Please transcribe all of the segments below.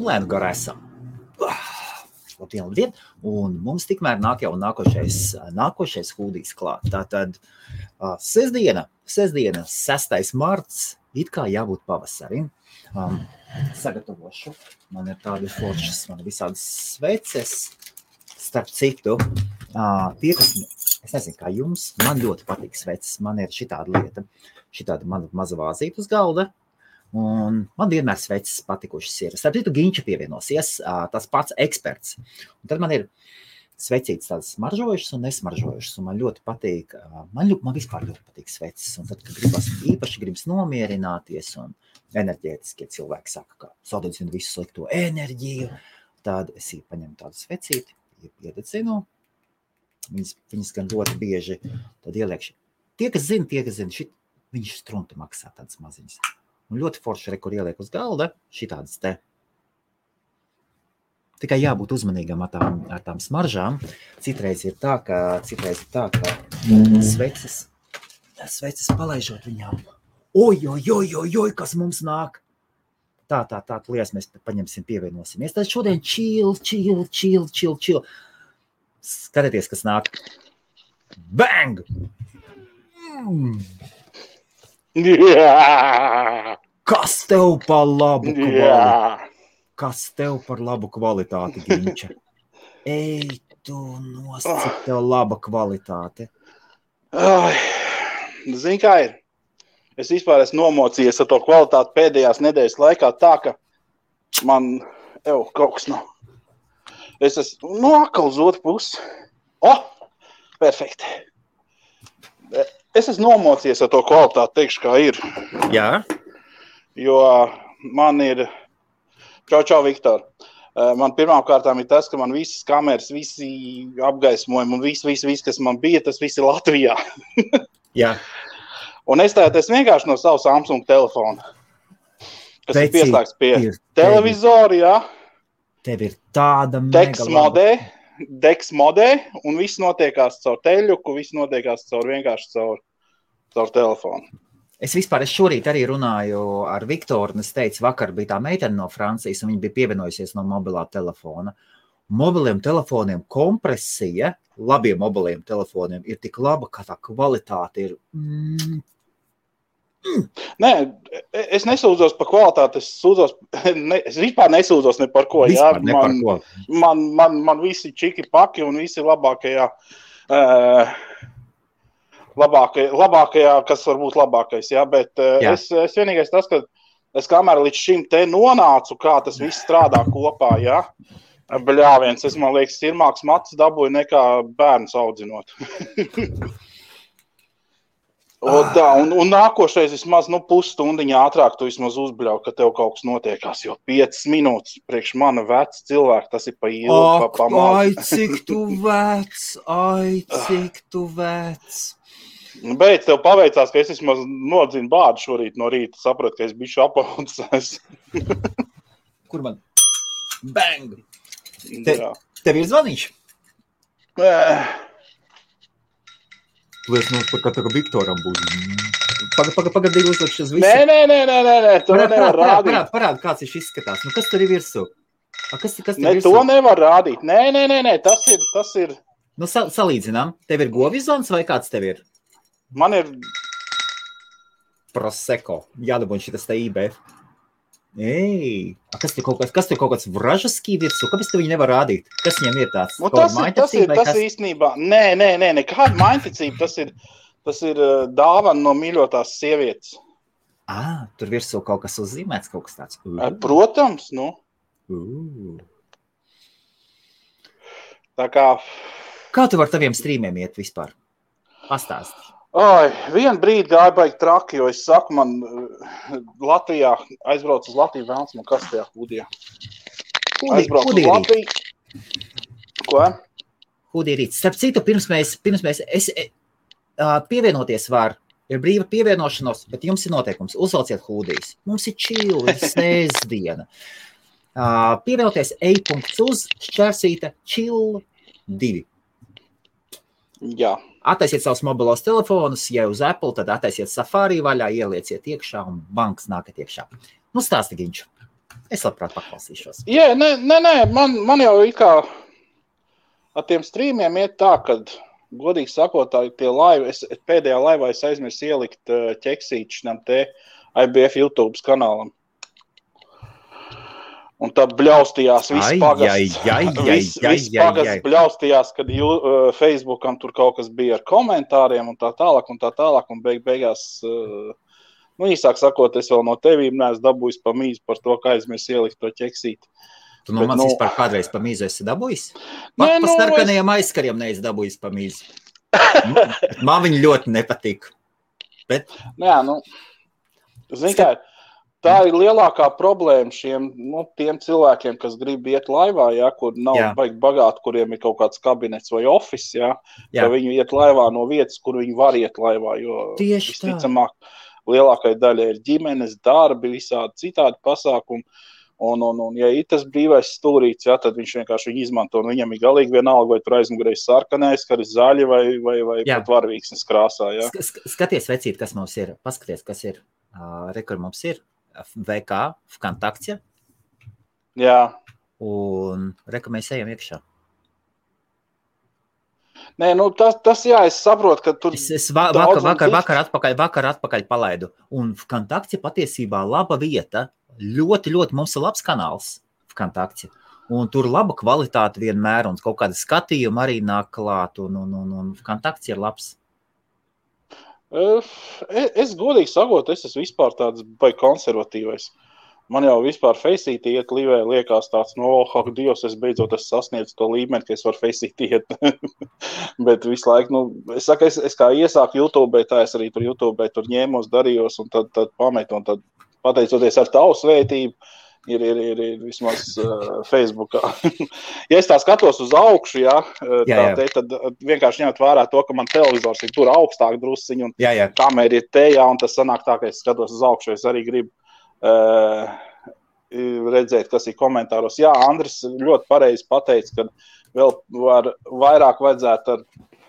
un lēnu garā esam. Labdien. Un mums tikmēr nāk jau nākošais hūdijs klāt. Tātad sestdiena, 6. marts, it kā jābūt pavasarim. Sagatavošu. Man ir tādi foršas, man ir visādas sveces. Starp citu, es nezinu, kā jums, man ļoti patīk sveces. Man ir šitāda lieta, šitāda mana maza vāzīta uz galda. Un man vienmēr sveces patikušas ir. Starp citu, Ginča pievienosies, tas pats eksperts. Un tad man ir svecītas tādas smaržojušas un nesmaržojušas. Un man ļoti patīk, man vispār ļoti patīk sveces. Un tad, kad gribas nomierināties un enerģētiskie cilvēki saka, ka sadedzina visu slikto enerģiju, tad es paņemu tādu svecīti, iededzinu. Viņas gan ļoti bieži tad ieliekšu. Tie, kas zina, viņš strunti maksā tādas maziņas. Un ļoti forši, kur ieliek uz galda, šitādas te. Tikai jābūt uzmanīgam ar tām smaržām. Citreiz ir tā, ka sveces palaižot viņām. Oj, kas mums nāk. Tā, lies, mēs paņemsim, pievienosimies. Tad šodien chill. Skatieties, kas nāk. Bang! Kas tev par labu kvalitāti? Kas tev par labu kvalitāti, Ginča? Ej, tu cik tev laba kvalitāte. Zini, kā ir? Es vispār esmu nomocījies ar to kvalitāti pēdējās nedēļas laikā tā, ka man kaut kas nav. Es esmu atkal uz otru pusi. Perfekti. Es esmu nomocījies ar to kvalitāti, teikšu, kā ir. Jā? Jo man ir... Čau, Viktor. Man pirmām kārtām ir tas, ka man visas kameras, visi apgaismojumi un viss, kas man bija, tas viss ir Latvijā. Jā. Un es vienkārši no savu Samsung telefona, kas ir pieslēgts pie televizora, jā. Tev ir tāda Dex modē, un viss notiekās caur teļuku, viss notiekās vienkārši caur telefonu. Es šorīt arī runāju ar Viktoru, un es teicu, vakar bija tā meitene no Francijas, un viņa bija pievienojusies no mobilā telefona. Mobiliem telefoniem kompresija, labiem mobiliem telefoniem ir tik laba, ka tā kvalitāte ir... Nē, es nesūdzos par kvalitāti, es vispār nesūdzos ne par ko. Jā. Man visi čiki paki un visi labākajā, kas var būt labākais, jā, bet jā. Es vienīgais tas, ka es kamēr līdz šim te nonācu, kā tas viss strādā kopā, jā, bļāviens, man liekas, sirmāks matus dabūju nekā bērns audzinot. Un nākošais vismaz, pusstundiņā ātrāk tu vismaz uzbļauj, ka tev kaut kas notiekās, jo 5 minūtes priekš mana veca cilvēka, tas ir pa ilgu, pa maz. Ai, cik tu vecs. Beidz, tev paveicās, ka es vismaz nodzinu bādu šorīt no rīta, sapratu, ka es bišu apaudzēs. Kur man? Bang! Tev ir zvaniņš? Tu esi ka Viktoram būs. Pagadīgi uzlikšu uz visu. Nē, to nevar rādīt. Parādi, kāds viņš izskatās. Kas tur ir virsū? Kas tur ne, virsū? To nevar rādīt. Nē, tas ir. Salīdzinām. Tev ir govizons vai kāds tev ir? Man ir Prosecco. Jādabūn šitas te IBF. Ej, kas tur kaut kāds vražaskī virsū? Kāpēc tu viņu nevar rādīt? Kas viņam ir tāds? Tas ir īstenībā. Nē, nekāda mainticība. Tas ir dāvana no mīļotās sievietes. Tur virsū kaut kas uzzīmēts, kaut kas tāds. Protams, Tā kā... Kā tu var taviem strīmiem iet vispār? Pastāsti. Vienu brīdi gāja baigi traki, jo es saku, man Latvijā aizbrauc uz Latviju vēlns, man kas tajā hūdijā? Aizbrauc uz Latviju. Ko? Hūdija rīts. Starp citu, pirms mēs pievienoties var, ir brīva pievienošanos, bet jums ir noteikums, uzvalciet hūdijas. Mums ir chill, ir sēsdiena. Pievienoties e.uz, šķērsīte, chill 2. Jā. Attaisiet savus mobilos telefonus, ja uz Apple, tad attaisiet Safari vaļā, ielieciet iekšā un banks nākat iekšā. Stāsti, Ginču. Es labprāt paklausīšos. Jā, nē, man jau it kā ar tiem streamiem iet tā, kad, godīgi sakot, tie laivi, pēdējā laivā es aizmirsu ielikt ķeksīti šitam te IBF YouTube kanālam. Un tad bļaustījās viss pagasts. Viss pagasts bļaustījās, kad Facebookam tur kaut kas bija ar komentāriem un tā tālāk, un beigās, īsāk sakot, es vēl no tevīm neesmu dabūjis pa mīzu par to, ka aizmirs ielikt to ķeksīti. Tu no manis vispār kādreiz pa mīzu esi dabūjis? Pa starkanajiem aizkariem neesi dabūjis pa mīzu. Man viņi ļoti nepatīk. Bet... Zini kā, tā ir lielākā problēma tiem cilvēkiem, kas grib iet laivā, kur nav baigi bagāti, kuriem ir kaut kāds kabinets vai office, ka viņi iet laivā no vietas, kur viņi var iet laivā, jo visticamāk lielākai daļai ir ģimenes, darbi, visādi citādi pasākumi. Un ja ir tas brīvais stūrīts, tad viņš vienkārši viņu izmanto, un viņam ir galīgi vienalga, vai tur aizmugurēs sarkanais, ka ir zaļi vai pat varvīksnes krāsā. Skaties, vecīt, kas mums ir. Paskaties, kas ir. Kur mums ir. VK, Vkontakte. Jā. Un mēs ejam iekšā. Nē, tas es saprotu, ka tur... Es vakar atpakaļ palaidu. Un Vkontakte patiesībā laba vieta. Ļoti, ļoti mums ir labs kanāls Vkontakte. Un tur laba kvalitāte vienmēr, un kaut kāda skatījuma arī nāk klāt, un Vkontakte ir labs. Es godīgi sakot, es esmu vispār tāds baigi konservatīvais. Man jau vispār Faceitī iet livē liekas tāds, Dievs, es beidzot sasniedzu to līmeni, ka es varu Faceitī iet. Bet visu laiku, es saku, es kā iesāku YouTube, tā es arī tur YouTube tur ņēmos, darījos, un tad pametu, un tad pateicoties ar tavu svētību, ir vismaz Facebookā. Ja es tā skatos uz augšu, tad vienkārši ņemt vērā to, ka man televizors ir tur augstāk drusciņu, un kamera ir te, un tas sanāk tā, ka es skatos uz augšu, es arī gribu redzēt, kas ir komentāros. Jā, Andris ļoti pareizi pateica, ka vēl vairāk vajadzētu ar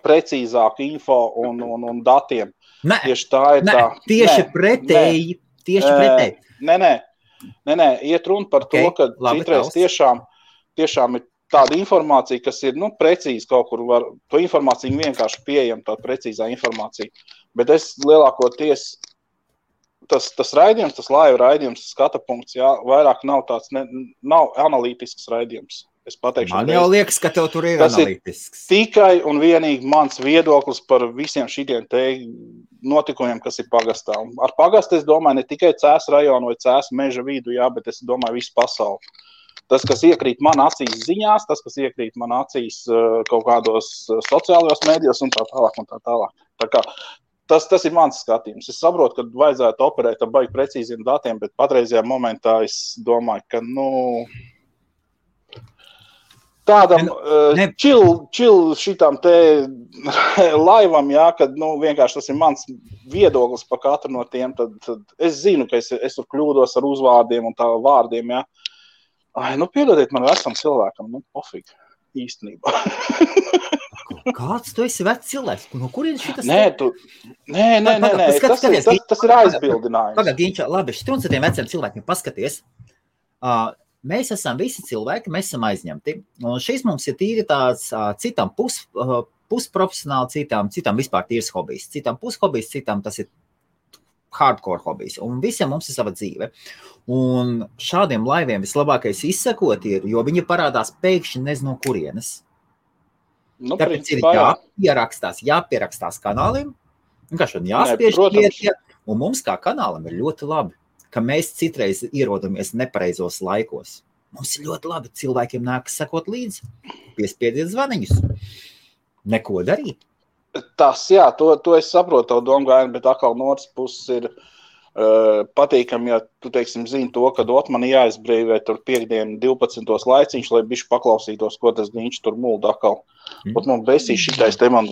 precīzāku info un datiem. Tieši tā ir tā. Tieši pretēji. Nē, iet runa par to, ka citreiz tiešām ir tāda informācija, kas ir, precīzi kaut kur var, to informāciju vienkārši pieejama, tāda precīzā informācija. Bet es lielākoties, tas raidījums, tas laiva raidījums, skata punkts, vairāk nav tāds, nav analītisks raidījums. Es pateikšu, man jau liekas, ka tev tur ir analītisks. Tikai un vienīgi mans viedoklis par visiem šitiem te notikumiem, kas ir pagastā. Ar pagastu es domāju ne tikai Cēsu rajonu vai Cēsu meža vidu, bet es domāju visu pasauli. Tas, kas iekrīt man acīs ziņās, tas, kas iekrīt man acīs kaut kādos sociālajos mēdījos un tā tālāk. Tā kā tas ir mans skatījums. Es saprotu, ka vajadzētu operēt ar baigi precīziem datiem, bet patreizajā momentā es domāju, ka, tādam chill šitam te laivam, kad vienkārši tas ir mans viedoklis par katru no tiem, tad es zinu, ka es tur kļūdos ar uzvārdiem un tā vārdiem, piedodiet man vecam cilvēkam, pofīgi, īstenībā. Kāds tu esi vecs cilvēks? No kurienes šitas? Nē, tas ir aizbildinājums. Pagad, Ginča, labi, šķiet tiem veciem cilvēkiem paskaties. Mēs esam visi cilvēki, mēs esam aizņemti. Un šis mums ir tīri tāds citam pusprofesionāli, citam vispār tīrs hobijs. Citam pushobijs, citam tas ir hardcore hobijs. Un visiem mums ir sava dzīve. Un šādiem laiviem vislabākais izsekot ir, jo viņi parādās pēkšņi nezinu kurienes. Tāpēc ir jāpierakstās kanālim, vienkārši jāspiež iet, un mums kā kanālam ir ļoti labi, ka mēs citreiz ierodamies nepareizos laikos. Mums ir ļoti labi, cilvēkiem nākas sekot līdzi, piespiediet zvaniņus, neko darīt. Tas, to es saprotu tavu domgājienu, bet atkal no otras puses ir patīkami, ja tu, teiksim, zini to, ka man jāizbrīvē tur piekdienu 12. laiciņš, lai bišķi paklausītos, ko tas viņš tur mulda atkal. Bet man besīs šitais te man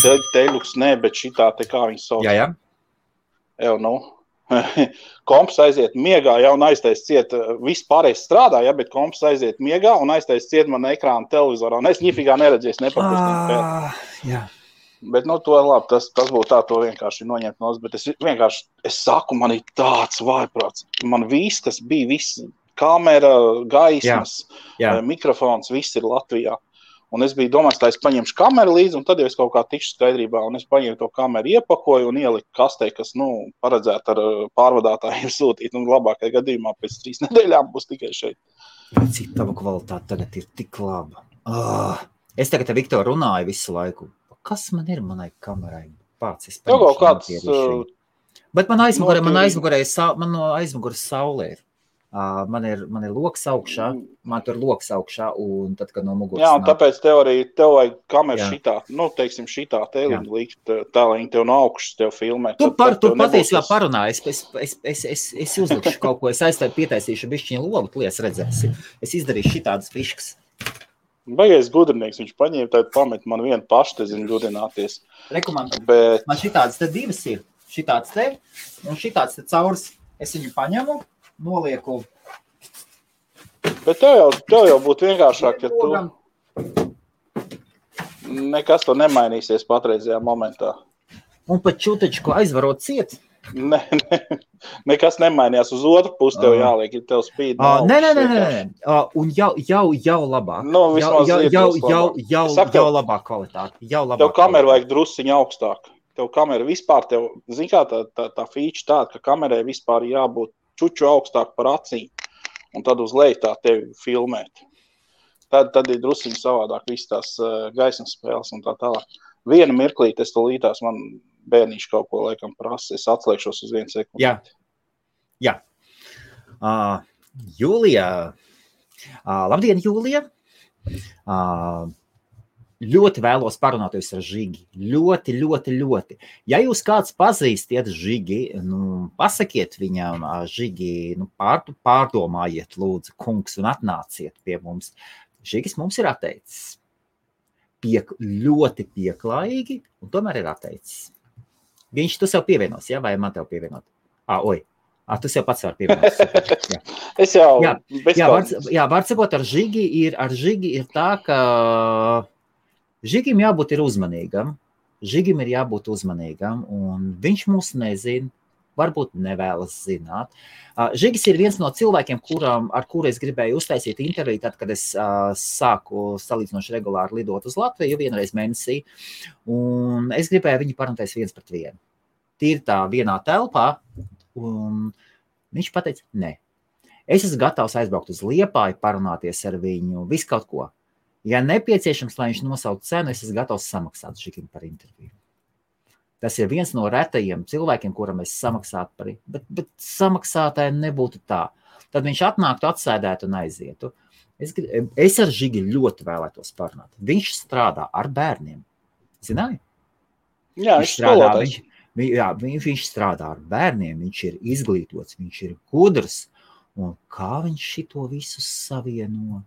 teļuks, bet šitā te kā viņi sauc. Jā. Komps aiziet miegā, un aiztais ciet, viss pārējais strādā, bet komps aiziet miegā un aiztais ciet man ekrānu televizorā, un es ņifīgā neredzēs nepapustinu. Bet, to labi, tas būtu tā, to vienkārši noņemt nos, bet es saku, man ir tāds vājprāts. Man viss, kas bija, kamera, gaismas, mikrofons, viss ir Latvijā. Un es biju domājis, ka es paņemšu kameru līdzi, un tad jau es kaut kā tikšu skaidrībā, un es paņēmu to kameru, iepakoju un ieliku kastē, kas, paredzētu ar pārvadātājiem sūtīt, un labākajā gadījumā pēc 3 nedēļām būs tikai šeit. Vai cik tava kvalitāte tagad ir tik laba? Es tagad ar Viktoru runāju visu laiku. Kas man ir manai kamerai? Pats es paņemšu. Bet man aizmugurē saulē ir. Man ir loks augšā, man tur loks augšā, un tad, kad no muguras jā, un tāpēc tev vajag kameru šitā, teiksim, šitā tēliņu likt, tā, lai viņi tev no augšas tev filmē. Tu patiesībā parunāji, es uzlikšu kaut ko, es pietaisīšu bišķiņu logu, tu lies redzēsi. Es izdarīšu šitādas fiškas. Baigais gudrinieks, viņš paņēma, tad pamet man vienu pašu, te zinu, ļudināties. Bet... Man šitādas te divas ir, šitādas te, un šitādas te caurs, es viņu paņemu, nolieku. Bet tev jau būtu vienkāršāk, ja tu nekas to nemainīsies patreizajā momentā. Un pat čūtečku aizvarot ciet? Nekas nemainījās. Uz otru pusi tev jāliek, ja tev spīd. Nē. Un jau labāk. Jau labāk kvalitāte. Tev kameru vajag drusciņu augstāk. Tev kamera vispār, zin kā tā feature tāda, ka kamerai vispār jābūt čuču augstāk par acīm, un tad uz leju tā tevi filmēt. Tad ir drusiņi savādāk viss tās gaismas spēles un tā tālāk. Vienu mirklīt es to lītās, man bērnīši kaut ko laikam prasa, es atslēgšos uz 1 sekundi. Jā. Jūlija. Labdien, Jūlija. Ļoti vēlos parunāties ar Žigi. Ļoti. Ja jūs kāds pazīstiet Žigi, pasakiet viņam, Žigi, pārdomājiet, lūdzu, kungs, un atnāciet pie mums. Žigis mums ir atteicis. Ļoti pieklājīgi, un tomēr ir atteicis. Tu sev pievienos, ja? Vai man tev pievienot? Tu sev pats var pievienot. Es jau... Var sakot, ar Žigi ir tā, ka Žigim jābūt ir uzmanīgam, un viņš mūs nezina, varbūt nevēlas zināt. Žigis ir viens no cilvēkiem, ar kuru es gribēju uztaisīt interviju, tad, kad es sāku salīdzinoši regulāri lidot uz Latviju vienreiz mēnesī, un es gribēju viņu parunāties 1 pret 1. Tīri tā vienā telpā, un viņš pateica, nē. Es esmu gatavs aizbraukt uz Liepāju, parunāties ar viņu, visu kaut ko. Ja nepieciešams, lai viņš nosauc cenu, es esmu gatavs samaksāt Žigim par interviju. Tas ir viens no retajiem cilvēkiem, kuram es samaksātu par, bet samaksātāji nebūtu tā. Tad viņš atnāktu, atsēdētu un aizietu. Es ar Žigi ļoti vēlētos parunāt. Viņš strādā ar bērniem. Zināji? Jā, viņš strādā ar bērniem, viņš ir izglītots, viņš ir gudrs. Un kā viņš šito visu savieno?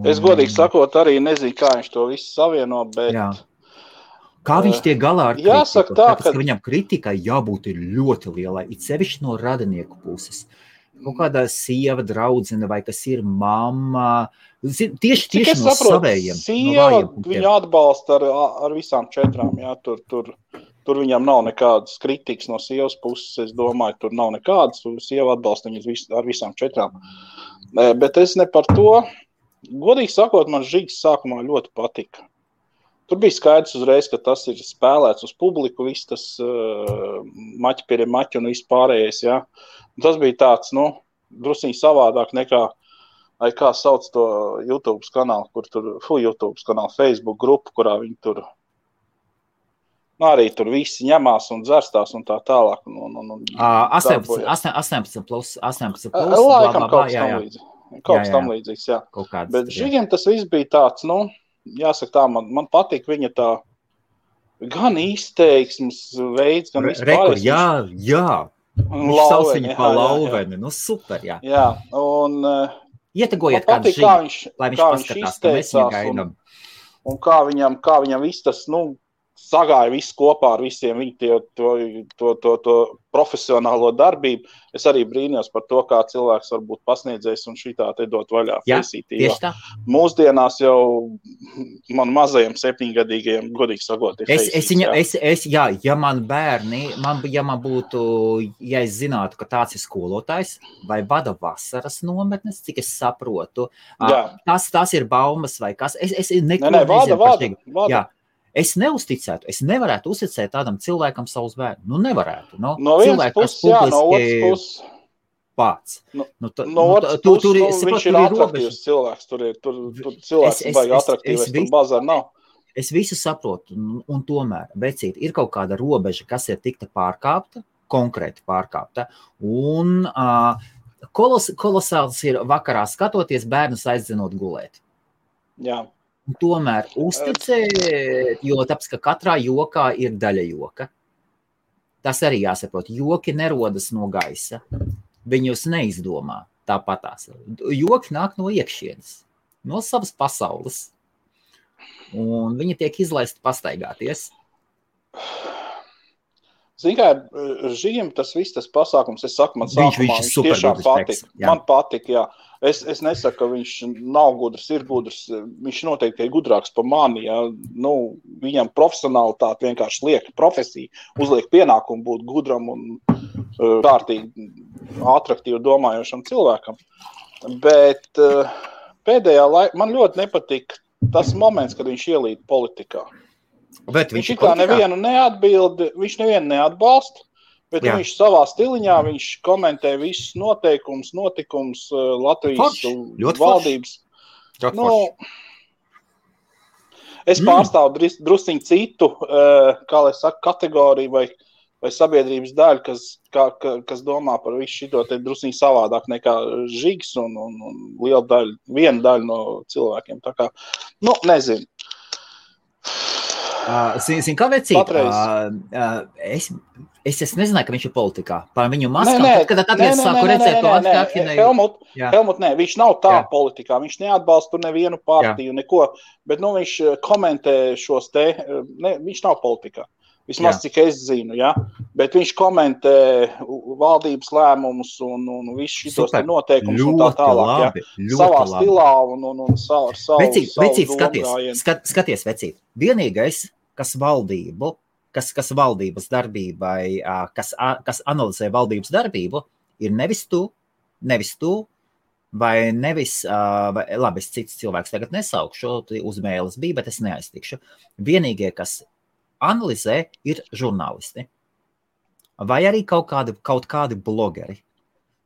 Es godīgi sakot, arī nezinu, kā viņš to visu savieno, bet... Jā. Kā viņš tiek galā ar kritiku? Jāsaka tā, ka viņam kritikai jābūt ir ļoti lielai, it sevišķi no radinieku puses. Kaut kādā sieva, draudzene vai kas ir mamma. Tieši no savējiem. Sieva viņu atbalsta ar visām 4. Jā, tur viņam nav nekādas kritikas no sievas puses, es domāju, tur nav nekādas. Sieva atbalsta viņu ar visām 4. Bet es ne par to. Godīgi sakot, man Žigis sākumā ļoti patika. Tur bija skaidrs uzreiz, ka tas ir spēlēts uz publiku, viss tas maķi pie maķi un viss pārējais, jā. Un tas bija tāds, drusciņi savādāk nekā, kā sauc to YouTube kanālu, YouTube kanālu, Facebook grupu, kurā viņi tur, arī tur visi ņemās un dzerstās un tā tālāk. 18 plus, laikam kaut kas tam līdzīgs, jā. Bet Žigiem tas viss bija tāds, jāsaka tā, man patīk viņa tā gan izteiksmes veids, gan vispārējais. Jā. Viņš sauc viņu pa lauveni. Super, jā. Jā, un ietegojiet kādu Žigi, lai viņš paskatās, ka mēs viņu gaidām. Un kā viņam viss tas, sagāja visu kopā ar visiem viņu to profesionālo darbību. Es arī brīnījos par to, kā cilvēks var būt pasniedzējis un šitā te dot vaļā Faceitī. Mūsdienās jau man mazajiem 7-gadīgajiem, godīgi sakot, ir Faceits. Ja man bērni, ja es zinātu, ka tāds ir skolotājs vai vada vasaras nometnes, cik es saprotu, tas ir baumas vai kas. Es neko nezinu par šķigu. Jā. Es neuzticētu, es nevarētu uzticēt tādam cilvēkam savus bērnus. Nu, nevarētu. No vienas puses, jā, no otras puses. Pats. No otras puses, viņš ir atraktīvs cilvēks. Tur cilvēks vajag atraktīvs, tur bazar nav. Es visu saprotu, un tomēr, vecīt, ir kaut kāda robeža, kas ir tikta pārkāpta, konkrēti pārkāpta, un kolosāls ir vakarā skatoties bērnus aizdzenot gulēt. Jā. Un tomēr uzticēt, jo tāpēc, ka katrā jokā ir daļa joka. Tas arī jāsaprot. Joki nerodas no gaisa. Viņus neizdomā tāpatās. Joki nāk no iekšienes, no savas pasaules. Un viņi tiek izlaisti pastaigāties. Zini, kā Žigim tas viss, tas pasākums, es saku, man sākumā viņš tiešām patika. Man patika, jā. Es nesaku, ka viņš nav gudrs, ir gudrs. Viņš noteikti ir gudrāks par mani, jā. Nu, viņam profesionalitāte vienkārši liek profesiju, uzliek pienākumu būt gudram un kārtīgi atraktīvi domājošam cilvēkam. Bet pēdējā laikā man ļoti nepatika tas moments, kad viņš ielīd politikā. Viņš kā nevienu neatbalsta, bet viņš savā stiliņā, viņš komentē visus notikumus Latvijas valdības. Es pārstāvu drusciņu citu, kā lai saka, kategoriju vai sabiedrības daļu, kas domā par visu šito te drusciņu savādāk nekā Žigs un viena daļa no cilvēkiem. Tā kā, nezinu. Zini, kā vecīt? Es nezināju, ka viņš ir politikā. Par viņu maskām, tad es sāku redzēt to atkārtinēju. Helmut, viņš nav tā politikā. Viņš neatbalsta nevienu partiju, neko. Bet viņš komentē šos te, viņš nav politikā. Vismaz, cik es zinu, ja? Bet viņš komentē valdības lēmumus un visu šitos noteikumus un tā tālāk. Savā stilā un savu Vecīt, skaties, vecīt. Vienīgais, kas valdības darbībai, kas analizē valdības darbību, ir nevis tu, vai nevis, labi, es cits cilvēks tagad nesaukšu, uzmēles bija, bet es neaiztikšu. Vienīgie, kas analizē, ir žurnālisti. Vai arī kaut kādi blogeri.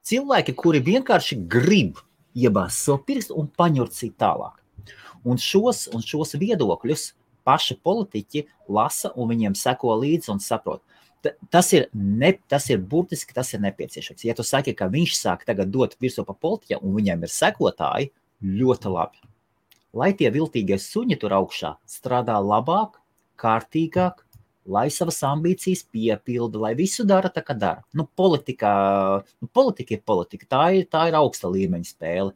Cilvēki, kuri vienkārši grib iebāzt savu pirkstu un paņurcīt tālāk. Un šos viedokļus paši politiķi lasa un viņiem seko līdzi un saprot. Tas ir burtiski, tas ir nepieciešams. Ja tu saki, ka viņš sāk tagad dot virsū pa politiķiem un viņiem ir sekotāji, ļoti labi. Lai tie viltīgie suņi tur augšā strādā labāk, kārtīgāk, lai savas ambīcijas piepilda, lai visu dara tā, kā dara. Politika ir politika, tā ir augsta līmeņa spēle.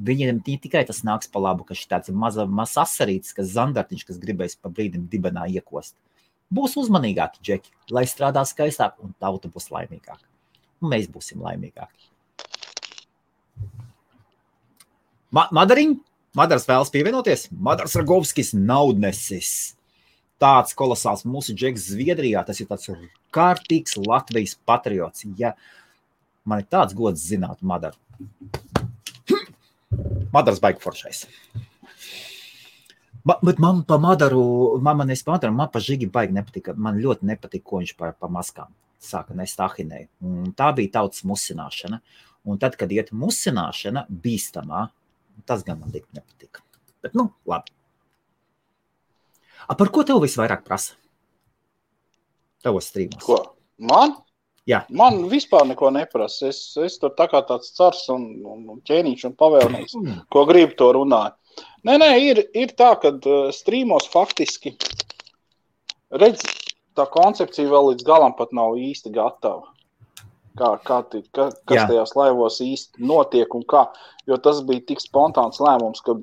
Viņiem tikai tas nāks pa labu, ka šī tāds mazs asarītis, kas zandartiņš, kas gribēs pa brīdim dibenā iekost. Būs uzmanīgāki džeki, lai strādā skaistāk un tauta būs laimīgāka. Un mēs būsim laimīgāki. Madars vēlas pievienoties? Madars Ragovskis, naudnesis. Tāds kolosāls mūsu džeks Zviedrijā, tas ir tāds kārtīgs Latvijas patriots. Ja man ir tāds gods zināt Madaru. Madars baigi foršais. Bet man pa Madaru, man pa Žigi baigi nepatika. Man ļoti nepatika, ko viņš pa maskām sāka nest ahinēju. Un tā bija tautas musināšana. Un tad, kad iet musināšana bīstamā, tas gan man nepatika. Bet, labi. Par ko tev visvairāk prasa? Tavos strīmos. Ko? Man? Jā. Man vispār neko neprasa. Es tur tā kā tāds cars un ķēniņš un pavēlnieks, ko gribu to runāju. Nē, ir tā, ka strīmos faktiski, redz, tā koncepcija vēl līdz galam pat nav īsti gatava. Kas tajās laivos īsti notiek un kā, jo tas bija tik spontāns lēmums, ka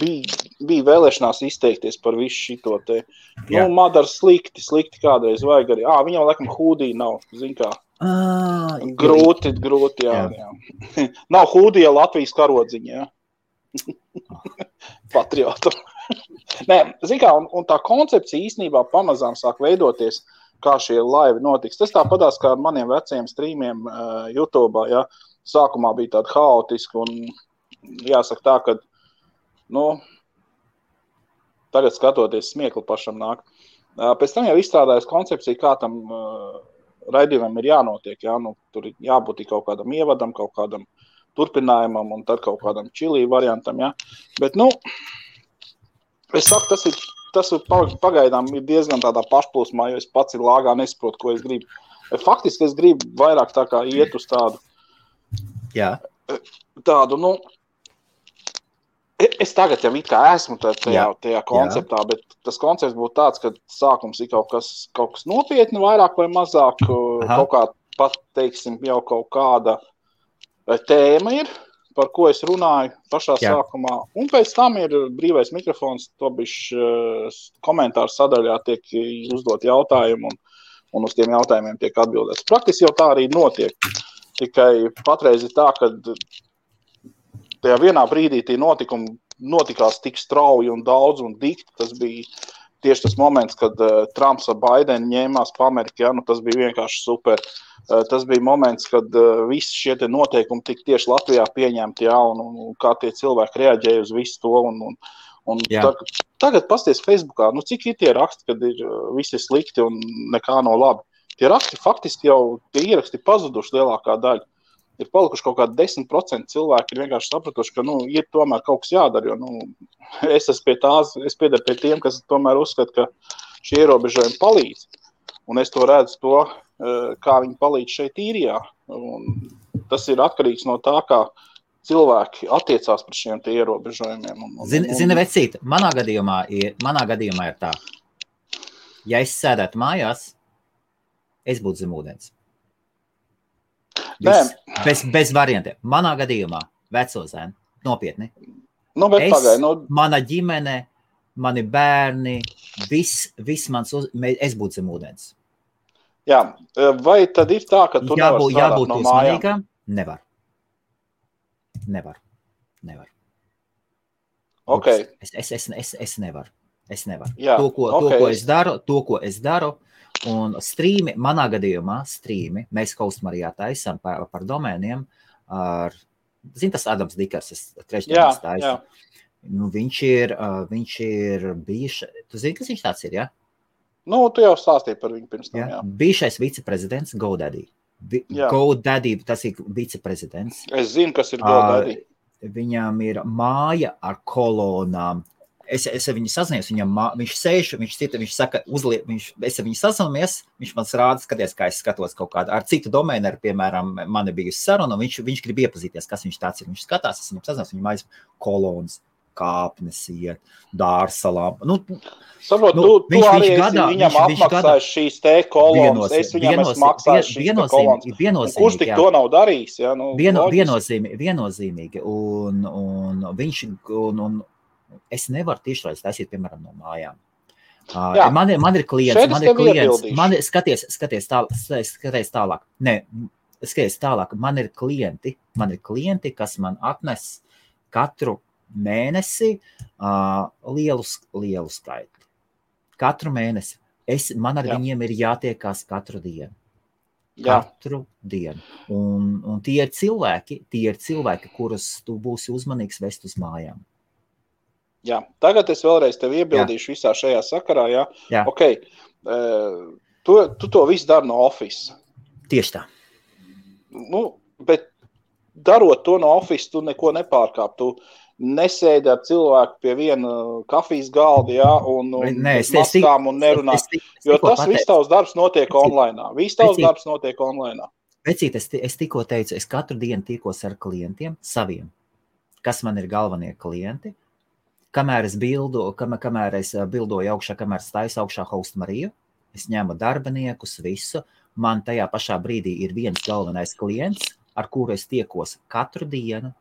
bija bija vēlēšanās izteikties par visu šito te. Jā. Madara slikti kādreiz vajag arī. Viņam laikam hūdī nav, zin kā. Grūti, jā. Nav hūdī Latvijas karodziņa, jā. Patriotu. Nē, zin kā, un tā koncepcija īstenībā pamazām sāk veidoties, kā šie laivi notiks. Tas tāpatās kā ar maniem vecajiem streamiem YouTube'ā, jā. Sākumā bija tāda haotiska un jāsaka tā, ka, tagad skatoties smiekli pašam nāk. Pēc tam jau izstrādājas koncepcija, kā tam raidījumam ir jānotiek, jā. Tur ir jābūt kaut kādam ievadam, kaut kādam turpinājumam un tad kaut kādam čilī variantam, jā. Bet, es saku, tas pagaidām ir diezgan tādā pašplūsmā, jo es pats ir lāgā nesaprotu, ko es gribu. Faktiski es gribu vairāk tā kā iet uz tādu, es tagad jau it kā esmu tajā konceptā, bet tas koncepts būtu tāds, ka sākums ir kaut kas nopietni, vairāk vai mazāk, kaut kā pat, teiksim, jau kaut kāda tēma ir, par ko es runāju pašā sākumā, un pēc tam ir brīvais mikrofons, to bišķi komentāru sadaļā tiek uzdot jautājumu, un uz tiem jautājumiem tiek atbildēts. Praktiski jau tā arī notiek, tikai patreiz ir tā, ka tajā vienā brīdī tie notikumi notikās tik strauji un daudz un dikti, tas bija tieši tas moments, kad Trumps ar Baidenu ņēmās pa Ameriku, tas bija vienkārši super. Tas bija moments, kad visi šie te noteikumi tik tieši Latvijā pieņemti, un kā tie cilvēki reaģēja uz visu to. Un tagad pasties Facebookā, cik ir tie raksti, kad ir visi slikti un nekā nav labi. Tie raksti faktiski jau, tie ieraksti pazuduši lielākā daļa. Ir palikuši kaut kādi 10% cilvēki ir vienkārši sapratuši, ka, ir tomēr kaut kas jādara, jo, es piedaru pie tiem, kas tomēr uzskata, ka šie ierobežojumi palīdz. Un es to redzu kā viņi palīdz šeit īrijā. Un tas ir atkarīgs no tā, kā cilvēki attiecās par šiem tie ierobežojumiem. Zini, vecīt, manā gadījumā ir tā. Ja es sēdētu mājās, es būtu zem ūdens. Bez variantiem. Manā gadījumā, veco zēnu, nopietni. Mana ģimene, mani bērni, viss mans es būtu zem ūdens. Jā, vai tad ir tā, ka tu nevar strādāt no mājām? Nevar. Okay. Es nevaru. Jā, To, ko es daru, un strīmi, manā gadījumā mēs Kaustmarijā taisam par domēniem ar, tas Adams Dikers, trešdienas taisu. Viņš ir bijuši, tu zini, kas viņš tāds ir, jā? Tu jau stāstīji par viņu pirms tam, jā. Bijušais viceprezidents GoDaddy. GoDaddy, tas ir viceprezidents. Es zinu, kas ir GoDaddy. Viņam ir māja ar kolonām. Es viņu sazinies, viņš sēž, viņš saka, es viņu sazinamies, viņš man rāda, skaties, kā es skatos kaut kādu, ar citu domēneru, piemēram, man ir bijusi saruna, un viņš grib iepazīties, kas viņš tāds ir. Viņš skatās, es viņam sazinies, viņam aiz kolonas, kāpnes iet, dārsalām. Saprot, tu arī viņam apmaksājuši šīs te kolonas, es viņam esmu maksājuši šīs te kolonas. Kurš tik to nav darījis? Ja? Viennozīmīgi. Un viņš, es nevaru tiešraidus taisīt, piemēram, no mājām. Man ir klients, skaties tālāk. Skaties tālāk, man ir klienti, kas man atnes katru mēnesi lielu skaitu. Katru mēnesi. Man ar viņiem ir jātiekās katru dienu. Katru dienu. Un tie ir cilvēki, kurus tu būsi uzmanīgs vest uz mājām. Jā, tagad es vēlreiz tevi iebildīšu visā šajā sakarā, jā? Okay. Tu to visu dari no office. Tieši tā. Bet darot to no office, tu neko nepārkāp. Tu nesēdi ar cilvēku pie viena kafijas galda, jā, un maskām un nerunā. Jo tas viss tavs darbs notiek online. Vecīt, es tikko teicu, es katru dienu tikos ar klientiem saviem, kas man ir galvenie klienti. Kamēr es bildoju augšā, kamēr es taisu augšā Kaustmariju, es ņemu darbiniekus, visu. Man tajā pašā brīdī ir viens galvenais klients, ar kuru es tiekos katru dienu,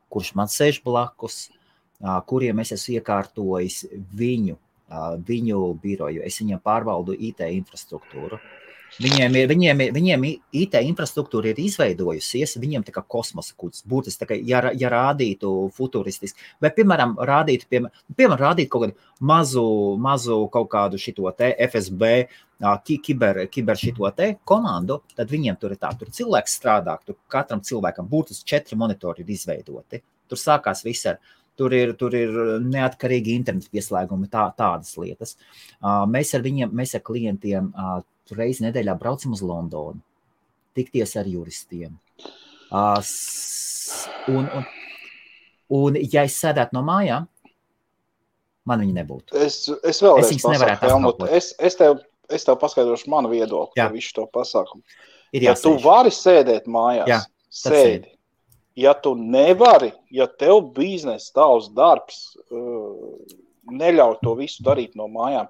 kurš man sēž blakus, kuriem es esmu iekārtojis viņu biroju. Es viņiem pārvaldu IT infrastruktūru. Viņiem IT infrastruktūra ir izveidojusies, viņiem tā kā kosmosa kuģis, būtiski tā kā, ja rādītu futuristiski, vai, piemēram, rādītu kaut kādu mazu kaut kādu šito te FSB, kiber šito te komandu, tad viņiem tur ir tā, tur cilvēks strādā, tur katram cilvēkam būtiski 4 monitori ir izveidoti. Tur sākās viss tur ir neatkarīgi interneta pieslēgumi, tādas lietas. Mēs ar klientiem reizi nedēļā braucam uz Londonu, tikties ar juristiem. Un ja es sēdētu no mājām, man viņi nebūtu. Es vēlreiz pasaku, Helmut, es tev paskaidrošu manu viedokli par visu to pasākumu. Ja tu vari sēdēt mājās, sēdi. Ja tu nevari, ja tev biznesa, tavs darbs neļauj to visu darīt no mājām,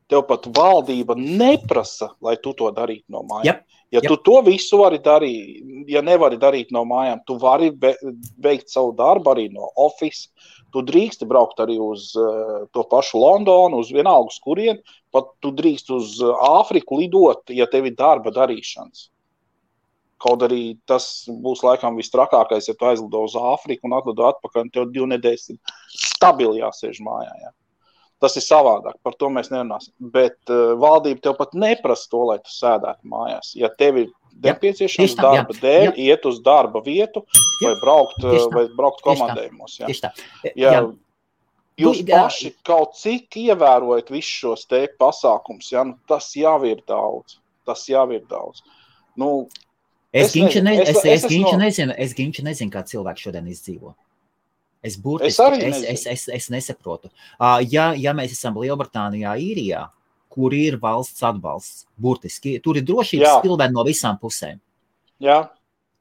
tev pat valdība neprasa, lai tu to darītu no mājām. Ja tu to visu vari darīt, ja nevari darīt no mājām, tu vari veikt savu darbu arī no office, tu drīksti braukt arī uz to pašu Londonu, uz vienalga uz kurien, pat tu drīkst uz Āfriku lidot, ja tev ir darba darīšanas. Kaut arī tas būs laikam vistrakākais, ja tu aizlido uz Āfriku un atlido atpakaļ, un tev 2 nedēļas ir stabili jāsēž mājā. Ja? Tas ir savādāk, par to mēs nerunāsim. Bet valdība tev pat neprasa to, lai tu sēdētu mājās. Ja tev ir nepieciešams darba dēļ, iet uz darba vietu vai braukt komandējumos. Ja? Tieši tā. Jūs paši kaut cik ievērojat visus šos te pasākums, ja? Nu, tas jau ir daudz. Nu, Es nezinu, kā cilvēki šodien izdzīvo. Es nesaprotu. Ja mēs esam Lielbritānijā, Īrijā, kur ir valsts atbalsts, burtiski, tur ir drošības pilvēni no visām pusēm. Jā.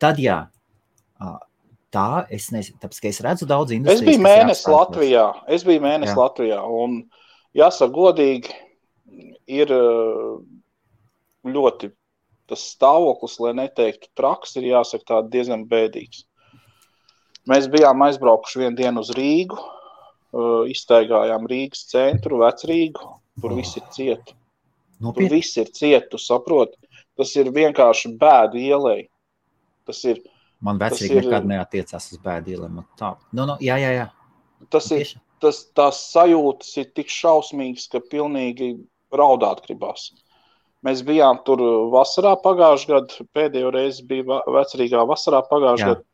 Tad tā, es nezinu, tāpēc, ka es redzu daudz industrijas. Es biju mēnesi Latvijā, un jāsaka godīgi, ir ļoti tas stāvoklis, lai neteiktu traks, ir jāsaka tā diezgan bēdīgs. Mēs bijām aizbraukuši vienu dienu uz Rīgu, izstaigājām Rīgas centru, Vecrīgu, tur viss ir cieti. Tur viss ir cieti, tu saproti. Tas ir vienkārši bēdu ielai. Man Vecrīga nekad neatiecās uz bēdu ielai. Jā. Tās sajūtas ir tik šausmīgas, ka pilnīgi raudāt gribās. Mēs bijām tur vasarā pagājušajā gadu, pēdējo reizi bija Vecrīgā vasarā pagājušajā gadu,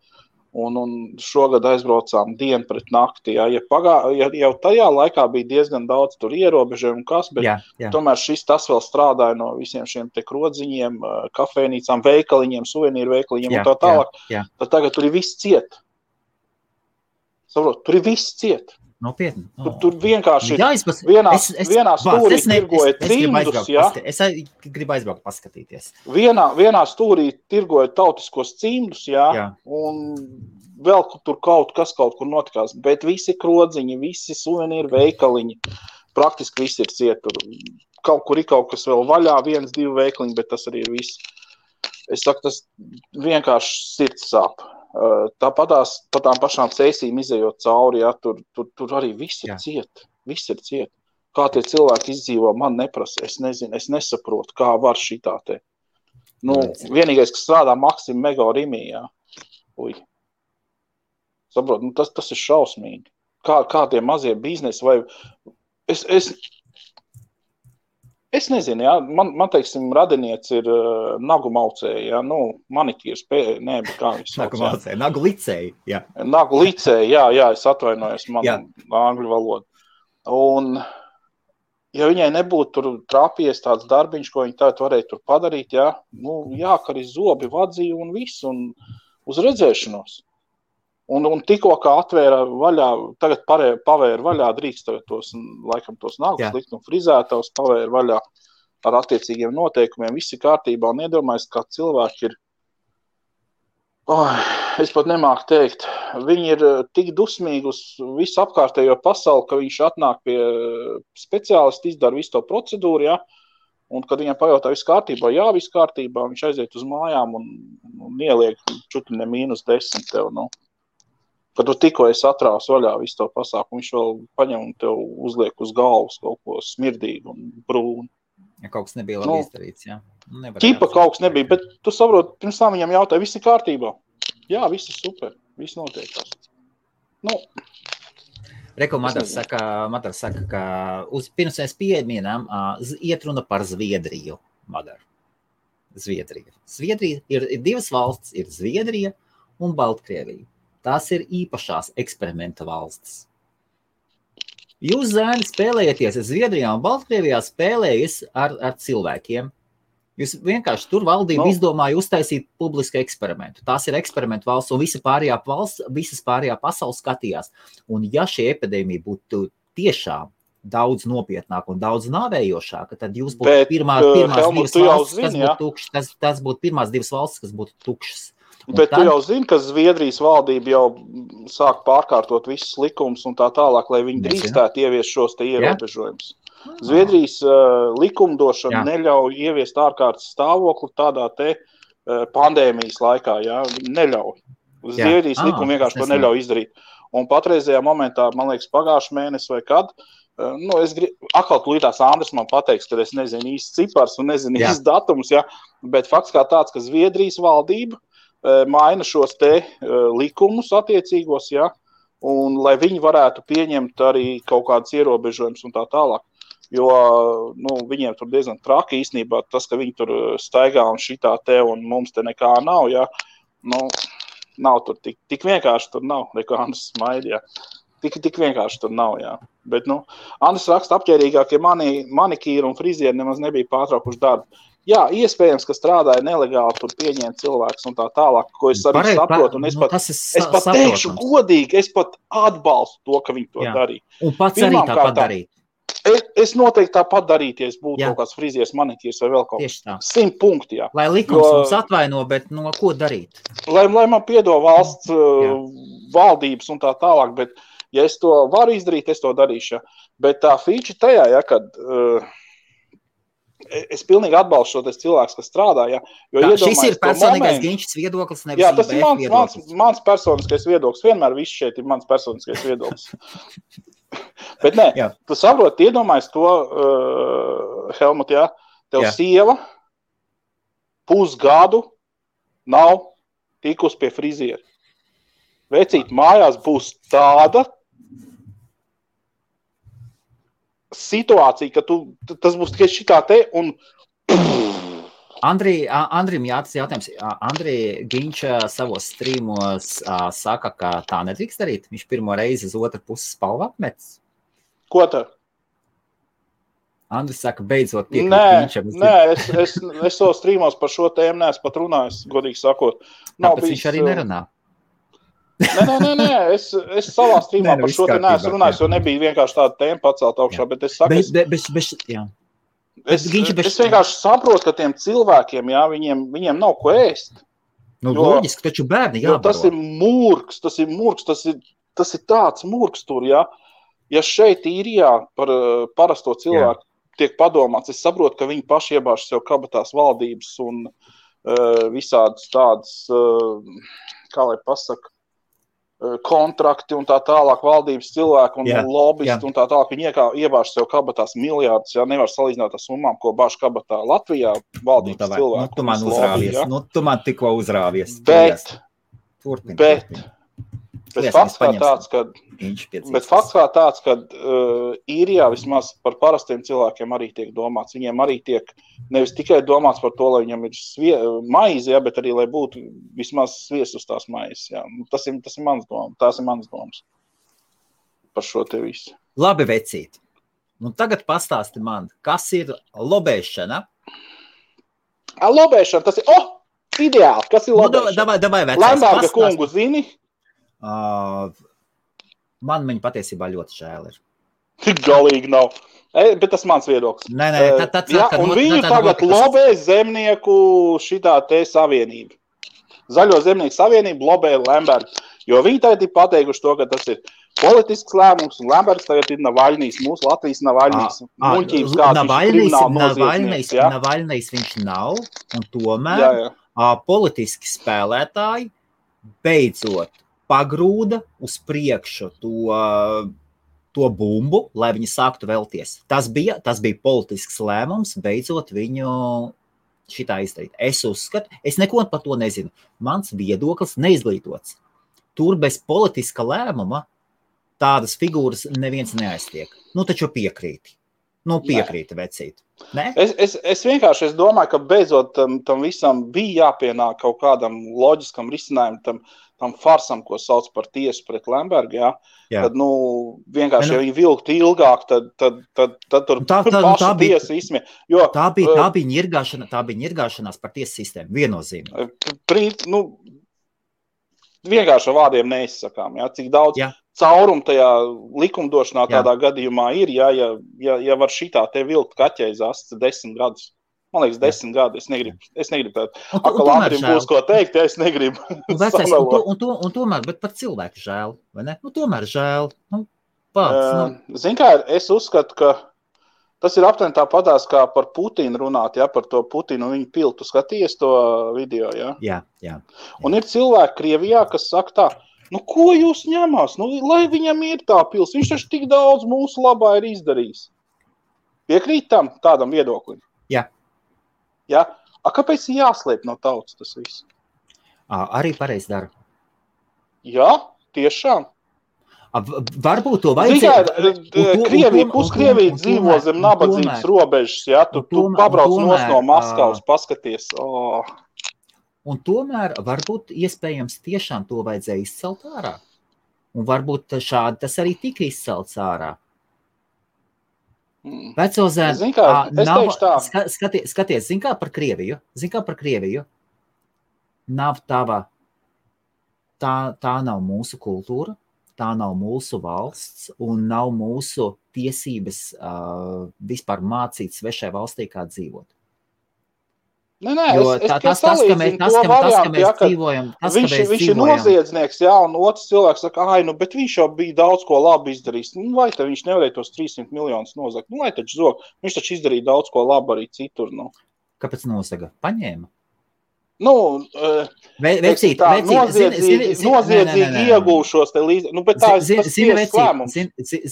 un šogad aizbraucām dienu pret nakti. Ja jau tajā laikā bija diezgan daudz tur ierobežojumu, bet tomēr tas vēl strādāja no visiem šiem te krodziņiem, kafejnīcām, veikaliņiem, suvenīru veikaliņiem un tā tālāk. Tad tagad tur ir viss ciet. Saprot, tur ir viss ciet. Nopietni. Tur vienkārši vienā stūrī tirgoja cimdus, ja? Es gribu aizbraukt paskatīties. Vienā stūrī tirgoja tautiskos cimdus, ja? Un vēl tur kaut kur notikās, bet visi krodziņi, visi suvenīru veikaliņi, praktiski visi ir ciet. Kaut kur ir kaut kas vēl vaļā, 1-2 veikaliņi, bet tas arī ir viss. Es saku, tas vienkārši sirds sāp. Tāpat pa tām pašām ceisīm izejot cauri, ja, tur arī viss ir ciet. Kā tie cilvēki izdzīvo, man neprasa, es nezinu, es nesaprotu, kā var šitā te. Vienīgais, kas strādā Maksim Mega Rimī, jā. Saprot, tas ir šausmīgi. Kā tie mazie biznesi vai... Es nezinu, jā, man teiksim, radinieci ir nagu maucēji, jā, manikīrs, bet kā viņš sauc, nagu maucēji, nagu licēji, jā. Nagu licēji, jā, es atvainojos, man angļu valoda. Un, ja viņai nebūtu tur trāpies tāds darbiņš, ko viņi tagad varēja tur padarīt, jā, jākari zobi, vadzīja un viss, un uz redzēšanos. Un tikko kā atvēra vaļā, tagad pavēra vaļā, drīkst tagad tos nagus likt un frizētavs, pavēra vaļā ar attiecīgiem noteikumiem, visi kārtībā un iedomājas, kā cilvēki ir, es pat nemāku teikt, viņi ir tik dusmīgi uz visu apkārtējo pasauli, ka viņš atnāk pie speciālisti, izdara visu to procedūru, ja, un kad viņam pajautā visu kārtībā, visu kārtībā, viņš aiziet uz mājām un ieliek čutri ne -10 tev, Kad tu tikko esi atrāvis vaļā visu to pasākumu, viņš vēl paņem un tev uzliek uz galvas kaut ko smirdīgu un brūnu. Ja kaut kas nebija labi izdarīts, jā. Ķipa kaut kas nebija, bet tu saproti, pirms tam viņam jautāja, viss ir kārtībā. Jā, viss ir super, viss notiekās. Reko Madars saka, ka pirms mēs pieminām, iet runa par Zviedriju, Madar. Zviedrija ir divas valstis, ir Zviedrija un Baltkrievija. Tās ir īpašās eksperimenta valstis. Jūs, zēni, spēlējaties Zviedrijā un Baltkrievijā spēlējas ar cilvēkiem. Jūs vienkārši tur valdība izdomāja uztaisīt publisku eksperimentu. Tās ir eksperimentu valsts, un visas pārējā pasaules skatījās. Un ja šī epidēmija būtu tiešām daudz nopietnāk un daudz nāvējošāka, tad jūs būtu pirmās divas valstis, kas būtu tukšas. Tas būtu pirmās divas valstis, kas būtu tukšas. Bet tu jau zini, ka Zviedrijas valdība jau sāk pārkārtot visus likumus un tā tālāk, lai viņi drīkstētu ieviest šos te ierobežojumus. Zviedrijas likumdošana neļauj ieviest ārkārtas stāvokli tādā te pandēmijas laikā, jā, neļauj. Zviedrijas likumi vienkārši to neļauj izdarīt. Un patreizajā momentā, man liekas, pagājušā mēnesi vai kad, atkal tūlītās Andris man pateiks, ka es nezinu īsti cipars un nezinu īsti datums, jā, bet fakts kā tāds, ka Zviedrijas valdība maina šos te likumus attiecīgos, ja, un lai viņi varētu pieņemt arī kaut kādas ierobežojumus un tā tālāk. Jo, viņiem tur diezgan traki īstenībā tas, ka viņi tur staigā un šitā te un mums te nekā nav, ja, nav tur tik vienkārši tur nav, neko Andris smaida, ja. Tik vienkārši tur nav, jā. Bet, Andris raksta apķērīgāk, ja manikīri un frizieri nemaz nebija pārtraukuši darbu. Jā, iespējams, ka strādāja nelegāli, tur pieņēma cilvēks un tā tālāk, ko es arī saprotu. Un es pat teikšu godīgi, es pat atbalstu to, ka viņi to darīja. Un pats arī tāpat darīt. Es noteikti tāpat darītu, ja es būtu kaut kāds frizieris, manikīrs vai vēl kaut kas. 100 punkti, jā. Lai likums mums atvaino, bet ko darīt? Lai man piedod valsts valdības un tā tālāk, bet ja es to varu izdarīt, es to darīšu. Ja. Bet tā feature tajā, ja, kad... Es pilnīgi atbalstu šos cilvēkus, kas strādā, ja, jo šis ir personīgais Ginčs viedoklis, nevis jā, tas ir mans personiskais viedoklis, vienmēr viss šeit ir mans personiskais viedoklis. Bet nē, tu saproti, iedomājies to, Helmut, jā, tev sieva pusgadu nav tikus pie friziera. Vecīt, mājās būs tāda situācija, ka tas būs tikai šitā te un... Andrim jātas jautājums. Andri Ginča savos strīmos saka, ka tā nedrīkst darīt. Viņš pirmo reizi uz otru pusi spalvu apmetis. Ko tā? Andris saka, beidzot piekrīt Ginčam. Nē, es savos strīmos par šo tēmu neesmu pat runājis, godīgi sakot. Tāpēc viņš arī nerunā. Nē, es savā strīmā par šo te neesmu runājis, jo nebija vienkārši tāda tēma pacelt augšā, bet es saku, es vienkārši saprotu, ka tiem cilvēkiem, jā, viņiem nav ko ēst. Loģiski, taču bērni jābaro. Jo tas ir murgs, tas ir tāds murgs tur, jā. Ja šeit īrijā par parasto cilvēku tiek padomāts, es saprotu, ka viņi paši iebāž sev kabatās valdības un visādas tādas, kā lai pasaka, kontrakti un tā tālāk valdības cilvēki un lobbyisti un tā tālāk. Viņi iebāž sev kabatās miljārdus, ja nevar salīdzināt ar summām, ko bāž kabatā Latvijā valdības cilvēki. Tu man uzrāvies, tu man tikko uzrāvies. Bet fakts kā tāds, ka īrijā vismaz par parastiem cilvēkiem arī tiek domāts. Viņiem arī tiek nevis tikai domāts par to, lai viņam ir maize, bet arī, lai būtu vismaz sviest uz tās maizes. Jā. Tas ir mans domas. Tās ir mans domas par šo te visu. Labi, vecīt. Tagad pastāsti man, kas ir lobēšana? Lobēšana, tas ir, ideāli, kas ir lobēšana? Davai, Lemberga kungu zini? Man viņa patiesībā ļoti žēl ir. Galīgi nav. Bet tas mans viedoklis. Un viņu tagad lobē zemnieku šitā te savienība. Zaļo zemnieku savienība lobē Lembergu. Jo viņi tagad ir pateikuši to, ka tas ir politisks lēmums, un Lembergs tagad ir Navaļnīs, mūsu Latvijas Navaļnīs. Muļķības kāds viņš Navaļnīs viņš nav, un tomēr politiski spēlētāji beidzot pagrūda uz priekšu to bumbu, lai viņi sāktu vēlties. Tas bija politisks lēmums, beidzot viņu šitā izdarīt. Es uzskatu, es neko par to nezinu. Mans viedoklis neizglītots. Tur bez politiska lēmuma tādas figūras neviens neaiztiek. Nu, taču piekrīti. Piekrīti, vecīt. Ne? Es vienkārši domāju, ka beidzot tam visam bija jāpienāk kaut kādam loģiskam risinājumam, tam farsam, ko sauc par tiesu pret Lembergu, jā. Tad, vienkārši, ja viņi vilktu ilgāk, tad tur pašu tiesa izsmie. Tā bija ņirgāšanās par tiesu sistēmu, viennozīmīgi. Vienkārši ar vārdiem neizsakām, jā, cik daudz caurumu tajā likumdošanā tādā gadījumā ir, ja var šitā te vilkt kaķei zasts 10 gadus. Man liekas, 10 gadi, es negribu tādu. Akalātrim būs ko teikt, ja es negribu. Un tomēr, bet par cilvēku žēl, vai ne? Tomēr žēl. Zin kā, es uzskatu, ka tas ir aptuveni tāpatās kā par Putinu runāt, ja, par to Putinu un viņu piltu. Skaties to video, ja? Jā. Un ir cilvēki Krievijā, kas saka tā, ko jūs ņemās? Lai viņam ir tā pils, viņš taču tik daudz mūsu labā ir izdarījis. Piekrīt tādam viedoklim? Jā. Ja? Kāpēc ir jāslēp no tautas tas viss? Arī pareizi dara. Jā, tiešām. Varbūt to vajadzēja. Puskrievija dzīvo zem nabadzības robežas, ja? Tu pabrauc no Maskavas, paskaties. Un tomēr varbūt iespējams tiešām to vajadzēja izcelt ārā. Un varbūt šādi tas arī tika izcelts ārā. Vecozēn, skaties, zin kā par Krieviju, nav tava, tā nav mūsu kultūra, tā nav mūsu valsts un nav mūsu tiesības vispār mācīt svešai valstī, kā dzīvot. Tas, ka mēs dzīvojam, viņš ir noziedznieks, jā, un otrs cilvēks saka, bet viņš jau bija daudz ko labi izdarījis. Vai tad viņš nevarēja tos 300 miljonus nozagt? Lai taču zog, viņš taču izdarīja daudz ko labi arī citur. Kāpēc nozaga? Paņēma? Noziedzīgi iegūšos te līdzi. Bet tā ir tiesas lēmums.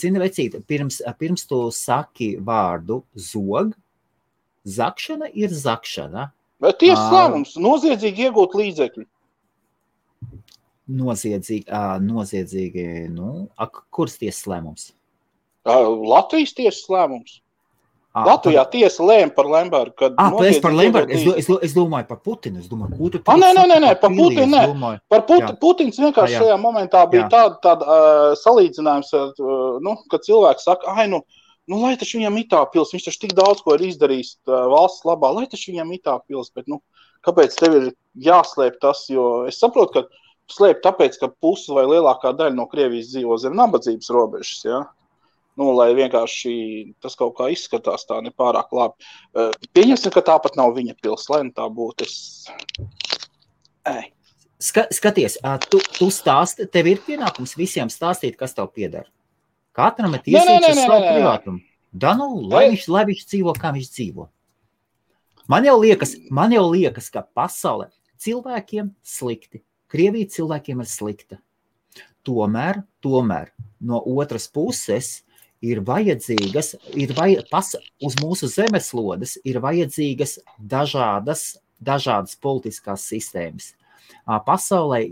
Zini, vecīt, pirms tu saki vārdu zog, zakšana ir zakšana. Bet tiesas lēmums, noziedzīgi iegūt līdzekļu. Noziedzīgi, kuras tiesas lēmums? Latvijas tiesas lēmums. Latvijā tiesa lēma par Lembergu, kad noziedzīgi par Lembergu. Es domāju par Putinu. Nē, par Putinu nē. Par Putins vienkārši šajā momentā bija tāda salīdzinājums, kad cilvēks saka, lai taču viņam ir tā pils, viņš taču tik daudz ko ir izdarījis valsts labā, lai taču viņam ir tā pils, bet kāpēc tev ir jāslēp tas, jo es saprotu, ka slēp tāpēc, ka pusi vai lielākā daļa no Krievijas dzīvo zem nabadzības robežas, ja? Lai vienkārši tas kaut kā izskatās tā nepārāk labi. Pieņemsim, ka tāpat nav viņa pils, lai tā būtu. Skaties, tu stāsti, tev ir pienākums visiem stāstīt, kas tev piedara. Katram ir tiesības uz savu privātumu. Lai viņš dzīvo, kā viņš dzīvo. Man jau liekas, ka pasaulē cilvēkiem slikti. Krievija cilvēkiem ir slikta. Tomēr no otras puses ir vajadzīgas, uz mūsu zemeslodes ir vajadzīgas dažādas politiskās sistēmas. Pasaulē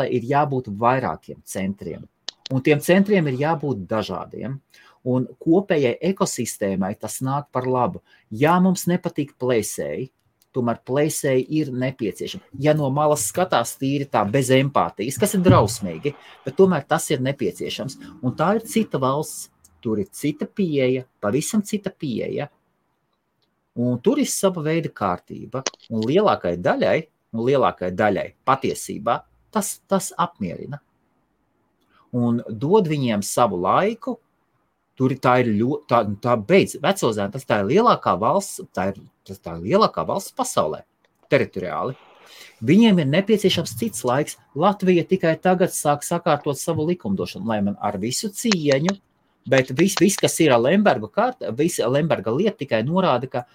ir jābūt vairākiem centriem. Un tiem centriem ir jābūt dažādiem. Un kopējai ekosistēmai tas nāk par labu. Ja mums nepatīk plēsēji, tomēr plēsēji ir nepieciešami. Ja no malas skatās tīri tā bez empātijas, kas ir drausmīgi, bet tomēr tas ir nepieciešams. Un tā ir cita valsts, tur ir cita pieeja, pavisam cita pieeja. Un tur ir sava veida kārtība. Un lielākai daļai patiesībā tas apmierina. Un dod viņiem savu laiku, tā beidz Vecozēna, tā ir lielākā valsts, tā ir lielākā valsts pasaulē, teritoriāli. Viņiem ir nepieciešams cits laiks. Latvija tikai tagad sāk sakārtot savu likumdošanu, lai man ar visu cieņu, bet viss kas ir visa Lemberga lieta tikai norāda, ka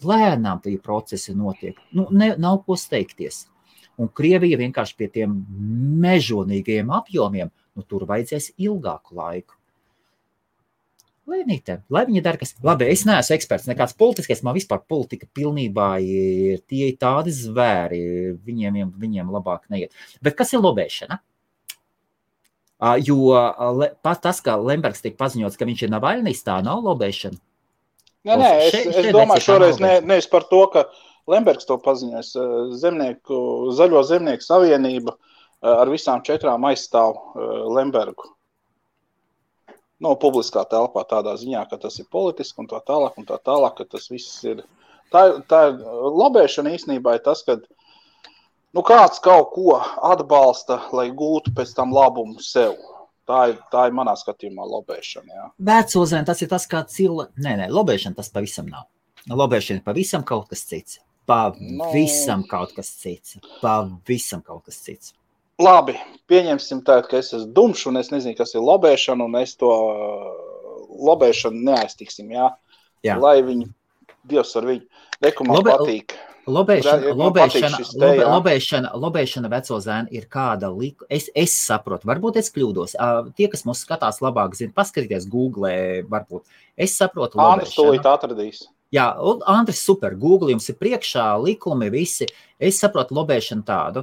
lēnām tie procesi notiek. Nav ko steigties. Un Krievija vienkārši pie tiem mežonīgajiem apjomiem, nu tur vajadzēs ilgāku laiku. Lai viņi dara, kas... Labi, es neesmu eksperts, nekāds politiskais, man vispār politika pilnībā ir tie tādi zvēri, viņiem labāk neiet. Bet kas ir lobēšana? Jo tas, kā Lembergs tika paziņots, ka viņš ir Navaļnijs, tā nav lobēšana. Nē, es domāju šoreiz nevis par to, ka Lembergs to paziņojas. Zaļo zemnieku savienība ar visām 4 aizstāv Lembergu. Publiskā telpā tādā ziņā, ka tas ir politiski un tā tālāk, ka tas viss ir. Tā ir lobēšana īstenībā ir tas, ka kāds kaut ko atbalsta, lai gūtu pēc tam labumu sev. Tā ir manā skatījumā lobēšana, jā. Vecozēn, tas ir tas, kā Nē, lobēšana tas pavisam nav. Lobēšana ir pavisam kaut kas cits. Pavisam kaut kas cits. Labi, pieņemsim tādu, ka es esmu dumšs un es nezinu, kas ir lobēšana, un es to lobēšanu neaiztiksim, jā. Lai viņi, Dievs ar viņu, reku man patīk. Lobēšana vecozēn ir kāda es saprotu, varbūt es kļūdos. Tie, kas mūs skatās labāk zina, paskatīties Google, varbūt. Es saprotu lobēšanu. Andris tūlīt atradīs. Jā, Andris super, Google jums ir priekšā, likumi visi. Es saprotu lobēšanu tādu.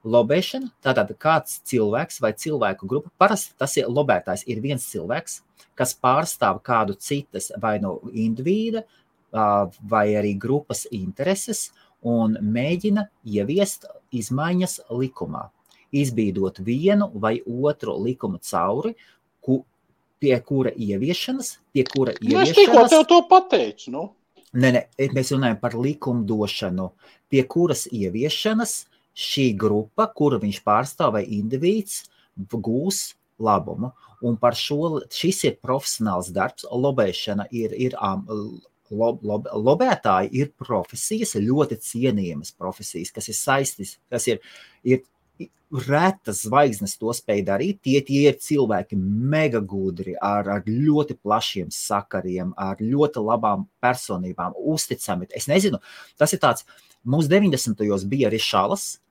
Lobēšana, tātad kāds cilvēks vai cilvēku grupa, parasti tas ir lobētājs, ir viens cilvēks, kas pārstāv kādu citas vai indivīda vai arī grupas intereses un mēģina ieviest izmaiņas likumā, izbīdot vienu vai otru likumu cauri, pie kura ieviešanas. Es tikko tev to pateicu, Nē, mēs runājam par likumdošanu, pie kuras ieviešanas šī grupa, kuru viņš pārstāv vai indivīds, gūs labumu. Un par šis ir profesionāls darbs. Lobēšana lobētāji ir profesijas, ļoti cienījamas profesijas, kas ir saistītas, kas ir retas zvaigznes to spēj darīt. Tie ir cilvēki mega gudri, ar ļoti plašiem sakariem, ar ļoti labām personībām, uzticami. Es nezinu, tas ir tāds, mums 90. bija Rišalas.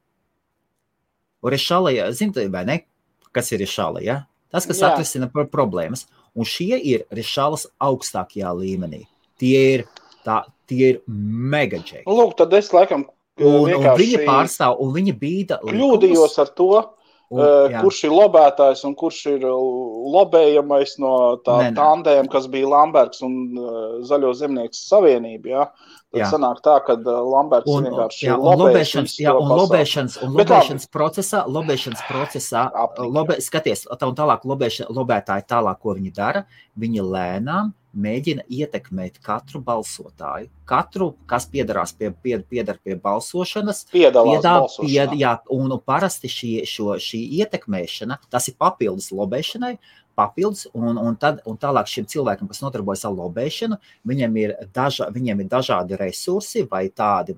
Rišala, zini, vai ne? Kas ir Rišala, ja? Tas, kas atrisina problēmas. Un šie ir Rišalas augstākajā līmenī. Tie ir mega džeki. Lūk, tad es laikam un viņi pārstāv, un viņi bīda kļūdījos ar to, kurš ir lobētājs un kurš ir lobējamais no tandēm, kas bija Lambergs un Zaļo zemnieku savienība, jā. Tad sanāk tā, ka Lambergs vienkārši lobēšanas procesā, skaties, un tālāk lobētāji tālāk, ko viņi dara, viņi lēnām mēģina ietekmēt katru balsotāju. Katru, kas piedar pie balsošanas, un parasti šī ietekmēšana, tas ir papildus lobēšanai, un tālāk šiem cilvēkiem, kas nodarbojas ar lobēšanu, viņiem ir dažādi resursi, vai tādi,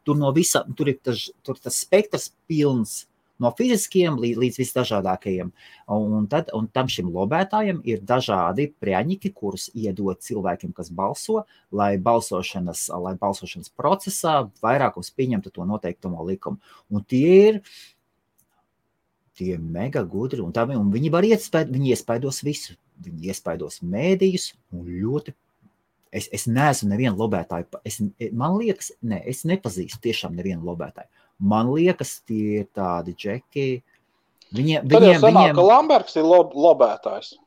tur ir tas spektrs pilns, no fiziskiem līdz visdažādākajiem. Un tam šim lobētājiem ir dažādi prieņķi, kurus iedod cilvēkiem, kas balso, lai balsošanas procesā vairākums pieņemtu to noteiktumo likumu. Un tie ir mega gudri, un viņi var viņi iespaidos visu. Viņi iespaidos mēdījus, un ļoti. Es neesmu nevienu lobētāju. Man liekas, es nepazīstu tiešām nevienu lobētāju. Man liekas, tie ir tādi džeki. Tad jau sanāk, ka Lambergs ir lobētājs.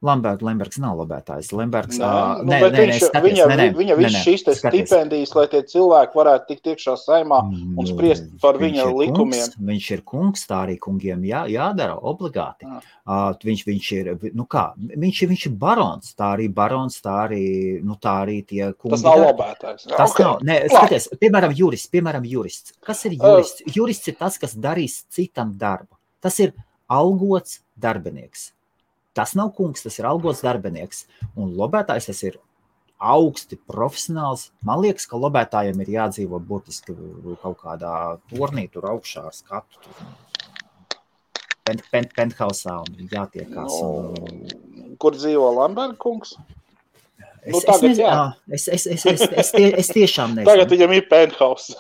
Lembergs nav lobētājs. Lembergs, viņa viss šīs stipendijas, lai tie cilvēki varētu tikt iekšā saimā un spriest par viņa likumiem. Viņš ir kungs, tā arī kungiem jādara obligāti. Viņš ir barons, tā arī tie kungi. Tas nav lobētājs. Tas nav, skaties, piemēram, jurists. Kas ir jurists? Jurists ir tas, kas darīs citam darbu. Tas ir algots darbinieks. Tas nav kungs, tas ir algots darbinieks. Un lobētājs tas ir augsti profesionāls. Man liekas, ka lobētājiem ir jādzīvo burtiski kaut kādā tornī tur augšā ar skatu. Penthausā un jātiekās. Kur dzīvo Lamberga kungs? Es tiešām nezinu. Tagad viņam ir penthouse.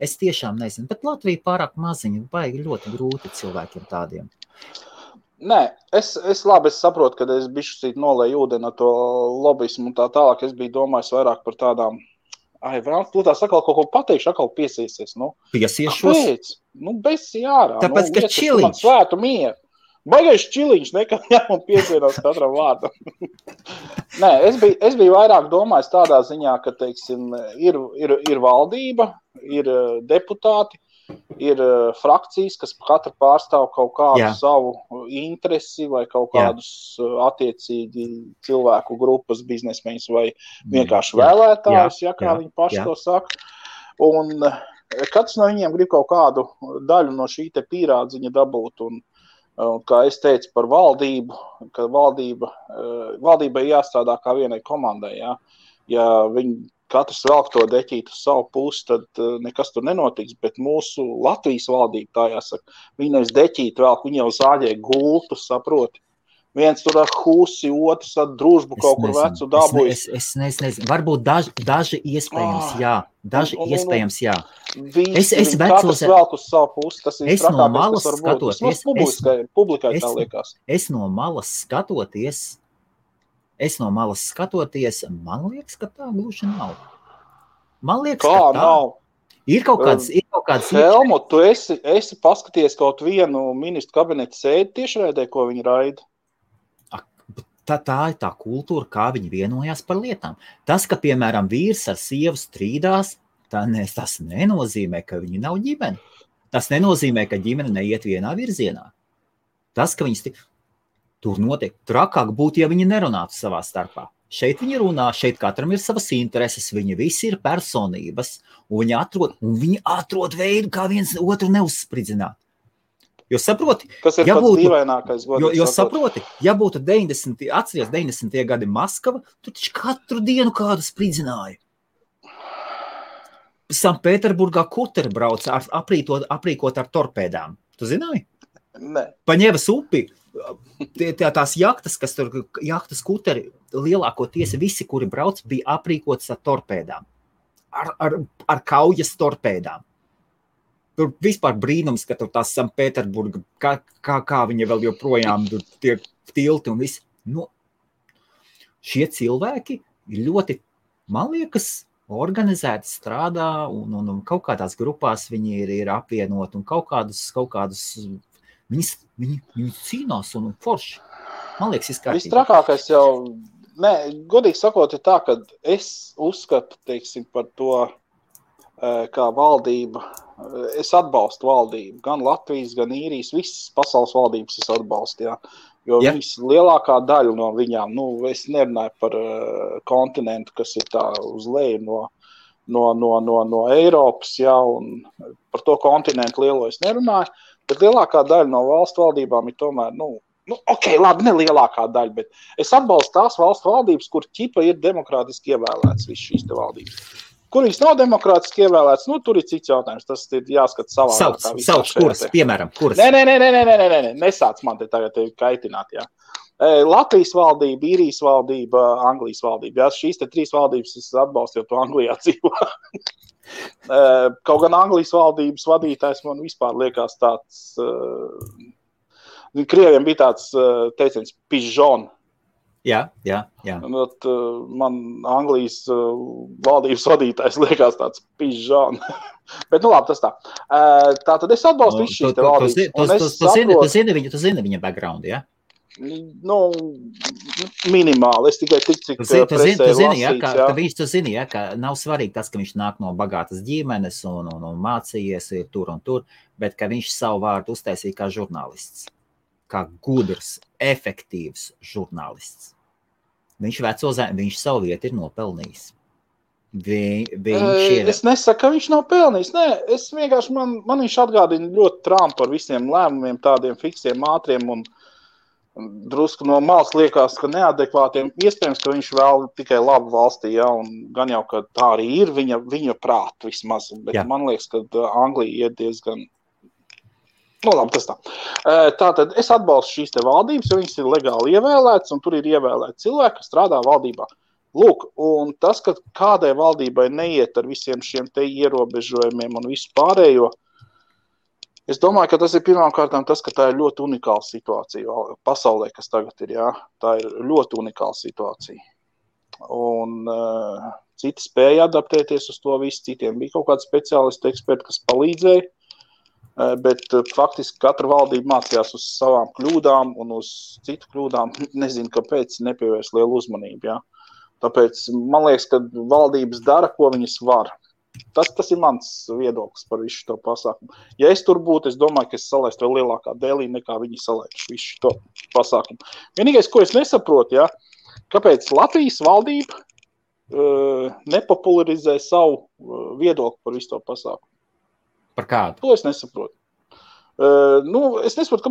Es tiešām nezinu, bet Latvija pārāk maziņa, baigi ļoti grūti cilvēkiem tādiem. Nē, es saprotu, ka es bišķi nolēju ūdeni ar to lobismu un tā tālāk. Es biju domājis vairāk par tādām, vēl, tu tās atkal kaut ko pateikšu, atkal piesiesies. Piesiešos? Kāpēc? Besi ārā. Tāpēc, ka čiliņš. Man svētu mieru. Baigais čiliņš, nekad jāman piesienās katram vārdam. Nē, es biju vairāk domājis tādā ziņā, ka, teiksim, ir valdība, ir deputāti, ir frakcijas, kas katra pārstāv kaut kādu savu interesi vai kaut kādus attiecīgi cilvēku grupas, biznesmeņus vai vienkārši vēlētājus, kā viņi paši to saka. Un katrs no viņiem grib kaut kādu daļu no šī te pīrādziņa dabūt. Un kā es teicu par valdību, ka valdībai jāstrādā kā vienai komandai. Ja viņi katrs velk to deķītu uz savu pusi, tad nekas tur nenotiks, bet mūsu Latvijas valdība, tā jāsaka, viņi nevis deķītu velk, viņi jau zāģē gultu, saproti. Viens tur ar husi, otrs ar družbu kaut kur vecu dabūjas. Es nezinu, varbūt daži iespējams, jā. Daži iespējams, jā. Es katrs velk uz savu pusi, tas ir trakākais, kas var būt. Tas publikai tā liekas. Es no malas skatoties, man liekas, ka tā gluži nav. Man liekas, kā ka tā nav? Ir kaut kāds Helmu, tu esi paskaties kaut vienu ministru kabineta sēdi tiešraidē, ko viņi raida? Tā ir tā kultūra, kā viņi vienojās par lietām. Tas, ka, piemēram, vīrs ar sievu strīdās, tas nenozīmē, ka viņi nav ģimene. Tas nenozīmē, ka ģimene neiet vienā virzienā. Tas, ka viņas tur notiek, trakāk būtu, ja viņi nerunātu savā starpā. Šeit viņi runā, šeit katram ir savas intereses, viņi visi ir personības, un viņi atrod veidu, kā viens otru neuzspridzināt. Jo saproti, kas ir pats dīvainākais, jo saproti, ja būtu 90. gadi Maskava, tu taču katru dienu kādu spridzināja. Sanktpēterburgā kuteri brauca aprīkot ar torpēdām. Tu zināji? Nē. Pa Ņevas upi, tās jahtas, jahtas kuteri, lielākoties visi, kuri brauc, bija aprīkots ar torpēdām. Ar kaujas torpēdām. Tur vispār brīnums, ka tur tās Sanktpēterburga, kā viņa vēl joprojām tiek tilti un viss. Šie cilvēki ir ļoti, man liekas, organizēti strādā un kaut kādās grupās viņi ir apvienoti un kaut kādus viņi cīnās un forši. Man liekas, izkārtīgi. Viss trakākais jau, godīgi sakot, ir tā, ka es uzskatu, teiksim, par to, kā valdība, es atbalstu valdību, gan Latvijas, gan Īrijas, visas pasaules valdības es atbalstu, jo viņas lielākā daļa no viņām, es nerunāju par kontinentu, kas ir tā uz leju no Eiropas, un par to kontinentu lielo es nerunāju, bet lielākā daļa no valstu valdībām ir tomēr, labi, ne lielākā daļa, bet es atbalstu tās valstu valdības, kur ķipa ir demokrātiski ievēlēts viss šīs te valdības. Kur viņas nav demokrātiski ievēlēts, tur ir cits jautājums. Tas ir jāskat savā. Sauc kuras, piemēram, kuras? Nē, nesāc man te tagad kaitināt, jā. Latvijas valdība, Īrijas valdība, Anglijas valdība. Šīs te 3 valdības es atbalstu, jo to Anglijā dzīvo. Kaut gan Anglijas valdības vadītājs man vispār liekas tāds, Krieviem bija tāds teiciens pižon. Jā. Man Anglijas valdības vadītājs liekas tāds pižon. Bet labi, tas tā. Tātad es atbalstu visu šīs te valdības. Tu zini viņa background, jā? Minimāli. Es tikai cik presē lasīts, Tu zini, ka nav svarīgi tas, ka viņš nāk no bagātas ģimenes un mācījies ir tur un tur, bet ka viņš savu vārdu uztaisīja kā žurnālists. Kā gudrs, efektīvs žurnālists. Viņš savu vietu ir nopelnījis. Es nesaku, ka viņš nav pelnījis. Nē, es vienkārši, man viņš atgādina ļoti Trumpu par visiem lēmumiem, tādiem fiksiem, ātriem un drusku no malas liekas, ka neadekvātiem. Iespējams, ka viņš vēl tikai labu valstī, un gan jau, ka tā arī ir viņa prāta vismaz. Bet man liekas, ka Anglija iet diezgan... labi, tas tā. Tātad es atbalstu šīs te valdības, jo viņas ir legāli ievēlētas, un tur ir ievēlēti cilvēki, kas strādā valdībā. Lūk, un tas, ka kādai valdībai neiet ar visiem šiem te ierobežojumiem un visu pārējo, es domāju, ka tas ir pirmkārtām tas, ka tā ir ļoti unikāla situācija pasaulē, kas tagad ir, jā. Tā ir ļoti unikāla situācija. Un citi spēja adaptēties uz to visu, citiem bija kaut kādi speciālisti, eksperti, kas palīdzēja, bet faktiski katra valdība mācījās uz savām kļūdām un uz citu kļūdām, nezinu, kāpēc nepievērs lielu uzmanību, jā. Tāpēc man liekas, ka valdības dara, ko viņas var. Tas ir mans viedoklis par visu to pasākumu. Ja es tur būtu, es domāju, ka es salaistu vēl lielākā dēlī, nekā viņi salaistu visu to pasākumu. Vienīgais, ko es nesaprotu, ja, kāpēc Latvijas valdība nepopularizē savu viedokli par visu to pasākumu. Par kādu? To es nesaprotu. Es nesaprotu,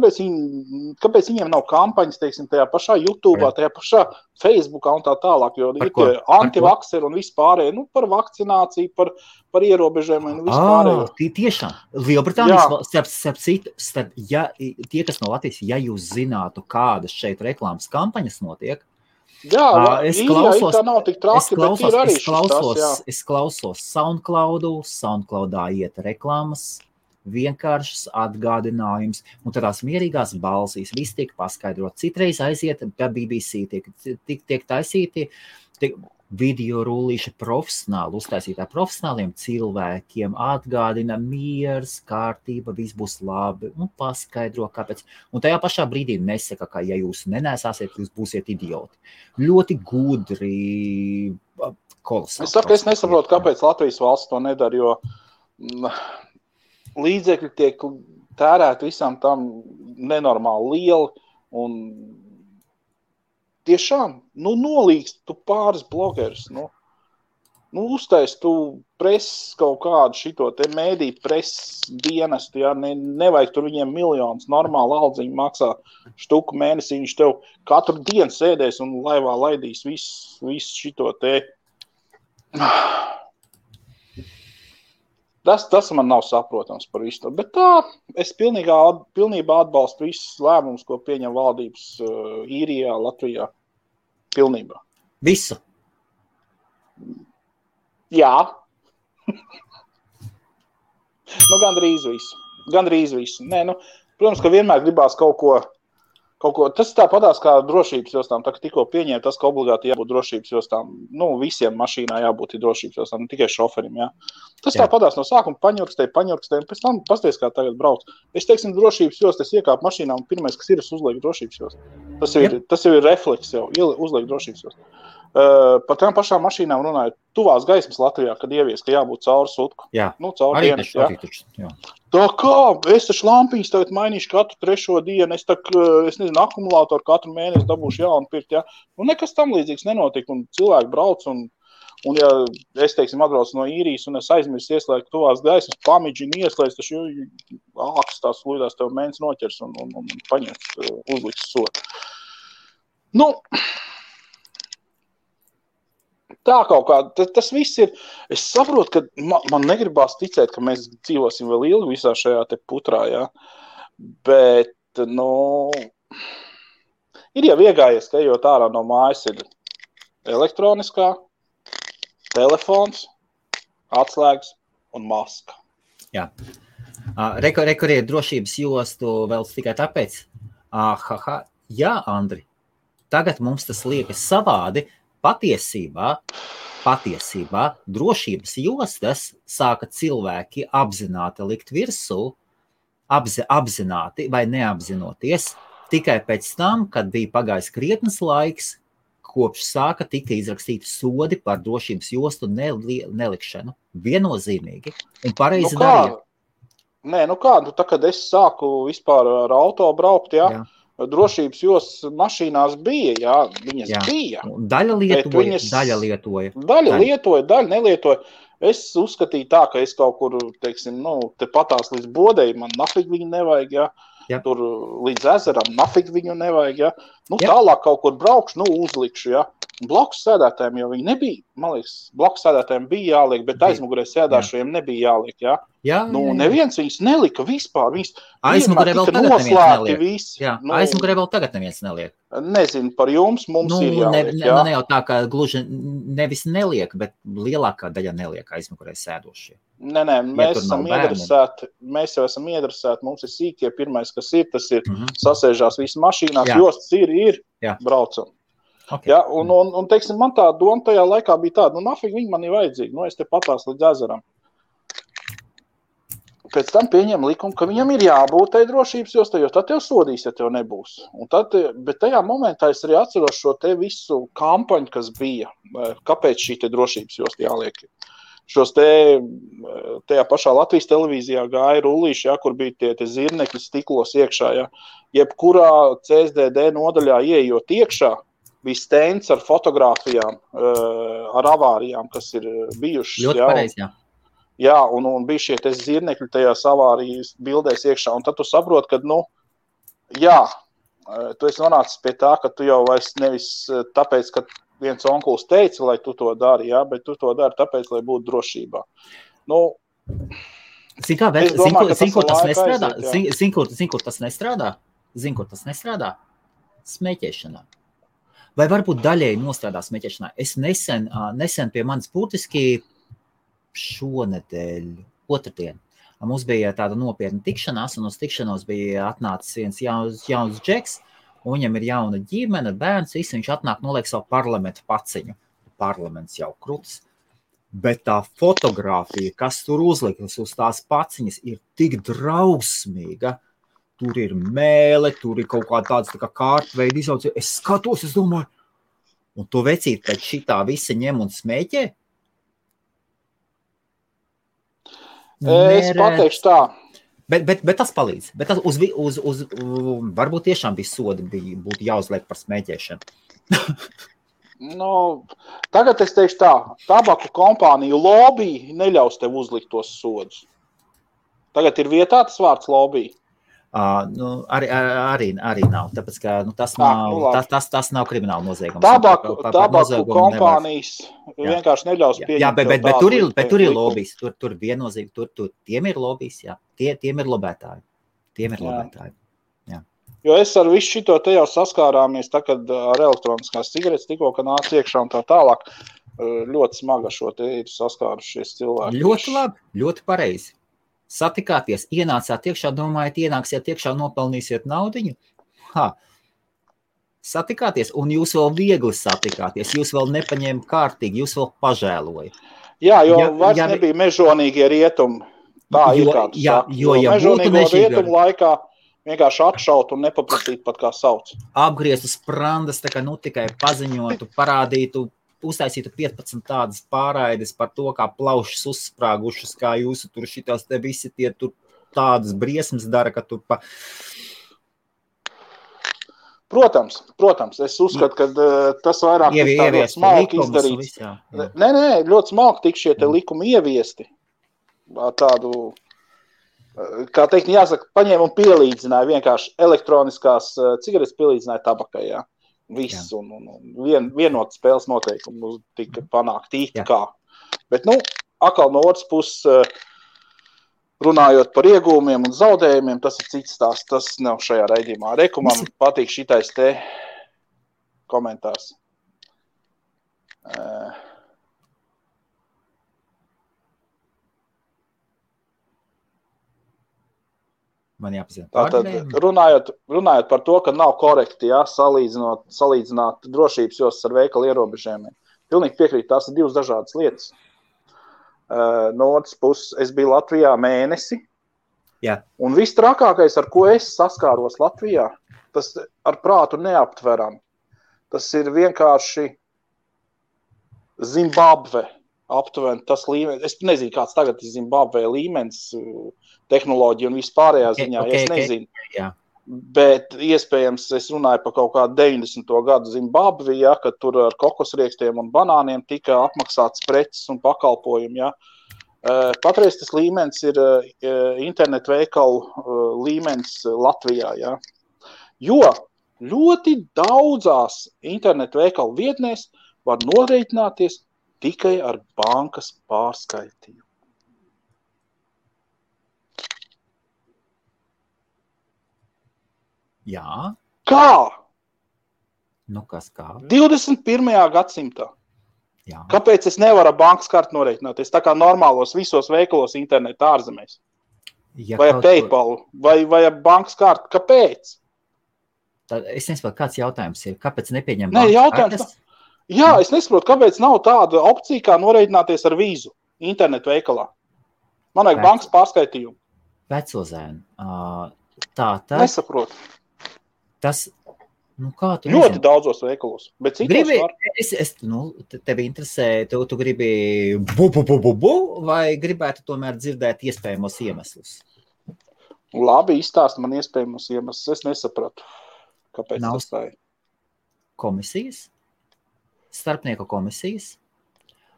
kāpēc viņiem nav kampaņas, teiksim, tajā pašā YouTube'ā, tajā pašā Facebookā un tā tālāk, jo ir tie antivakseri un vispārēji, par vakcināciju, par ierobežojumiem un vispārējo. Tiešām. Lielbritānijas, tie, kas no Latvijas, ja jūs zinātu, kādas šeit reklāmas kampaņas notiek, es klausos SoundCloudā iet reklāmas, vienkāršas atgādinājums, un tādās mierīgās balsīs, viss tiek paskaidrot. Citreiz aiziet BBC, tiek taisīti video rullīši profesionāli, uztaisītā profesionāliem cilvēkiem, atgādina miers, kārtība, viss būs labi, un paskaidro, kāpēc. Un tajā pašā brīdī nesaka, ka ja jūs nenesāsiet, jūs būsiet idioti. Ļoti gudri, kolosāli. Es nesaprotu, kāpēc Latvijas valsts to nedara, jo līdzekļi tiek tērēti visam tam nenormāli lieli un tiešām, nolīgst tu pāris blogerus, uztais tu preses kaut kādu šito te mēdī preses dienestu, ja, nevajag tur viņiem miljonus, normāli aldziņu maksā štuku mēnesī, viņš tev katru dienu sēdēs un laivā laidīs visu šito te. Tas man nav saprotams par visu to, bet tā, es pilnībā atbalstu visus lēmumus, ko pieņem valdības Īrijā, Latvijā. Pilnībā. Visu? Jā. Gandrīz visu. Nē, protams, ka vienmēr gribās kaut ko, tas tāpatās kā drošības jostām, tā kā tikko pieņēma tas, ka obligāti jābūt drošības jostām, visiem mašīnā jābūt drošības jostām, ne tikai šoferim, jā. Tas tāpatās no sākuma paņurkstēja, un pēc tam pasties, kā tagad brauc. Es teiksim, drošības jost, es iekāpu mašīnā, un pirmais, kas ir, es uzlieku drošības jost. Tas jau ir refleks jau, uzliek drošības jost. Par tām pašām mašīnām runājot, tuvās gaismas Latvijā, kad ievies, ka jābūt cauri sutku. Jā, cauri dienas, jā. Tā kā, es taču lampiņas tagad mainīšu katru 3. dienu, es nezinu, akumulātoru katru mēnesi dabūšu jaunu pirkt, jā. Nekas tam līdzīgs nenotika, un cilvēki brauc, un ja es, teiksim, atbraucu no Īrijas, un es aizmirsu ieslēgt tuvās gaismas, pamidžinu ieslēgt, taču ākas tās lūdās tev mēnes noķers un paņems, uzliks sodu. Tā kaut kā, tas viss ir, es saprotu, ka man negribās ticēt, ka mēs dzīvosim vēl ilgi visā šajā te putrā, jā, bet, ir jau iegājies, ka ejot ārā no mājas ir elektroniskā, telefons, atslēgas un maska. Jā. Rekuriet drošības jostu vēl tikai tāpēc? Jā, Andri, tagad mums tas liekas savādi. Patiesībā drošības jostas sāka cilvēki apzināti likt virsū, apzināti vai neapzinoties, tikai pēc tam, kad bija pagājis krietnes laiks, kopš sāka tika izrakstīti sodi par drošības jostu nelikšanu. Viennozīmīgi. Un pareizi darīja. Nē, tā, kad es sāku vispār ar auto braukt, jā. Drošības jostas mašīnās bija, jā, viņas bija. Daļa lietoja. Daļa lietoja, daļa nelietoja. Es uzskatīju tā, ka es kaut kur, teiksim, te patās līdz bodēji, man nafig viņi nevajag, jā. tur līdz ezeram, nafig viņu nevajag, ja. Nu, tālāk kaut kur braukšu, uzlikšu, ja. Blakus sēdētājiem jau viņi nebija, man liekas, blakus sēdētājiem bija jāliek, bet aizmugurē sēdāšajiem nebija jāliek, ja. Neviens viņus nelika vispār, viņus aizmugurē vēl tagad neviens neliek. Visi. Aizmugurē vēl tagad neviens neliek. Nezinu, par jums mums ir jāliek, jā. Ne jau tā, ka gluži nevis neliek, bet lielākā daļa neliek aizmugurē sēdošie. Nē, mēs jau esam iedresēti, mums ir sīkie, pirmais, kas ir, tas ir sasēžās visi mašīnās, jostas ir, braucam. Okay. Ja, un teiksim, man tā doma tajā laikā bija tāda, nafig viņi man ir vajadzīgi, es te patās līdz ezeram. Pēc tam pieņem likumu, ka viņam ir jābūt tai drošības jostai, jo tad tev sodīs, ja tev nebūs. Bet tajā momentā es arī atceros šo te visu kampaņu, kas bija, kāpēc šī te drošības josta jāliek. Šos tajā pašā Latvijas televīzijā gāja rullīši, ja, kur bija tie zirnekļi stiklos iekšā, ja. Jebkurā CSDD nodaļā ieejot iekšā, bija stends ar fotogrāfijām, ar avārijām, kas ir bijušas. Ļoti pareizi, jā. Jā, un bija šie te zirnekļi tajās avārijas bildēs iekšā, un tad tu saproti, ka, tu esi nonācis pie tā, ka tu jau vairs nevis tāpēc, ka viens onkuls teica, lai tu to dari, jā, bet tu to dari tāpēc, lai būtu drošībā. Kur tas nestrādā? Smēķēšanā. Vai varbūt daļēji nostrādā smēķēšanā? Es nesen pie manis būtiski šonedēļ, otrdien, mums bija tāda nopietna tikšanās, un uz tikšanos bija atnācis viens jauns džeks, un viņam ir jauna ģimene, bērns, visi viņš atnāk noliek savu parlamentu paciņu. Parlaments jau kruts. Bet tā fotogrāfija, kas tur uzlikas uz tās paciņas, ir tik drausmīga. Tur ir mēle, tur ir kaut kā tāds tā kā kārtveida izaugs. Es skatos, es domāju, un to vecīt pēc šitā visa ņem un smēķē? Es pateikšu tā. Bet tas palīdz. Bet tas varbūt tiešām bija sodi, būtu jāuzliek par smēķēšanu. Tagad es teikšu tā, tabaku kompāniju lobby neļaus tev uzlikt tos sodus. Tagad ir vietā tas vārds lobby. Arī nav, tāpēc, ka tas nav krimināla noziegums. Tabaku kompānijas vienkārši neļaus pieņemt. Jā, bet tur ir lobbijs, tur viennozīmīgi, tiem ir lobbijs, jā, tiem ir lobētāji. Jā. Jo es ar visu šito te jau saskārāmies, kad ar elektroniskās cigaretes tikko, ka nāc iekšā un tā tālāk, ļoti smaga šo te ir saskārušies cilvēki. Ļoti labi, ļoti pareizi. Satikāties, ienācāt iekšā, domājat, ienāksiet iekšā, nopelnīsiet naudiņu? Satikāties, un jūs vēl viegli satikāties, jūs vēl nepaņēma kārtīgi, jūs vēl pažēloja. Jā, jo vairs nebija mežonīgie rietumi. Tā ir kā tu saki. Jo mežonīgo rietumu laikā vienkārši atšaut un nepaprasīt pat kā sauc. Apgriezt uz sprandas, tā kā tikai paziņotu, parādītu, uztaisītu 15 tādas pārraides par to, kā plaušas uzsprāgušas, kā jūsu tur šitās te visi tie tur tādas briesmas dara, ka tur pa... Protams, es uzskatu, ka tas vairāk ir tā ļoti smalki izdarīts. Nē, ļoti smalki tik šie te likumi ieviesti. Tādu, kā teikt, jāsaka, paņēma un pielīdzināja vienkārši elektroniskās cigaretes pielīdzināja tabakai, jā. Viss, un vienot spēles noteikumu tika panākt īsti kā. Bet, atkal no otras puses, runājot par iegūmiem un zaudējumiem, tas ir cits stāsts, tas nav šajā raidījumā. Man patīk šitais te komentārs. Man jāpazina. Tātad, runājot par to, ka nav korekti, salīdzināt drošības jostas ar veikalu ierobežojumiem. Pilnīgi piekrīt, tās ir divas dažādas lietas. No otras puses, es biju Latvijā mēnesi, un viss trakākais, ar ko es saskāros Latvijā, tas ar prātu neaptveram. Tas ir vienkārši Zimbabve aptuveni tas līmenis. Es nezinu, kāds tagad ir Zimbabvē līmenis, tehnoloģija un vispārējā ziņā, es nezinu. Jā. Bet iespējams es runāju par kaut kādu 90. gadu Zimbabvi, kad tur ar kokosriekstiem un banāniem tika apmaksāts preces un pakalpojumi. Patreiz tas līmenis ir internetu veikalu līmenis Latvijā, ja? Jo ļoti daudzās internetu veikalu vietnēs var norēķināties tikai ar bankas pārskaitījumu. Jā. Kā? Nu, kas kā? 21. gadsimtā. Jā. Kāpēc es nevaru ar bankas karti norēķināties? Tā kā normālos visos veikalos internetu ārzemēs. Ja vai ar PayPal, vai ar bankas karti. Kāpēc? Tad es nesaprotu, kāds jautājums ir. Kāpēc nepieņem Nē, bankas jautājums kartes? Jā, es nesaprotu, kāpēc nav tāda opcija, kā norēķināties ar vīzu internetu veikalā. Man vajag bankas pārskaitījumu. Vecozēn. Tā tad. Nesaprotu. Tas, nu kā tu ļoti nezinu? daudzos veikalos, bet citos Gribi, var. Tevi interesē, tu gribi vai gribētu tomēr dzirdēt iespējamos iemeslus? Labi, izstāst man iespējamos iemeslus. Es nesapratu, kāpēc Nav tas tā ir. Komisijas? Starpnieku komisijas?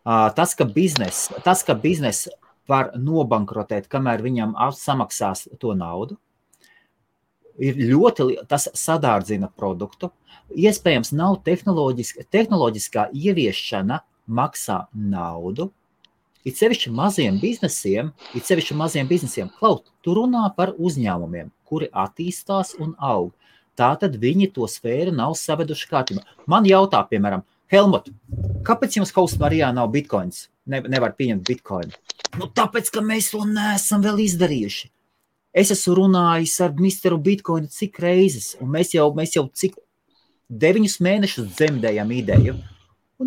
Tas, ka biznes var nobankrotēt, kamēr viņam samaksās to naudu, ir tas sadārdzina produktu. Iespējams, nav tehnoloģiskā ieviešana maksā naudu. It sevišķi maziem biznesiem, Klaut, tu runā par uzņēmumiem, kuri attīstās un aug. Tātad viņi to sfēru nav saveduši kārtībā. Man jautā, piemēram, Helmut, kāpēc jums Hausmarijā nav bitcoins? Nevar pieņemt bitcoinu. Nu, tāpēc, ka mēs to neesam vēl izdarījuši. Es esmu runājis ar Misteru Bitcoinu cik reizes, un mēs jau cik 9 mēnešus dzemdējam ideju, un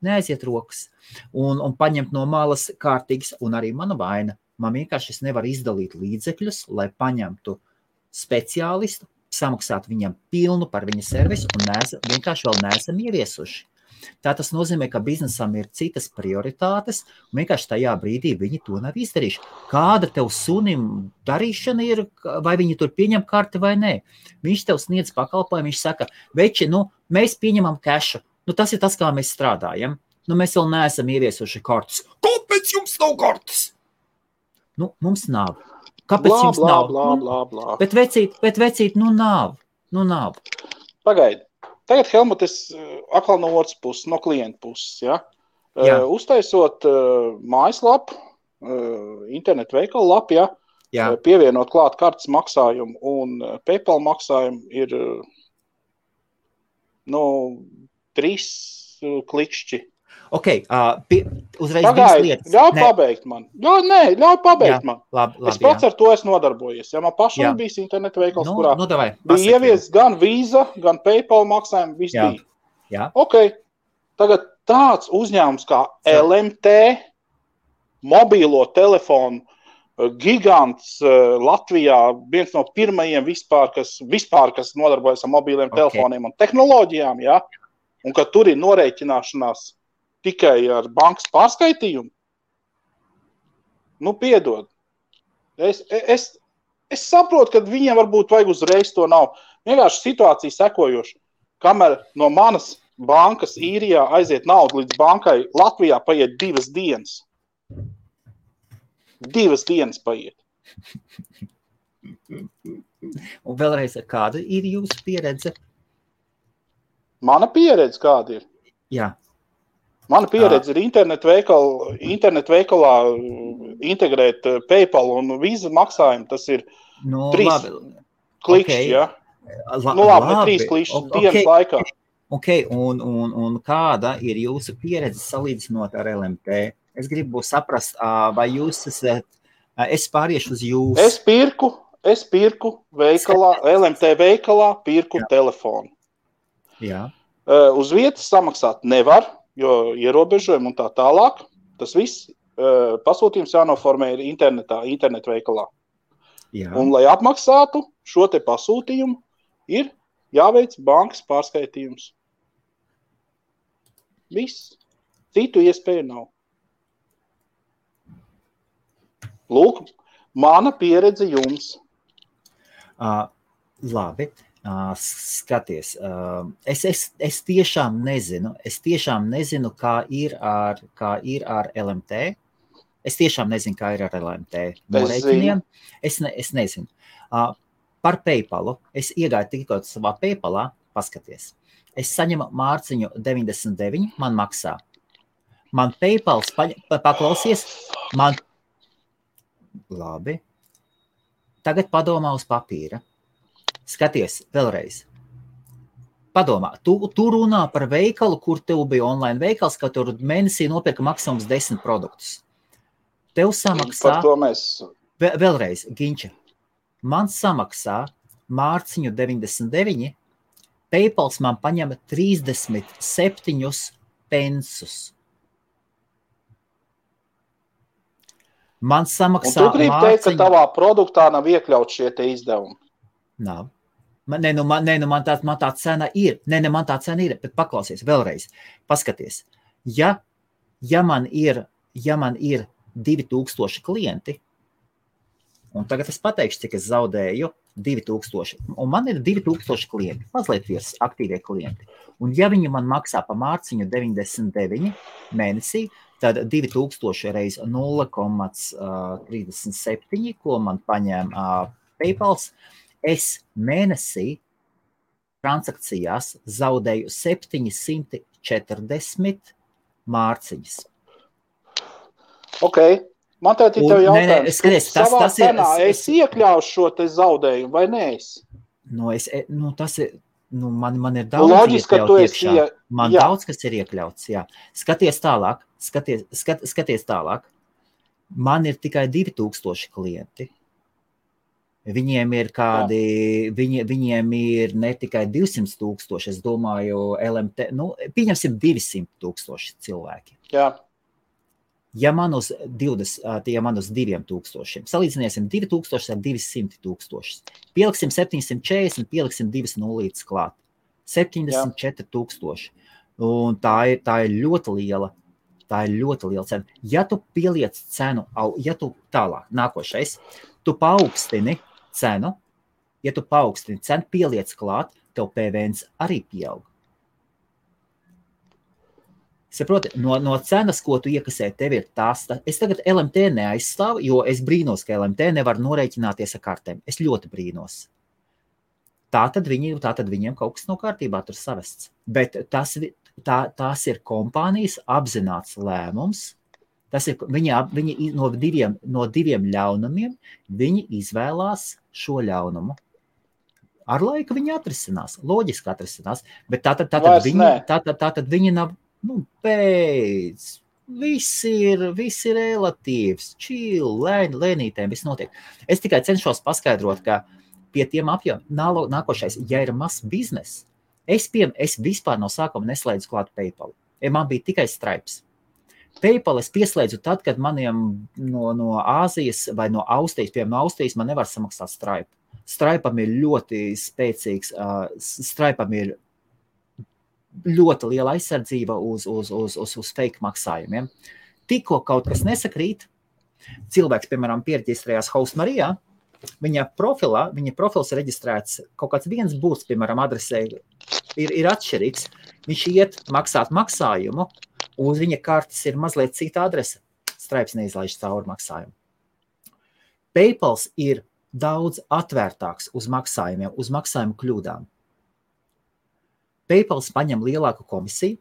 neaiziet rokas, un paņemt no malas kārtīgas, un arī mana vaina. Man vienkārši es nevaru izdalīt līdzekļus, lai paņemtu speciālistu, samaksātu viņam pilnu par viņa servisu, un vienkārši vēl neesam ieviesuši. Tā tas nozīmē, ka biznesam ir citas prioritātes, un vienkārši tajā brīdī viņi to nav izdarījuši. Kāda tev sunim darīšana ir, vai viņi tur pieņem karti vai nē? Viņš tev sniedz pakalpojumu, viņš saka, veči, mēs pieņemam kešu. Tas ir tas, kā mēs strādājam. Mēs vēl neesam ieviesuši kartus. Kāpēc jums nav kartas? Mums nav. Kāpēc jums nav? Blā. Bet vecīt, nav. Pagaidi. Tagad, Helmut, es atkal no otras puses, no klienta puses, ja? Uztaisot mājaslapu, internetu veikalu lapu, ja? Pievienot klāt kartes maksājumu un PayPal maksājumu ir 3 klikšķi. Ok, uzreiz Pagaid, ļauj pabeigt man. Ļauj pabeigt man. Labi, es pats ar to esmu nodarbojies. Ja man pašam bijis internetu veikals, kurā bija ievies gan Visa, gan PayPal maksājumi, viss bija. Jā. Ok, tagad tāds uzņēmums kā LMT, mobīlo telefonu gigants Latvijā, viens no pirmajiem vispār, kas nodarbojas ar mobīliem telefoniem un tehnoloģijām, ja? Un ka tur ir norēķināšanās tikai ar bankas pārskaitījumu, piedod. Es saprotu, ka viņiem varbūt vajag uzreiz to nav. Vienkārši situācija sekojoša. Kamēr no manas bankas īrijā aiziet naudu līdz bankai, Latvijā paiet 2 dienas. 2 dienas paiet. Un vēlreiz, kāda ir jūsu pieredze? Mana pieredze kāda ir? Jā. Mana pieredze ir internetu veikalā integrēt PayPal un Visa maksājumu. Tas ir 3 klikšķi, ja? Labi, 3 klikšķi dienas laikā. Ok, un kāda ir jūsu pieredze salīdzinot ar LMT? Es gribu saprast, vai jūs esat, es pāriešu uz jūsu. Es pirku veikalā, LMT veikalā pirku telefonu. Jā. Uz vietas samaksāt nevar, jo ierobežojumi un tā tālāk. Tas viss pasūtījums jānoformē ir internetu veikalā. Jā. Un, lai apmaksātu šo te pasūtījumu, ir jāveic bankas pārskaitījums. Viss. Citu iespēju nav. Lūk, mana pieredze jums. Labi. Skaties, es tiešām nezinu, kā ir ar LMT, Es tiešām nezinu, kā ir ar LMT norēķiniem. Es nezinu. Par PayPalu. Es iegāju tikko savā PayPalā, paskaties. Es saņemu mārciņu 99, man maksā. Man PayPals paklausies, man... Labi. Tagad padomā uz papīra. Skaties, vēlreiz. Padomā, tu runā par veikalu, kur tev bija online veikals, ka tur mēnesī nopirka maksimums 10 produktus. Tev samaksā... Par to mēs... Vēlreiz, Ginča. Man samaksā mārciņu 99, PayPals man paņem 37 pensus. Man samaksā un tu gribi teikt, ka tavā produktā nav iekļauts šie te izdevumi? Nav. Man tā cena ir. Man tā cena ir, bet paklausies vēlreiz. Paskaties. Ja man ir 2000 klienti, un tagad es pateikšu, cik es zaudēju 2000, un man ir 2000 klienti, mazliet virs aktīvie klienti. Un ja viņi man maksā pa mārciņu 99 mēnesī, tad 2000 reiz 0,37, ko man paņem PayPals, es mēnesī transakcijās zaudēju 740 mārciņas. Ok, man tā ir tev jautājums. Savā cenā es iekļaušu šo te zaudējumu, vai ne es? Man ir daudz loģiski, iekļaut iekšā. Man daudz, kas ir iekļauts, jā. Skaties tālāk. Man ir tikai 2000 klienti. Viņiem ir viņiem ir ne tikai 200 000, es domāju, LMT, pieņemsim 200 000 cilvēki. Jā. Ja man uz 2000, salīdzināsim 2000 ar 200 000, pieliksim 740, pieliksim 2 nulītes klāt. 74 000. Un tā ir ļoti liela cena. Ja tu pieliec cenu, tālāk, nākošais, tu paaugstini cenu, pieliec klāt, tev PVNs arī pieaug. Saproti, no cenas, ko tu iekasē, tev ir tās. Es tagad LMT neaizstāvu, jo es brīnos, ka LMT nevar norēķināties ar kartēm. Es ļoti brīnos. Tātad viņiem kaut kas nav kārtībā tur savests. Bet tās ir kompānijas apzināts lēmums. Tas ir, viņi no diviem ļaunumiem, viņi izvēlās šo ļaunumu. Ar laiku viņi atrisinās, loģiski atrisinās, bet tātad viņi nav, beidz, viss ir relatīvs, chill, lēnītēm, viss notiek. Es tikai cenšos paskaidrot, ka pie tiem apjomiem nākošais, ja ir mazs biznes, es vispār no sākuma neslēdzu klāt PayPal. Man bija tikai Stripes. PayPal es pieslēdzu tad, kad maniem no Āzijas vai no Austrijas, piemēram, no Austrijas man nevar samaksāt Stripe. Stripeam ir ļoti spēcīgs, Stripeam ir ļoti liela aizsardzība uz fake maksājumiem. Tikko kaut kas nesakrīt, cilvēks, piemēram, pierģistrējās Host Marijā, viņa profils ir reģistrēts, kaut kāds viens būs, piemēram, adresē ir atšķirīgs, viņš iet maksāt maksājumu, uz viņa kartes ir mazliet cita adrese, Stripes neizlaiž cauri maksājumu. PayPals ir daudz atvērtāks uz maksājumiem, uz maksājumu kļūdām. PayPals paņem lielāku komisiju,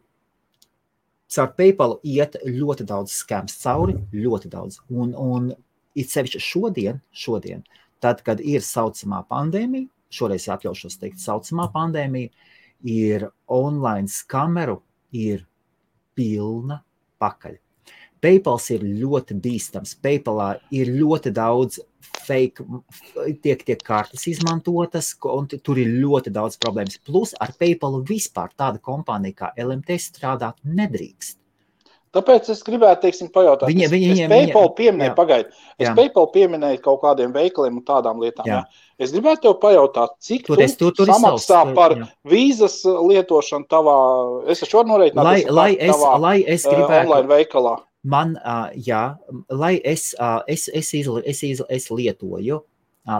caur PayPalu iet ļoti daudz skams cauri, ļoti daudz. Un it sevišķi šodien, tad, kad ir saucamā pandēmija, šoreiz atļaušos teikt saucamā pandēmija, ir online skameru, ir pilna pakaļ. PayPals ir ļoti bīstams. PayPalā ir ļoti daudz fake, tiek kartes izmantotas, un tur ir ļoti daudz problēmas. Plus ar PayPalu vispār tāda kompānija kā LMT strādāt nedrīkst. Tāpēc es gribētu, pajautāt. Es PayPal pieminēju kaut kādiem veikaliem un tādām lietām. Jā. Es gribētu tev pajautāt, cik tu samaksā par vīzas lietošanu tavā, es taču varu norēķināt online veikalā. Es lietoju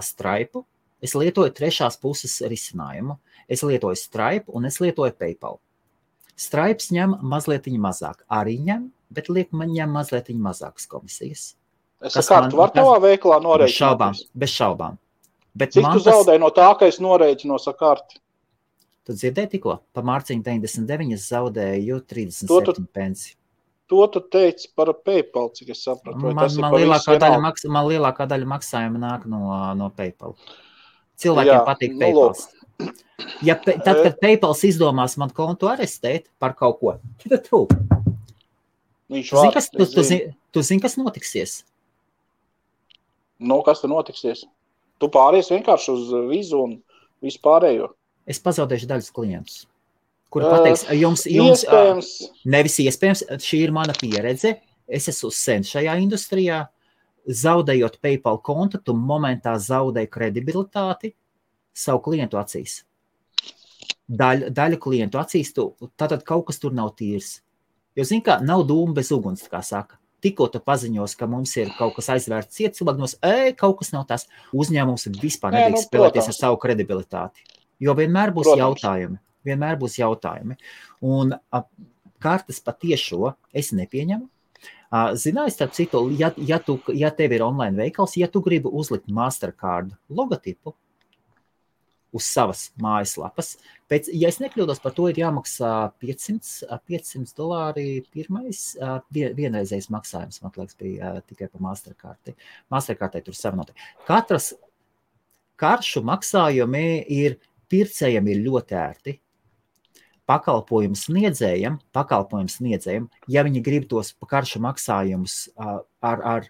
Stripe, es lietoju trešās puses risinājumu, es lietoju Stripe un es lietoju PayPal. Stripes ņem mazliet mazāk, arī ņem, bet liek man ņem mazliet mazākas komisijas. Es kartu var tavā veikalā norēķināties? Bez šaubām. Bet cik tu zaudēji no tā, ka es norēķinos ar karti? Tu dzirdēji tikko? Pa mārciņu 99 es zaudēju 37 pensi. To tu teici par PayPal, cik es sapratu. Man lielākā daļa maksājuma nāk no PayPal. Cilvēkiem patīk PayPal. Tad, kad PayPal izdomās man kontu arestēt par kaut ko, tad tu. Tu zini, kas notiksies? Kas tur notiksies? Tu pāries vienkārši uz vizu un visu pārējo. Es pazaudēšu daļas klientus, kuri pateiks, jums nevis iespējams, šī ir mana pieredze, es esmu sen šajā industrijā, zaudējot PayPal kontu, tu momentā zaudēji kredibilitāti savu klientu acīs. Daļu klientu acīs, tātad kaut kas tur nav tīrs. Jo zini, kā nav dūma bez uguns, kā saka. Tikko tu paziņos, ka mums ir kaut kas aizvērts ciet, cilvēkos, kaut kas nav tas. Uzņēmums vispār nedrīkst spēlēties ar savu kredibilitāti. Jo vienmēr būs jautājumi. Un kartes patiešo es nepieņemu. Zināji, starp citu, ja tev ir online veikals, ja tu gribi uzlikt Mastercard logotipu uz savas mājaslapas, ja es nekļūdos, par to ir jāmaksā $500 vienreizējs maksājums, man liekas, bija tikai pa Mastercardai. Mastercardai tur savinoti. Katras karšu maksājumi pircējiem ir ļoti ērti. Pakalpojumu sniedzējiem, ja viņi grib tos karšu maksājumus ar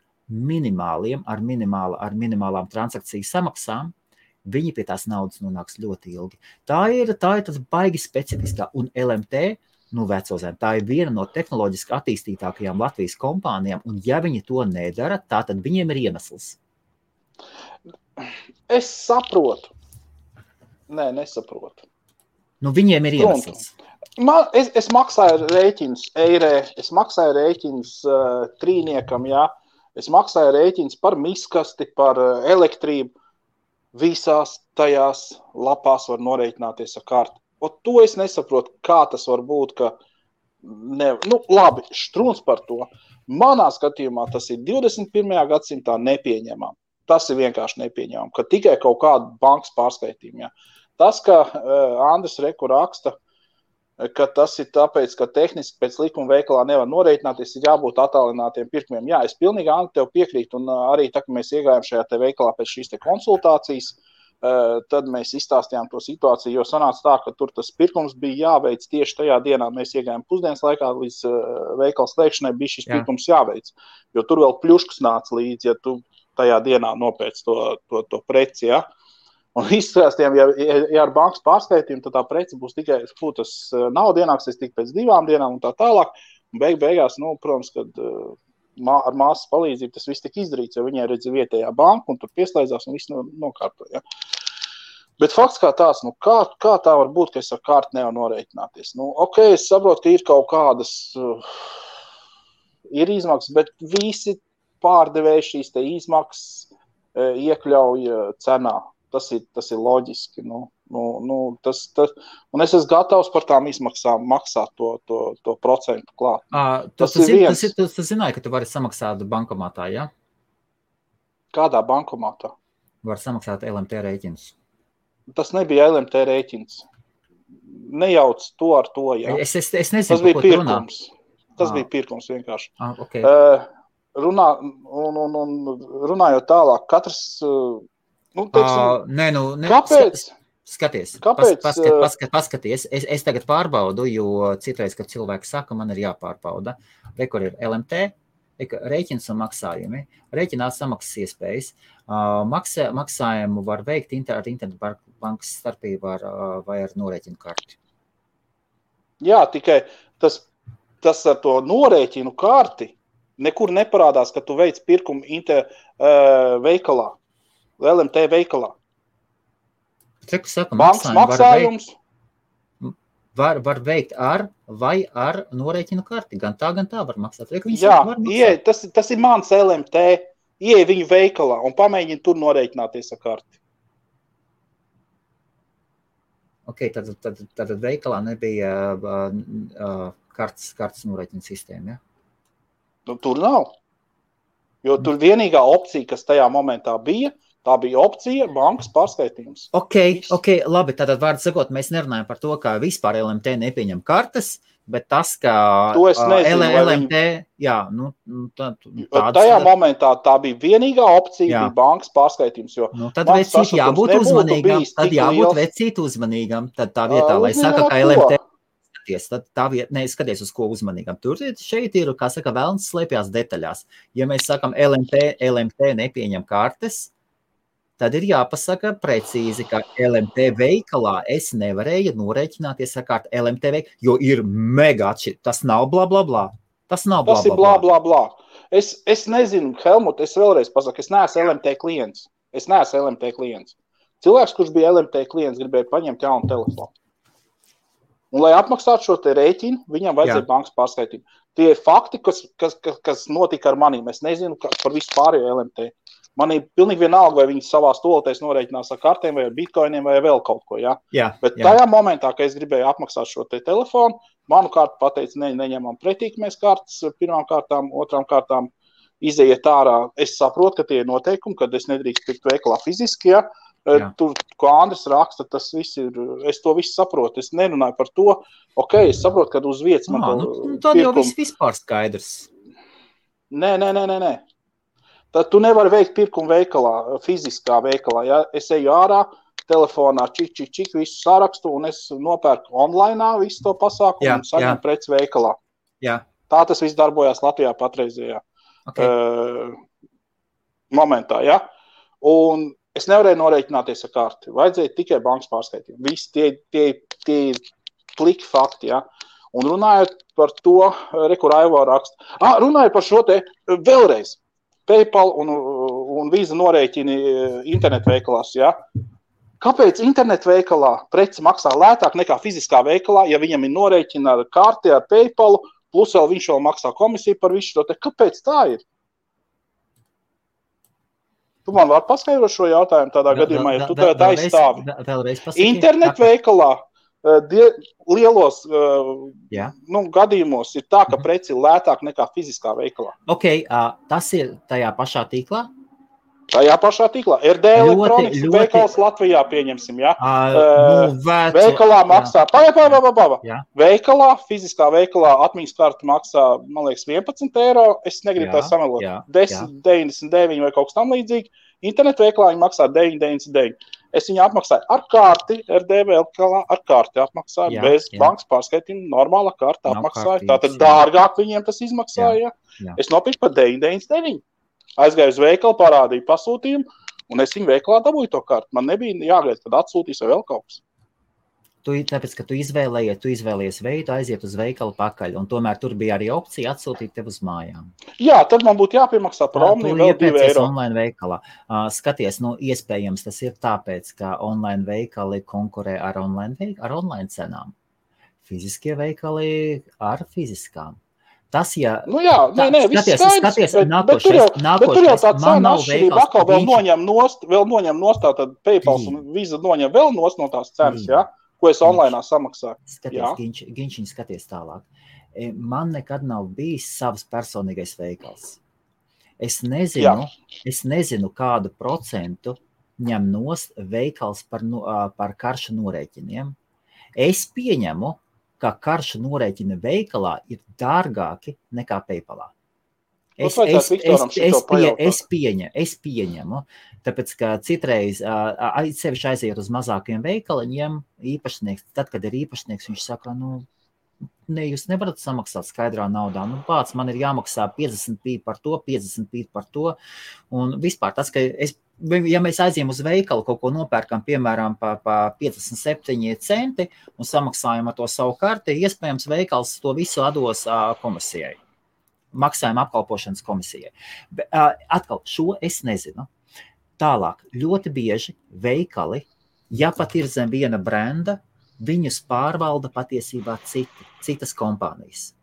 minimālām transakciju samaksām, viņi pie tās naudas nonāks ļoti ilgi. Tā ir tas baigi specifiskā, un LMT, veco zem, tā ir viena no tehnoloģiski attīstītākajām Latvijas kompānijām, un ja viņi to nedara, tad viņiem ir iemesls. Es saprotu. Nē, nesaprotu. Viņiem ir iemesls. Es maksāju rēķinus eirē, es maksāju rēķinus trīniekam, jā. Es maksāju rēķinus par miskasti, par elektrību. Visās tajās lapās var norēķināties ar karti. Un to es nesaprotu, kā tas var būt, ka labi, štruns par to. Manā skatījumā tas ir 21. gadsimtā nepieņemam. Tas ir vienkārši nepieņemam, ka tikai kaut kāda bankas pārskaitījuma. Tas, ka Andris Reku raksta, ka tas ir tāpēc, ka tehniski pēc likuma veikalā nevar norēķināties, ir jābūt attālinātiem pirkumiem. Jā, es pilnīgi, Andri, tev piekrītu, un arī tā, ka mēs iegājām šajā te veikalā pēc šīs te konsultācijas, tad mēs izstāstījām to situāciju, jo sanāca tā, ka tur tas pirkums bija jāveic tieši tajā dienā. Mēs iegājām pusdienas laikā, līdz veikala slēgšanai bija šis pirkums jāveic, jo tur vēl pļuškas nāca līdzi, ja tu tajā dienā nopēc to preci, ja. Un izstāstījām, ja ar bankas pārskaitījumu, tad tā preci būs tikai, tas nauda ienāksies tik pēc 2 dienām un tā tālāk. Un beigās, protams, kad ar māsas palīdzību tas viss tika izdarīts, jo viņai redz vietējā banka un tur pieslēdzās un viss nokārtoja. Bet fakts kā tās, kā tā var būt, ka es ar karti nevaru norēķināties? Es saprotu, ka ir kaut kādas, ir izmaksas, bet visi pārdevēji šīs te izmaksas iekļauj cenā. Tas ir loģiski. Un es esmu gatavs par tām izmaksām maksāt to procentu klāt. Tu zināji, ka tu vari samaksāt bankomātā, ja? Kādā bankomātā? Var samaksāt LMT rēķinus. Tas nebija LMT rēķins. Nejauc to ar to, jā. Es nezinu, tas bija pirkums. Tas bija pirkums vienkārši. Okay. Runājot tālāk, katrs... kāpēc? Skaties. Kāpēc? Paskaties. Es tagad pārbaudu, jo citreiz, kad cilvēki saka, man ir jāpārbauda. Kur ir LMT, rēķins un maksājumi. Rēķinā samaksas iespējas. Maksājumu var veikt ar internetu bankas starpību vai ar norēķinu karti. Jā, tikai tas ar to norēķinu karti nekur neparādās, ka tu veic pirkumu veikalā. LMT veikalā. Bankas maksājums var veikt ar norēķinu karti. Gan tā var maksāt. Tas ir mans LMT. Ieej viņu veikalā un pamēģini tur norēķināties ar karti. Tad veikalā nebija kartes norēķina sistēma, ja? Nu, tur nav. Jo tur vienīgā opcija, kas tajā momentā bija, tā bija opcija bankas pārskaitījums. Ok, labi, tātad vārdu sakot, mēs nerunājam par to, ka vispār LMT nepieņem kartes, bet tas, ka LMT, jā, nu, tajā momentā tā bija vienīgā opcija, bija bankas pārskaitījums, jo tad vecīt jābūt uzmanīgam, tad jābūt vecīt uzmanīgam, tad tā vietā, lai saka, ka LMT tad tā vieta, skaties uz ko uzmanīgam. Tur šeit ir, kā saka, velns slēpjās detaļās. Ja mēs sakam LMT nepieņem kartes, tad ir jāpasaka precīzi, ka LMT veikalā es nevarēju norēķināties ar kārtu LMT veikalā, jo ir mega atšķirīgi. Tas nav bla, bla, bla. Tas nav bla, bla, bla. Tas ir bla, bla, bla. Es nezinu, Helmut, es vēlreiz pasaku, es neesmu LMT klients. Cilvēks, kurš bija LMT klients, gribēja paņemt jaunu telefonu. Un, lai apmaksātu šo te rēķinu, viņam vajadzēja bankas pārskaitījumu. Tie ir fakti, kas notika ar manīm. Es nezinu par visu pārējo LMT. Man ir pilnīgi vienalga, vai viņi savā stolotēs norēķinās ar kartēm, vai ar bitcoiniem, vai vēl kaut ko. Ja? Bet tajā momentā, kad es gribēju apmaksāt šo te telefonu, manu kartu pateica, neņemam pretīkamēs kartas, pirmām kārtām, otrām kārtām izējiet ārā. Es saprotu, ka tie ir noteikumi, kad es nedrīkst pirkt veikalā fiziski, ja? Tur, ko Andris raksta, tas viss ir, es to visu saprotu, es nerunāju par to, es saprotu, kad uz vietas man tad jau vispār skaidrs. Nē. Tad tu nevari veikt pirkumu veikalā, fiziskā veikalā, ja? Es eju ārā, telefonā čik, visu sarakstu, un es nopērku online visu to pasākumu un saņemu preces veikalā. Jā. Tā tas viss darbojās Latvijā patreizējā momentā, ja? Un es nevarēju norēķināties ar karti. Vajadzēja tikai bankas pārskaitījumu. Visi tie pliki fakti, ja. Un runājot par to, kur Aivo raksta. Runājot par šo te vēlreiz. PayPal un Visa norēķini internetveikalās, ja. Kāpēc internetveikalā preci maksā lētāk nekā fiziskā veikalā, ja viņam ir norēķina ar karti, ar PayPalu, plus vēl viņš vēl maksā komisiju par visu šo te? Kāpēc tā ir? Tu man vari paskaidrot šo jautājumu tādā gadījumā, ja tu tā aizstāvi. Internetveikalā lielos gadījumos ir tā, ka preci ir lētāk nekā fiziskā veikalā. Tas ir tajā pašā tīklā? Tajā pašā tīklā. RD elektronikas veikals Latvijā pieņemsim, ja? Veikalā maksā, veikalā, fiziskā veikalā atmiņas karta maksā, man liekas, 11 eiro, es negribu tā samelot, 10,99 vai kaut kas tam līdzīgi, internetu veikalā viņi maksā 9,99. Es viņu apmaksāju ar karti, RD veikalā ar karti apmaksāju, bez bankas pārskaitījuma, normāla karta apmaksāju, tātad dārgāk viņiem tas izmaksāja, es nopirku par 9,99. Aizgāju uz veikalu, parādīju pasūtījumu, un es viņu veikalā dabūju to kartu. Man nebija jāgaida, kad atsūtīs vai vēl kaut kas. Tāpēc, ka tu izvēlējies veidu, aiziet uz veikalu pakaļ, un tomēr tur bija arī opcija atsūtīt tev uz mājām. Jā, tad man būtu jāpiemaksā par omniju vēl 2 eiro. Online veikalā. Skaties, iespējams tas ir tāpēc, ka online veikali konkurē ar online cenām. Fiziskie veikali ar fiziskām. Tas, ja... Skaties, bet tur jau tā cena atšķirība atkal vēl noņem nost, tad PayPal un Visa noņem vēl nost no tās cenas, ja? Ko es online samaksāju. Skaties tālāk. Man nekad nav bijis savs personīgais veikals. Es nezinu, kādu procentu ņem nost veikals par karšu norēķiniem. Es pieņemu, ka karšu norēķina veikalā ir dārgāki nekā PayPalā. Es pieņemu, tāpēc, ka citreiz sevišķi aiziet uz mazākiem veikaliņiem, īpašnieks, tad, kad ir īpašnieks, viņš saka, jūs nevarat samaksāt skaidrā naudā, pats man ir jāmaksā 50p par to, un vispār tas, ka ja mēs aizjām uz veikalu, kaut ko nopērkam, piemēram, pa 57 centi un samaksājam ar to savu karti, iespējams veikals to visu atdos komisijai, maksājuma apkalpošanas komisijai. Atkal, šo es nezinu. Tālāk, ļoti bieži veikali, ja pat ir zem viena brenda, viņus pārvalda patiesībā citas kompānijas,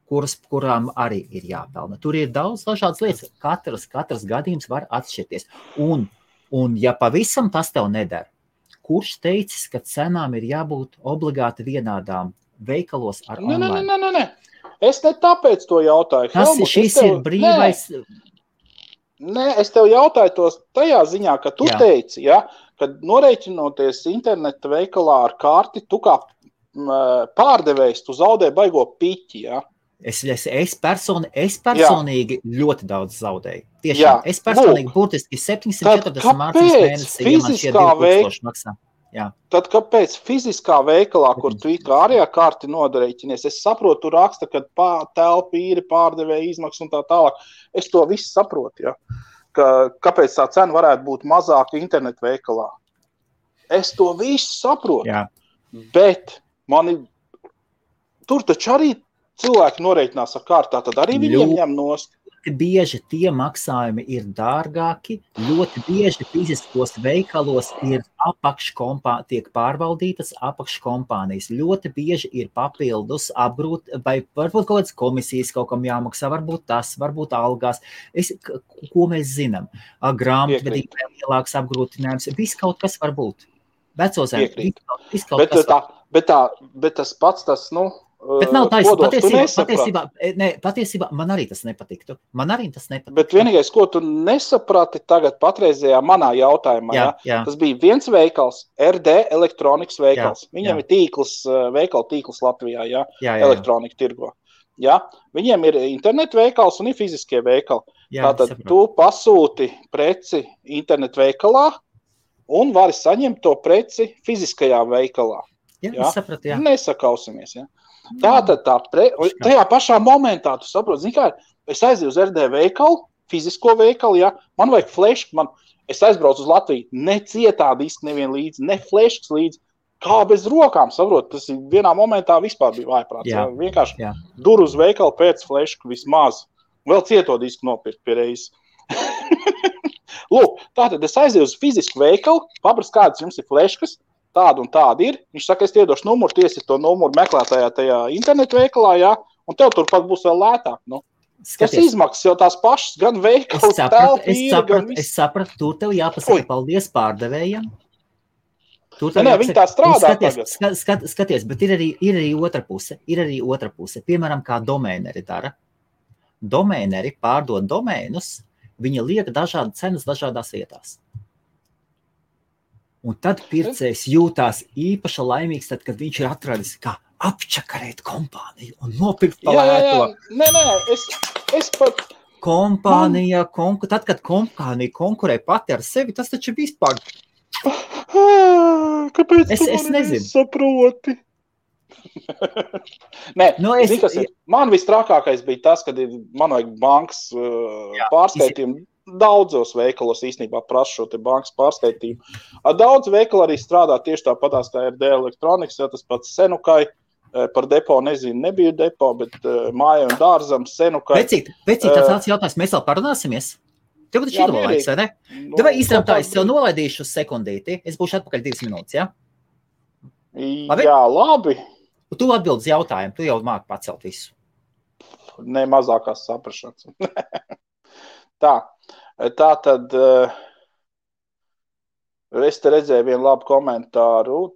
kurām arī ir jāpelna. Tur ir daudz dažādas lietas. Katrs gadījums var atšķirties. Un ja pavisam tas tev nedara, kurš teicis, ka cenām ir jābūt obligāti vienādām veikalos ar online? Nē. Es ne tāpēc to jautāju. Helmut, šis ir brīvais... Nē, es tev jautāju tos tajā ziņā, ka tu teici, ja, kad norēķinoties interneta veikalā ar karti, tu kā pārdevējs, tu zaudē baigo piķi, ja? Es personīgi ļoti daudz zaudēju. Tiešām, es personīgi burtiski 740 mārciņas mēnesī, ja man šie 2000 maksā. Jā. Tad kāpēc fiziskā veikalā, kur tu kā ārējā karti nodarēķinies, es saprotu, tu raksta, kad telpa īri pārdevēja izmaksas un tā tālāk. Es to visu saprotu, ja? Kāpēc tā cena varētu būt mazāka internetu veikalā. Es to visu saprotu, bet tur taču arī cilvēki norēķinās ar kārtā, tad arī viņiem ņem nost. Ļoti bieži tie maksājumi ir dārgāki, ļoti bieži fiziskos veikalos ir tiek pārvaldītas apakškompānijas. Ļoti bieži ir papildus vai varbūt kaut kādas komisijas kaut kam jāmaksā, varbūt tas, varbūt algās. Ko mēs zinām? Grāmatvedībai lielāks apgrūtinājums, viss kaut kas var būt. Vecozēm, viss kaut kas var. Bet tas pats, tas, Bet nav taisnība. Patiesībā man arī tas nepatiktu. Bet vienīgais, ko tu nesaprati tagad patreizējā manā jautājumā, tas bija viens veikals, RD elektronikas veikals. Viņiem ir veikalu tīkls Latvijā, elektronika tirgo. Ja? Viņiem ir internetu veikals un ir fiziskie veikali. Tātad tu pasūti preci internetu veikalā un vari saņemt to preci fiziskajā veikalā. Es sapratu, Nesakausimies, Tātad tajā pašā momentā, tu saproti, zini kā, es aizēju uz RD veikalu, fizisko veikalu, man vajag flešku, es aizbraucu uz Latviju, ne cietā diski nevien līdzi, ne fleškas līdzi, kā bez rokām, saproti, tas vienā momentā vispār bija vājprāts, vienkārši dur uz veikalu pēc flešku vismaz, vēl cieto disku nopirkt pie reizes. Lūk, tātad es aizēju uz fizisku veikalu, paprast, kādas jums ir fleškas, tāda un tāda ir. Viņš saka, es iedošu numuru, tiesi to numuru meklētājā tajā internetu veikalā, un tev turpat būs vēl lētāk. Tas izmaksas jau tās pašas, gan veikals, Es sapratu, tur tev jāpasaka paldies pārdevējiem. Viņi tā strādā tagad. Skaties, bet ir arī otra puse. Piemēram, kā domēneri dara. Domēneri pārdod domēnus, viņi liek dažādas cenas dažādās vietās. Un tad pircējs jūtās īpaši laimīgs, tad, kad viņš ir atradis, kā apčakarēt kompāniju un nopirkt palēto. Nē, es pat... Kompānija, tad, kad kompānija konkurē pati ar sevi, tas taču vispār... Kāpēc tu mani nesaproti? Nē, zini, kas ir? Man vistrākākais bija tas, kad man vajag bankas pārskaitījumu. Daudzos veikalos īstenībā prasa šo te bankas pārskaitījumu. Daudz veikalu arī strādā tieši tāpatās kā RD elektronikas, tas pats Senukai, par depo nezinu, nebija depo, bet māja un dārzam Senukai. Vecīt, tāds jautājums, mēs vēl parunāsimies? Tev taču ir laiks, vai ne? Davai īstenībā tā, es tev nolaidīšu uz sekundīti, es būšu atpakaļ 2 minūtes, ja? Jā, labi. Tu atbildi jautājumu, tu jau māki pacelt visu. Ne mazākās saprašanas. Tā tad es te redzēju vienu labu komentāru.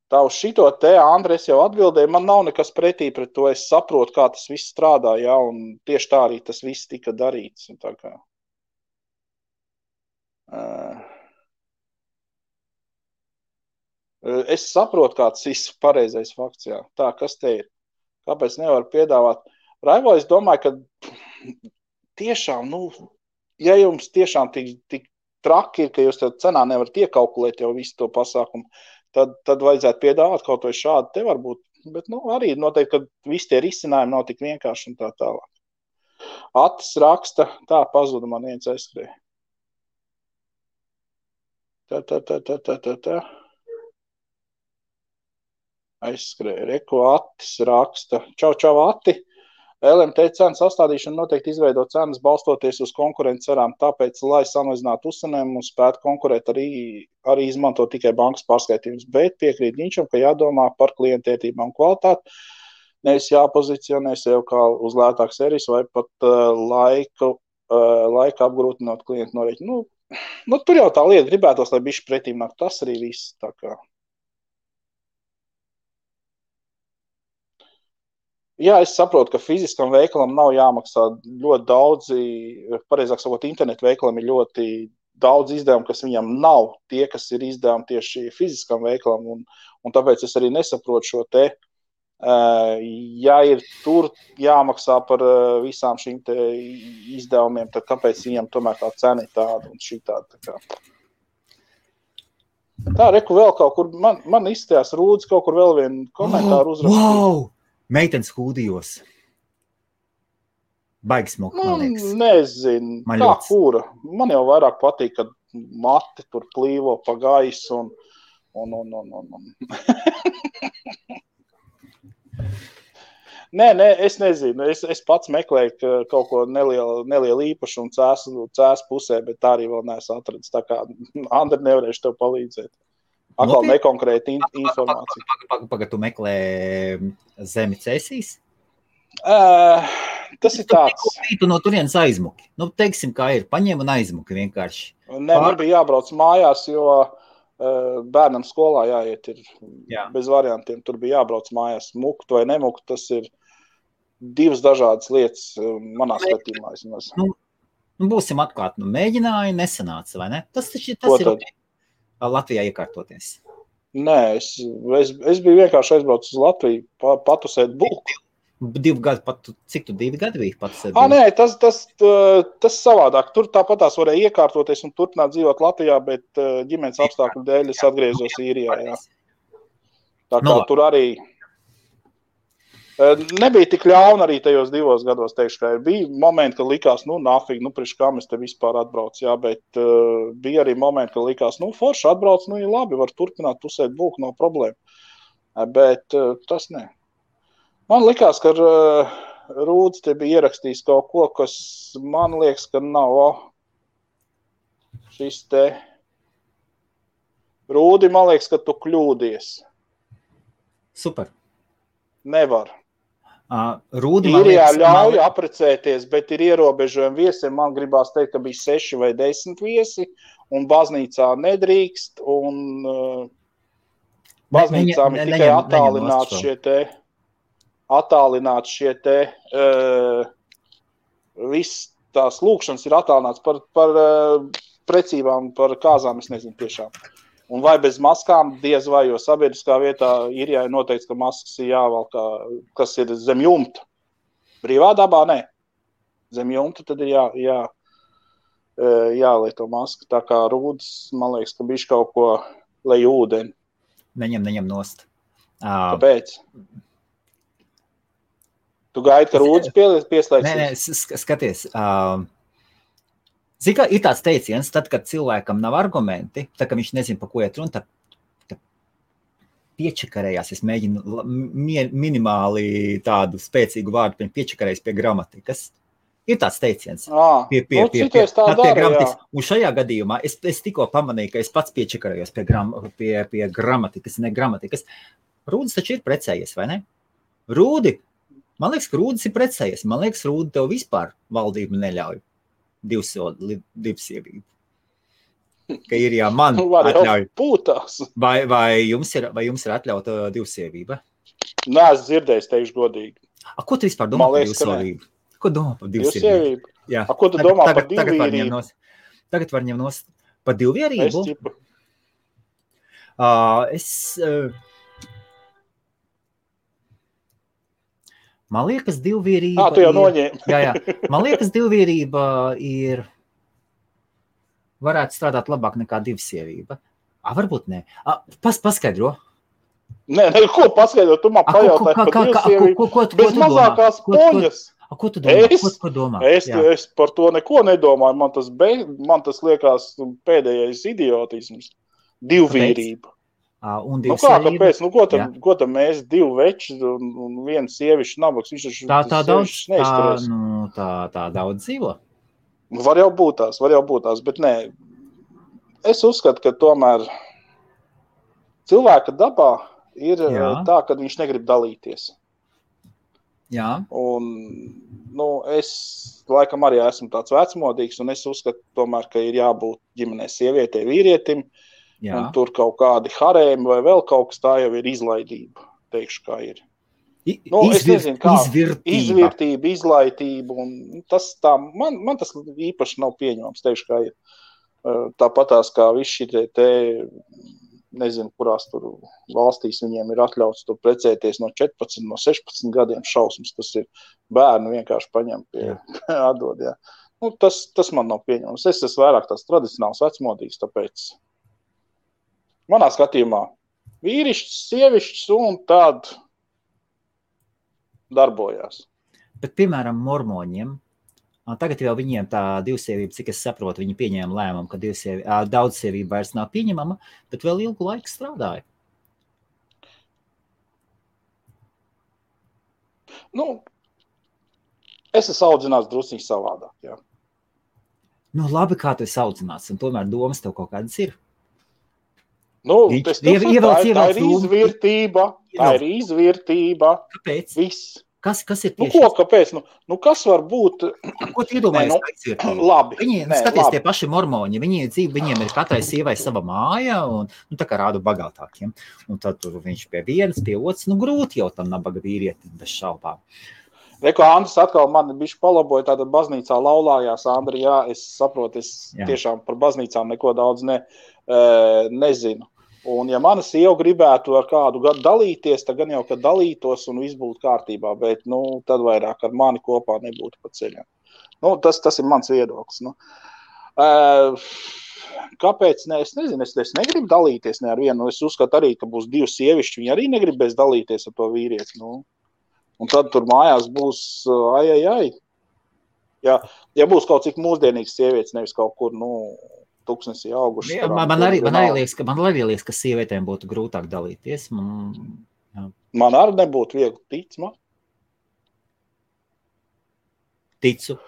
Tā uz šito te, Andri, es jau atbildēju, man nav nekas pretī pret to, es saprotu, kā tas viss strādā, un tieši tā arī tas viss tika darīts. Tā kā. Es saprotu, kāds viss pareizais fakts, Tā, kas te ir? Kāpēc nevar piedāvāt? Raivo, es domāju, ka tiešām, ja jums tiešām tik traki ir, ka jūs tev cenā nevarat iekalkulēt jau visu to pasākumu, tad vajadzētu piedāvāt kaut vai šādi te varbūt. Bet, arī noteikti, ka visi tie risinājumi nav tik vienkārši un tā tālāk. Atis raksta, tā pazuda man viens aizskrēja. Tā. Aizskrēja. Reko Atis raksta. Čau, Ati. LMT cenu sastādīšana noteikti izveido cenas balstoties uz konkurences cerām, tāpēc, lai samazinātu uzcenējumu un spētu konkurēt, arī izmanto tikai bankas pārskaitījumus, bet piekrīt Ginčam, ka jādomā par klientētībām un kvalitāti, nevis jāpozicionē sev kā uz lētāku servis vai pat laika apgrūtinot klientu norēķinu. Tur jau tā lieta gribētos, lai bišķi pretīm nāk, tas arī viss tā kā. Jā, es saprotu, ka fiziskam veikalam nav jāmaksā ļoti daudzi, pareizāk sakot, internetu veikalam ir ļoti daudz izdevumu, kas viņam nav tie, kas ir izdevumi tieši fiziskam veikalam, un tāpēc es arī nesaprotu šo te, ja ir tur jāmaksā par visām šīm te izdevumiem, tad kāpēc viņam tomēr tā cena ir tāda un šī tāda. Tā, reku vēl kaut kur, man izstājās Rūdis kaut kur vēl vienu komentāru uzrakstīja. Wow! Meitenes hūdijos. Baigi smuki, man liekas. Nezinu, kā kura. Man jau vairāk patīk, kad mati tur plīvo pa gaisu un. Nē, es nezinu. Es pats meklēju kaut ko nelielu īpašumu cēs pusē, bet tā arī vēl neesmu atradis. Tā kā, Andri, nevarēšu tev palīdzēt. Atkal nekonkrēta informācija. Pagad, tu meklē zemi cēsīs? Tas ir tāds. Tu no turienes aizmuki. Nu, teiksim, kā ir. Paņem un aizmuki vienkārši. Nē, man bija jābrauc mājās, jo bērnam skolā jāiet ir bez variantiem. Tur bija jābrauc mājās. Mukt vai nemukt, tas ir divas dažādas lietas manā skatījumā. Nu, būsim atklāti. Mēģināja, nesanāca, vai ne? Tas ir Latvijā iekārtoties. Nē, es biju vienkārši aizbraucis uz Latviju, patusēt bulku. 2 gadi, cik tu 2 gadi biji patusēt bulku? Nē, tas savādāk. Tur tāpatās varēja iekārtoties un turpināt dzīvot Latvijā, bet ģimenes apstākļu dēļ es atgriezos Īrijā. Jā. Tā kā tur arī nebija tik ļauna arī tajos 2 gados, teikšu, ka bija momenti, kad likās, nafīgi, priekš kā mēs te vispār atbrauc, jā, bet bija arī momenti, kad likās, forši atbrauc, ir labi, var turpināt pusēt bulku, nav problēma. Bet tas ne. Man likās, ka Rūdis te bija ierakstījis kaut ko, kas man liekas, ka nav šis te. Rūdi, man liekas, ka tu kļūdies. Super. Nevar. Rūdi, Īrijā ļauj aprecēties, bet ir ierobežojumi viesiem. Man gribās teikt, ka bija 6 vai 10 viesi, un baznīcā nedrīkst, un baznīcām ir tikai attālināts šie te viss tās lūkšanas ir attālināts par precībām, par kāzām, es nezinu tiešām. Un vai bez maskām diez vai, jo sabiedriskā vietā Īrijā ir noteikts, ka maskas ir jāvalk, kas ir zem jumta. Brīvā dabā nē. Zem jumta tad ir jālieto maska. Tā kā Rūdis, man liekas, ka bišķi kaut ko lej ūdeni. Neņem nost. Kāpēc? Tu gaidi, ka Rūdis pieslēgsies? Nē, skaties. Zini, kā ir tāds teiciens, tad, kad cilvēkam nav argumenti, tad, kad viņš nezina, pa ko iet runa, tad piečakarējās. Es mēģinu minimāli tādu spēcīgu vārdu piečakarējas pie gramatikas. Ir tāds teiciens. Pie gramatikas. Un šajā gadījumā es tikko pamanīju, ka es pats piečakarējos pie gramatikas, ne gramatikas. Rūdis taču ir precējies, vai ne? Rūdi, man liekas, ka Rūdis ir precējies. Man liekas, Rūdi tev vispār valdība neļauj. Divsievību. Ka ir man atļauj. Vai jums ir atļauta divsievība? Nē, es dzirdējis, teikšu godīgi. Ko tu vispār domā par divsievību? Ko domā par divsievību? Ko tu domā par divvīrību? Tagad var ņemt nost par divvīrību. Man liekas, divvīrība tu jau noņēmi. Jā. Man liekas, divvīrība varētu strādāt labāk nekā divsievība. Varbūt ne. Paskaidro. Nē, ko paskaidro? Tu man pajautāji par divsievību. Bez mazākās poņas. Ko tu domā? Es par to neko nedomāju. Man tas liekas pēdējais idiotisms. Divvīrība. Kāpēc? Ko tam mēs 2 veči un 1 sievišķi nabaks? Tā daudz dzīvo? Var jau būt tās, bet nē. Es uzskatu, ka tomēr cilvēka dabā ir tā, ka viņš negrib dalīties. Jā. Un, es laikam arī esmu tāds vecmodīgs, un es uzskatu tomēr, ka ir jābūt ģimenē sievietei, vīrietim. Jā. Un tur kaut kādi harēmi vai vēl kaut kas tā jau ir izlaidība, teikšu, kā ir. Es nezinu, kā izvirtība, izlaitība, un tas tā, man tas īpaši nav pieņemams, teikšu, kā ir. Tāpatās kā visi šitie te, nezinu, kurās tur valstīs viņiem ir atļauts tur precēties no 14, no 16 gadiem šausmas, tas ir bērnu vienkārši paņem pie atdod, jā. Tas man nav pieņemams. Es esmu vairāk tās tradicionāls vecmodīgs, tāpēc manā skatījumā vīrišķis, sievišķis un tād darbojās. Bet, piemēram, mormoņiem, tagad jau viņiem tā divsievība, cik es saprotu, viņi pieņēma lēmumu, ka daudzsievība vairs nav pieņemama, bet vēl ilgu laiku strādāja. Es esmu audzināts drusciņš savādāk, jā. Labi, kā tu esi audzināts, un tomēr domas tev kaut kādas ir. Tā ir izvirtība. Kāpēc? Viss. Kas ir tieši? Kāpēc? Kas var būt? Ko tu iedomājies kā izvirtība? Labi. Skaties, tie paši mormoņi, viņiem ir katrai sievai sava māja, un tā kā rādu bagātākiem. Un tad tur viņš pie vienas, pie otras, grūti jau tam nabaga vīrieti bez šaubām. Reko, Andris atkal mani bišķi palaboja, tātad baznīcā laulājās, Andri, jā, es saprotu, tiešām par baznīcām neko daudz nezinu. Un ja mana sieva gribētu ar kādu dalīties, tad gan jau, kad dalītos un viss būtu kārtībā, bet, tad vairāk ar mani kopā nebūtu pa ceļam. Tas ir mans viedoklis. Kāpēc? Es nezinu, es negribu dalīties ne ar vienu. Es uzskatu arī, ka būs divi sievišķi, viņi arī negribēs dalīties ar to vīrieti. Un tad tur mājās būs ai. Ja būs kaut cik mūsdienīgs sievietes, nevis kaut kur, tuksnesī auguši. Man arī liekas, ka sievietēm būtu grūtāk dalīties. Man arī nebūtu viegli, tic man. Ticu.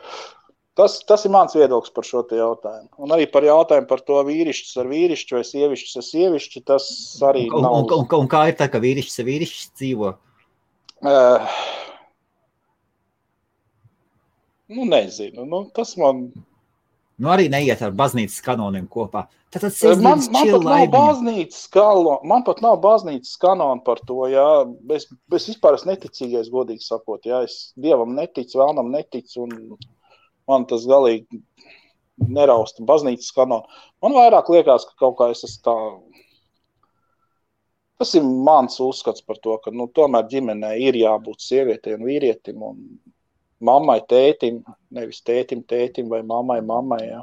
Tas ir mans viedoklis par šo te jautājumu. Un arī par jautājumu par to vīrišķis ar vīrišķi vai sievišķis ar sievišķi, tas arī nav. Un kā ir tā, ka vīrišķis ar vīrišķis dzīvo? Nezinu. Tas man... arī neiet ar baznīcas kanoniem kopā. Man pat nav baznīcas kanona par to, jā. Es vispār esmu neticīgais, godīgi sakot, jā. Es Dievam neticu, vēlnam neticu, un man tas galīgi nerausta baznīcas kanona. Man vairāk liekas, ka kaut kā es esmu tā... Tas ir mans uzskats par to, ka, tomēr ģimenē ir jābūt sievietei un vīrietim, un mammai, tētim, nevis tētim vai mammai, jā.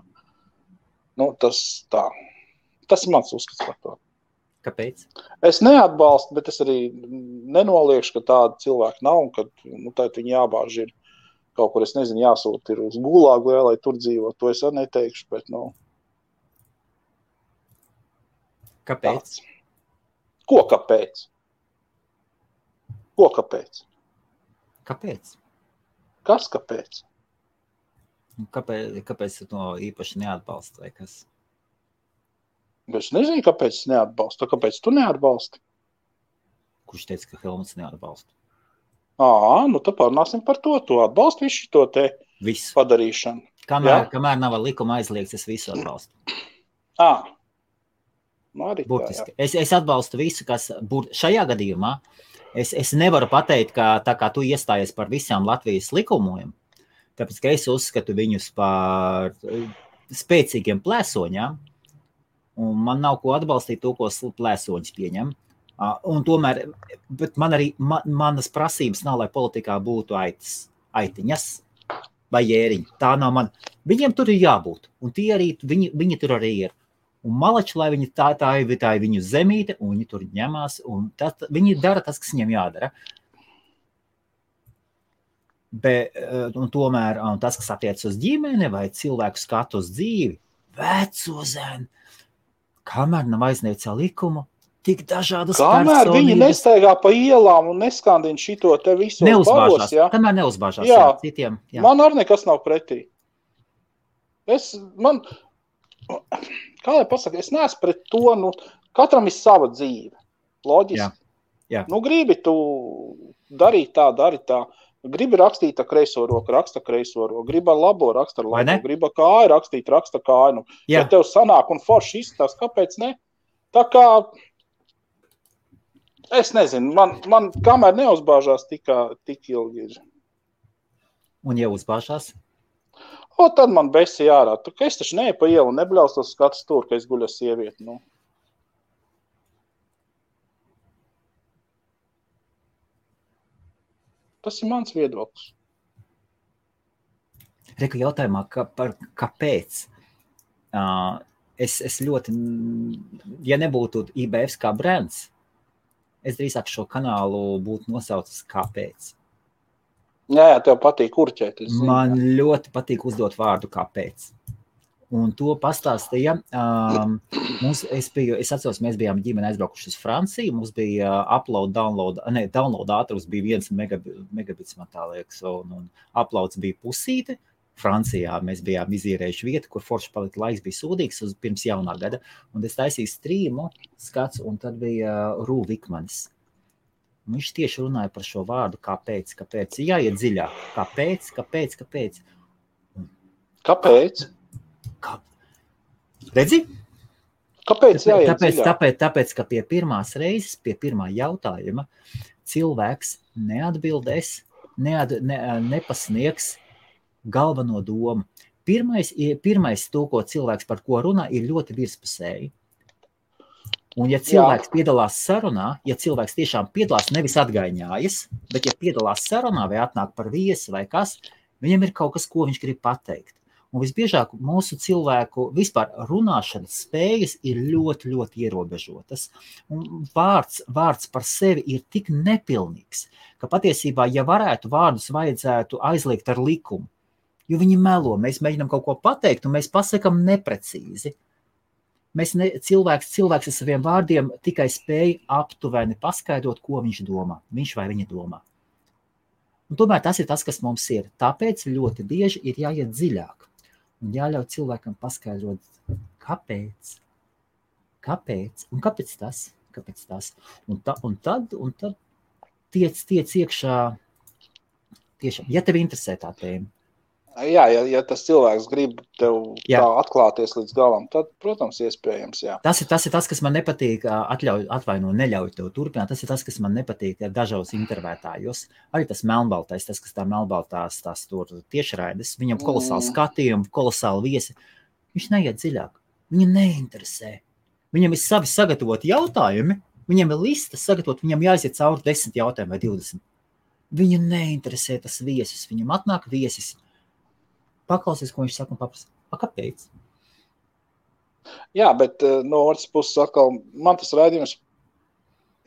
Tas tā. Tas ir mans uzskats par to. Kāpēc? Es neatbalstu, bet es arī nenoliekšu, ka tāda cilvēka nav, un ka, tad viņi jābāž ir kaut kur, es nezinu, jāsūt ir uz Gulāgu, lai tur dzīvo. To es arī neteikšu, bet, Kāpēc? Tāds. Ko kāpēc? Kāpēc? Kas kāpēc? Kāpēc tu to īpaši neatbalsti vai kas? Es nezinu, kāpēc es neatbalstu. Kāpēc tu neatbalsti? Kurš teica, ka Helmuts neatbalsta? Tad pārnāsim par to. Tu atbalsti visu to te padarīšanu. Kamēr nav likuma aizliegts, es visu atbalstu. Burtiski. Es atbalstu visu, kas šajā gadījumā. Es nevaru pateikt, ka tā kā tu iestājies par visām Latvijas likumiem, tāpēc, ka es uzskatu viņus par spēcīgiem plēsoņām, un man nav ko atbalstīt to, ko plēsoņus pieņem. Un tomēr, bet manas prasības nav, lai politikā būtu aitiņas vai jēriņi. Tā nav man. Viņiem tur ir jābūt, un tie arī, viņi tur arī ir. Un malači, lai viņi tā ir viņu zemīte, un viņi tur ņemās, un viņi dara tas, kas viņiem jādara. Un tomēr tas, kas attiec uz ģimeni vai cilvēku skatu uz dzīvi, veco zēnu, kamēr nav aizniegts likumu, tik dažādas personības. Kamēr viņi nestaigā pa ielām un neskandina šito te visu paros, jā? Kamēr neuzbāžās citiem. Jā. Man arī nekas nav pretī. Kā lai pasaka, es neesmu pret to, katram ir sava dzīve, loģiski. Jā. Gribi tu darīt tā, gribi rakstīt ar kreiso roku, raksta kreiso roku, gribi ar labo, raksta ar labo, gribi ar kāju rakstīt, raksta kāju. Ja tev sanāk un forši izstās, kāpēc ne? Tā kā Es nezinu, man kamēr neuzbāžās tik ilgi ir. Un ja uzbāžās? Tad man besi ārā. Es taču neeju pa ielu un nebļaustos skatu stūri, ka es guļu ar sievieti. Nu. Tas ir mans viedoklis. Reku jautājumā, kāpēc? Es ļoti, ja nebūtu IBF kā brands, es drīzāk šo kanālu būtu nosaucis kāpēc. Jā, tev patīk kurķēt. Man ļoti patīk uzdot vārdu kāpēc. Un to pastāstīja. Es atceros, mēs bijām ģimene aizbraukuši uz Franciju. Mums bija download ātrums bija 1 megabits, man tā liekas, un uploads bija pusīte. Francijā mēs bijām izīrējuši vietu, kur forši palika laiks bija sūdīgs pirms jaunā gada. Un es taisīju strīmu skats, un tad bija Rū Vikmanis. Viņš tieši runāja par šo vārdu, kāpēc. Jāiet dziļāk. Kāpēc? Kāpēc? Redzi? Kāpēc jāiet dziļāk? Tāpēc, ka pie pirmās reizes, pie pirmā jautājuma, cilvēks neatbildēs, nepasniegs galveno domu. Pirmais to, ko cilvēks par ko runā, ir ļoti virspusēji. Un ja cilvēks piedalās sarunā, ja cilvēks tiešām piedalās, nevis atgaiņājas, bet ja piedalās sarunā vai atnāk par viesi vai kas, viņam ir kaut kas, ko viņš grib pateikt. Un visbiežāk mūsu cilvēku vispār runāšanas spējas ir ļoti, ļoti ierobežotas. Un vārds par sevi ir tik nepilnīgs, ka patiesībā, ja varētu vārdus vajadzētu aizliegt ar likumu, jo viņi melo, mēs mēģinām kaut ko pateikt, un mēs pasakam neprecīzi. Cilvēks ar saviem vārdiem tikai spēja aptuveni paskaidrot, ko viņš domā, viņš vai viņa domā. Un tomēr tas ir tas, kas mums ir. Tāpēc ļoti bieži ir jāiet dziļāk un jāļauj cilvēkam paskaidrot, kāpēc. Un kāpēc tas? Un tad tiec iekšā tiešām, ja tev interesē tā tēma. Jā, ja tas cilvēks grib tev tā atklāties līdz galam, tad, protams, iespējams, jā. Tas ir tas, kas man nepatīk, neļauj tev turpināt, tas ir tas, kas man nepatīk dažos intervētājos. Arī tas melnbaltais, tas, kas tā melnbaltās tās tur tiešraides, viņam kolosāli skatījumi, kolosāli viesi, viņš neiet dziļāk, viņa neinteresē. Viņam ir savi sagatavoti jautājumi, viņam ir lista sagatavot, viņam jāiziet cauri 10 jautājumi vai 20. Viņa neinteresē tas viesis, viņam atnāk viesis. Paklausies, ko viņš saka un paprasa. Kāpēc? Jā, bet no otras puses atkal, man tas raidījums,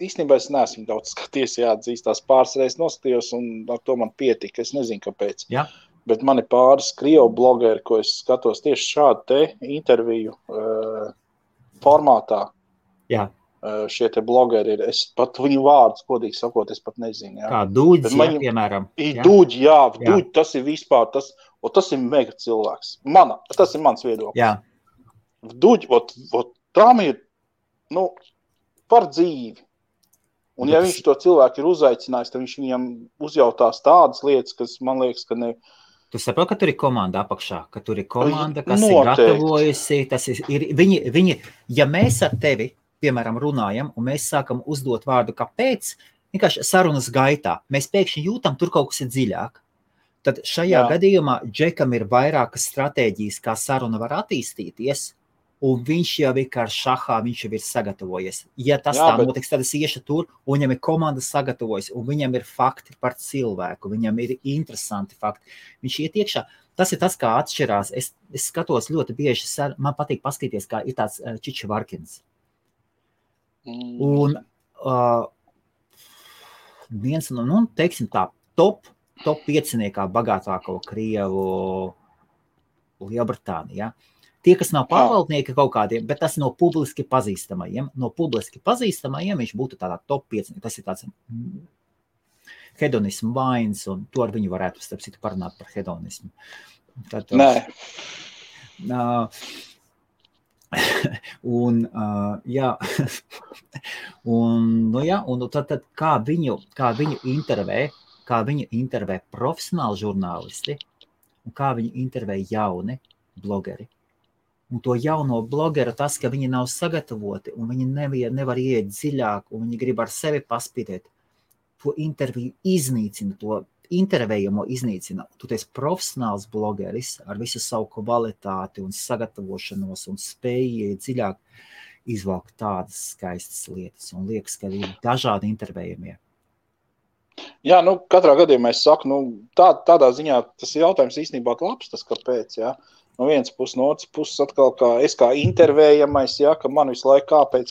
īstenībā es neesmu daudz skaties, jāatzīst, tās pāris reizes noskatījos un ar to man pietika, es nezinu, kāpēc. Jā. Bet man ir pāris krievu blogeri, ko es skatos tieši šādu te interviju formātā. Jā. Šie te blogeri ir, es pat viņu vārdus, kodīgi sakot, es pat nezinu. Jā. Kā Dūģis, piemēram. Dūģi, Dūģi, tas ir vispār, tas ir mega cilvēks. Tas ir mans viedoklis. Jā. Dūģi, tām ir, par dzīvi. Un ja viņš to cilvēku ir uzaicinājis, tad viņš viņam uzjautās tādas lietas, kas man liekas, ka ne... Tu saproti, ka tur ir komanda apakšā, ka tur ir komanda, kas ir gatavojusi. Tas ir viņi, ja mēs ar tevi, piemēram, runājam, un mēs sākam uzdot vārdu kāpēc, vienkārši sarunas gaitā, mēs pēkšņi jūtam, tur kaut kas ir dziļāk. Tad šajā gadījumā Džekam ir vairākas stratēģijas, kā saruna var attīstīties, un viņš jau ir kā šahā, viņš jau ir sagatavojies. Ja tas notiks, tad es iešu tur, un viņam ir komanda sagatavojas, un viņam ir fakti par cilvēku, viņam ir interesanti fakti. Viņš iet iekšā. Tas ir tas, kā atšķirās. Es skatos ļoti bieži, man patīk paskatīties, kā ir tāds Čičevarkins. Un viens no, teiksim tā, top 5 bagātāko Krievu Lielbritānijā. Tie, kas nav pārvaldnieki kaut kādiem, bet tas no publiski pazīstamajiem. No publiski pazīstamajiem viņš būtu tādā top 5. Tas ir tāds hedonismu vains, un to ar viņu varētu, starp citu, parunāt par hedonismu. Tad, Nē. Un tad kā viņu intervē profesionāli žurnālisti un kā viņu intervē jauni blogeri. Un to jauno blogeru tas, ka viņi nav sagatavoti un viņi nevar iet dziļāk un viņi grib ar sevi paspītēt, to interviju iznīcina, to intervējamo iznīcina. Tu esi profesionāls blogeris ar visu savu kvalitāti un sagatavošanos un spēju dziļāk izvalkt tādas skaistas lietas un liekas, ka ir dažādi intervējamie. Jā, katrā gadījumā es saku, tādā ziņā tas jautājums īstenībā labs, tas kāpēc, jā. No vienas puses, no otras puses atkal es kā intervējamais, jā, ka man visu laiku kāpēc.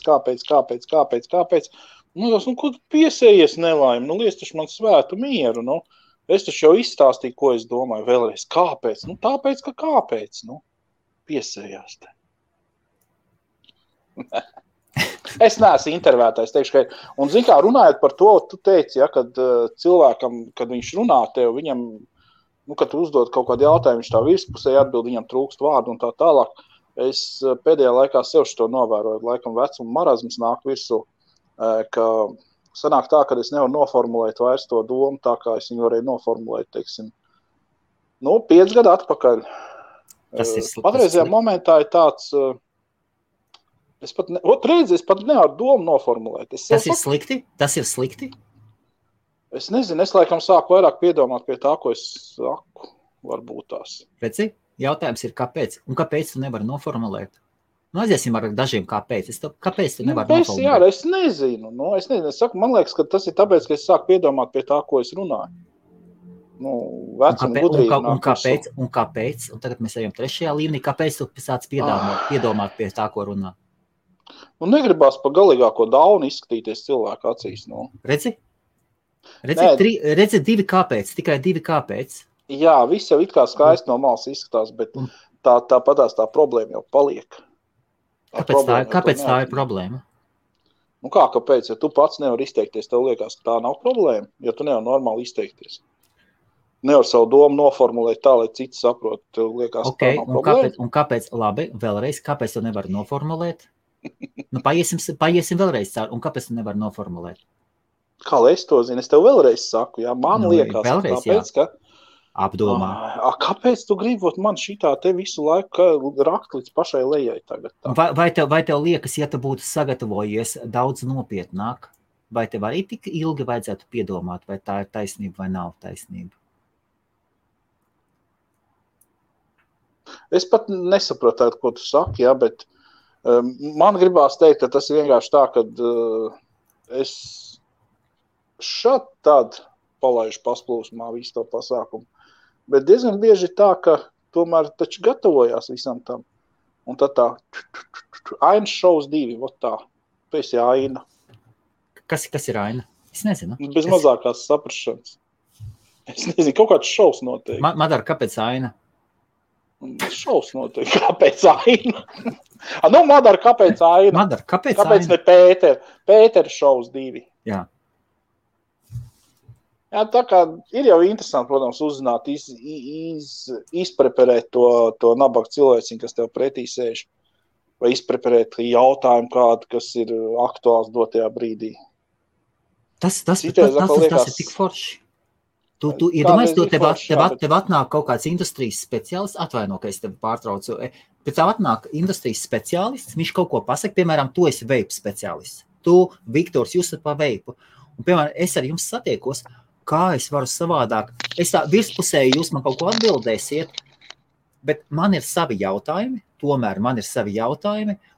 Ko tu piesējies nelaimi? Liec taču man svētu mieru, Es taču jau izstāstīju, ko es domāju vēlreiz. Kāpēc? Tāpēc, ka kāpēc, piesējās te. Es neesmu intervētājs, teikšu, ka, un zin kā, runājot par to, tu teici, ja, kad cilvēkam, kad viņš runā tev, viņam, kad tu uzdod kaut kādu jautājumu, viņš tā virspusē atbild, viņam trūkst vārdu un tā tālāk. Es pēdējā laikā sev šo novēroju, laikam vecuma marazms nāk virsū, ka sanāk tā, ka es nevaru noformulēt vairs to domu, tā kā es viņu varēju noformulēt, teiksim, 5 gadu atpakaļ. Patreizajā momentā ir tāds, es pat nevaru domu noformulēt. Tas ir slikti? Tas ir slikti? Es nezinu, es laikam sāku vairāk piedomāt pie tā, ko es saku, varbūt tās. Redzi, jautājums ir, kāpēc? Un kāpēc tu nevari noformulēt? Aiziesim ar dažiem kāpēc. Kāpēc tu nevari noformulēt? Jā, es nezinu. Es saku, man liekas, ka tas ir tāpēc, ka es sāku piedomāt pie tā, ko es runāju. Vecuma gudrība. Un kāpēc? Un tagad mēs ejam 3. līmenī. Kāpēc tu sāc piedomāt pie tā, ko runā? Negribās pa galīgāko daunu izskatīties cilvēku acīs. Redzi, 2 kāpēc, tikai 2 kāpēc. Jā, viss jau it kā skaisti no malas izskatās, bet tāpatās tā problēma jau paliek. Kāpēc tā ir problēma? Kāpēc? Ja tu pats nevar izteikties, tev liekas, ka tā nav problēma, jo tu nevar normāli izteikties. Nevar savu domu noformulēt tā, lai citi saprot, tev liekas, ka tā nav problēma. Un kāpēc, labi, vēlreiz, kāpēc tu nevar noformulēt? Paiesim vēlreiz caur, un kāpēc tu nevar noformulēt? Kā lai es to zinu? Es tev vēlreiz saku, jā, man liekas, tāpēc, ka apdomā. Kāpēc tu gribi man šitā te visu laiku rakt līdz pašai lejai tagad? Vai tev liekas, ja tu būtu sagatavojies daudz nopietnāk, vai tev arī tik ilgi vajadzētu piedomāt, vai tā ir taisnība vai nav taisnība? Es pat nesaprotu, ko tu saki, jā, bet man gribās teikt, ka tas ir vienkārši tā, ka es šad tad palaižu pasplūsmā visu to pasākumu. Bet diezgan bieži tā, ka tomēr taču gatavojās visam tam. Un tad tā, Ainas šovs 2, tā, tu esi Aina. Kas ir Aina? Es nezinu. Bez mazākās saprašanas. Es nezinu, kaut kāds šovs notiek. Madara, kāpēc Aina? Šovs notiek, kāpēc Aina? Madara, kāpēc Aina? Madara, kāpēc ne Pēter? Pēter šovs 2. Jā. Jā, tā kā ir jau interesanti, protams, uzzināt, izpreparēt to nabaga cilvēciņu, kas tev pretī sēž, vai izpreparēt jautājumu kādu, kas ir aktuāls dotajā brīdī. Tas ir tik forši. Tu iedomājies, tev atnāk kaut kāds industrijas speciālists, atvaino, ka es tevi pārtraucu, bet tev atnāk industrijas speciālists, viņš kaut ko pasaka, piemēram, tu esi veipu speciālists. Tu, Viktors, jūs esat pa veipu. Un, piemēram, es ar jums satiekos, kā es varu savādāk. Es tā virspusēji jūs man kaut ko atbildēsiet, bet man ir savi jautājumi,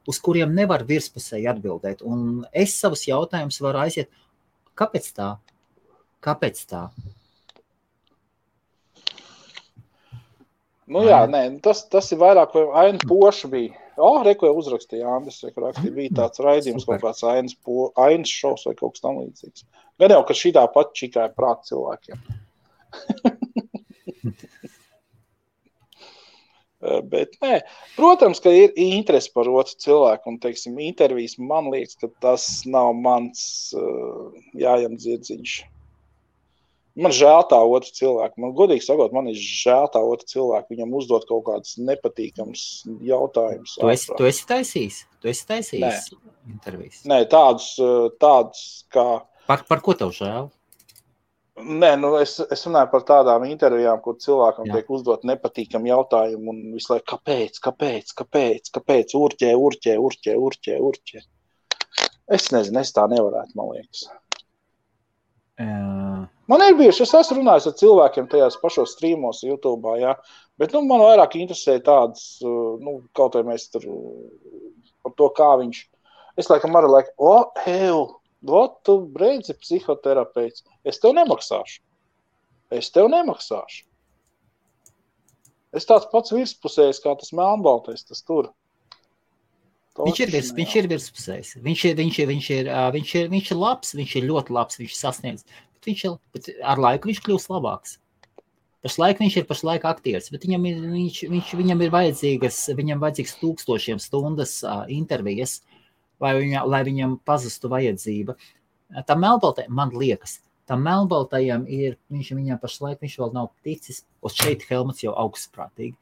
uz kuriem nevar virspusēji atbildēt. Un es savus jautājumus varu aiziet. Kāpēc tā? Jā, tas ir vairāk, vai Aina Poša bija. Reko jau uzrakstīja Andris, bija tāds raidījums, kaut kāds Ainas šovs vai kaut kas tam līdzīgs. Gan jau, ka šitā pat čikāja prāt cilvēkiem. Bet nē, protams, ka ir interesi par otru cilvēku un, teiksim, intervijas man liekas, ka tas nav mans jājam dzirdziņš. Man žēl tā otru cilvēku. Man godīgi sakot, man ir žēl tā otru cilvēku. Viņam uzdot kaut kādus nepatīkams jautājumus. Tu esi taisījis? Intervijas? Nē, tādus kā... Par ko tev žēl? Nē, es runāju par tādām intervijām, kur cilvēkam tiek uzdot nepatīkam jautājumu un visu laiku, kāpēc, urķē. Es nezinu, es tā nevarētu, man liekas. Man ir bijuši, es esmu runājis ar cilvēkiem tajās pašos streamos YouTube, jā, bet, man vairāk interesē tādas, kaut vai mēs tur par to, kā viņš, es laikam arī tu breidzi psihoterapeits, es tev nemaksāšu. Es tāds pats virspusējs, kā tas melnbaltais, tas tur. Viņš ir virspusējs. Viņš ir labs, viņš ir ļoti labs, viņš ir sasniedz. Bet ar laiku viņš kļūst labāks. Pašlaik viņš ir aktieris, bet viņam ir vajadzīgs 1000 stundas intervijas, lai viņam pazustu vajadzība. Tam melnbaltajam, man liekas, viņam pašlaik viņš vēl nav ticis, un šeit Helmuts jau augstprātīgi.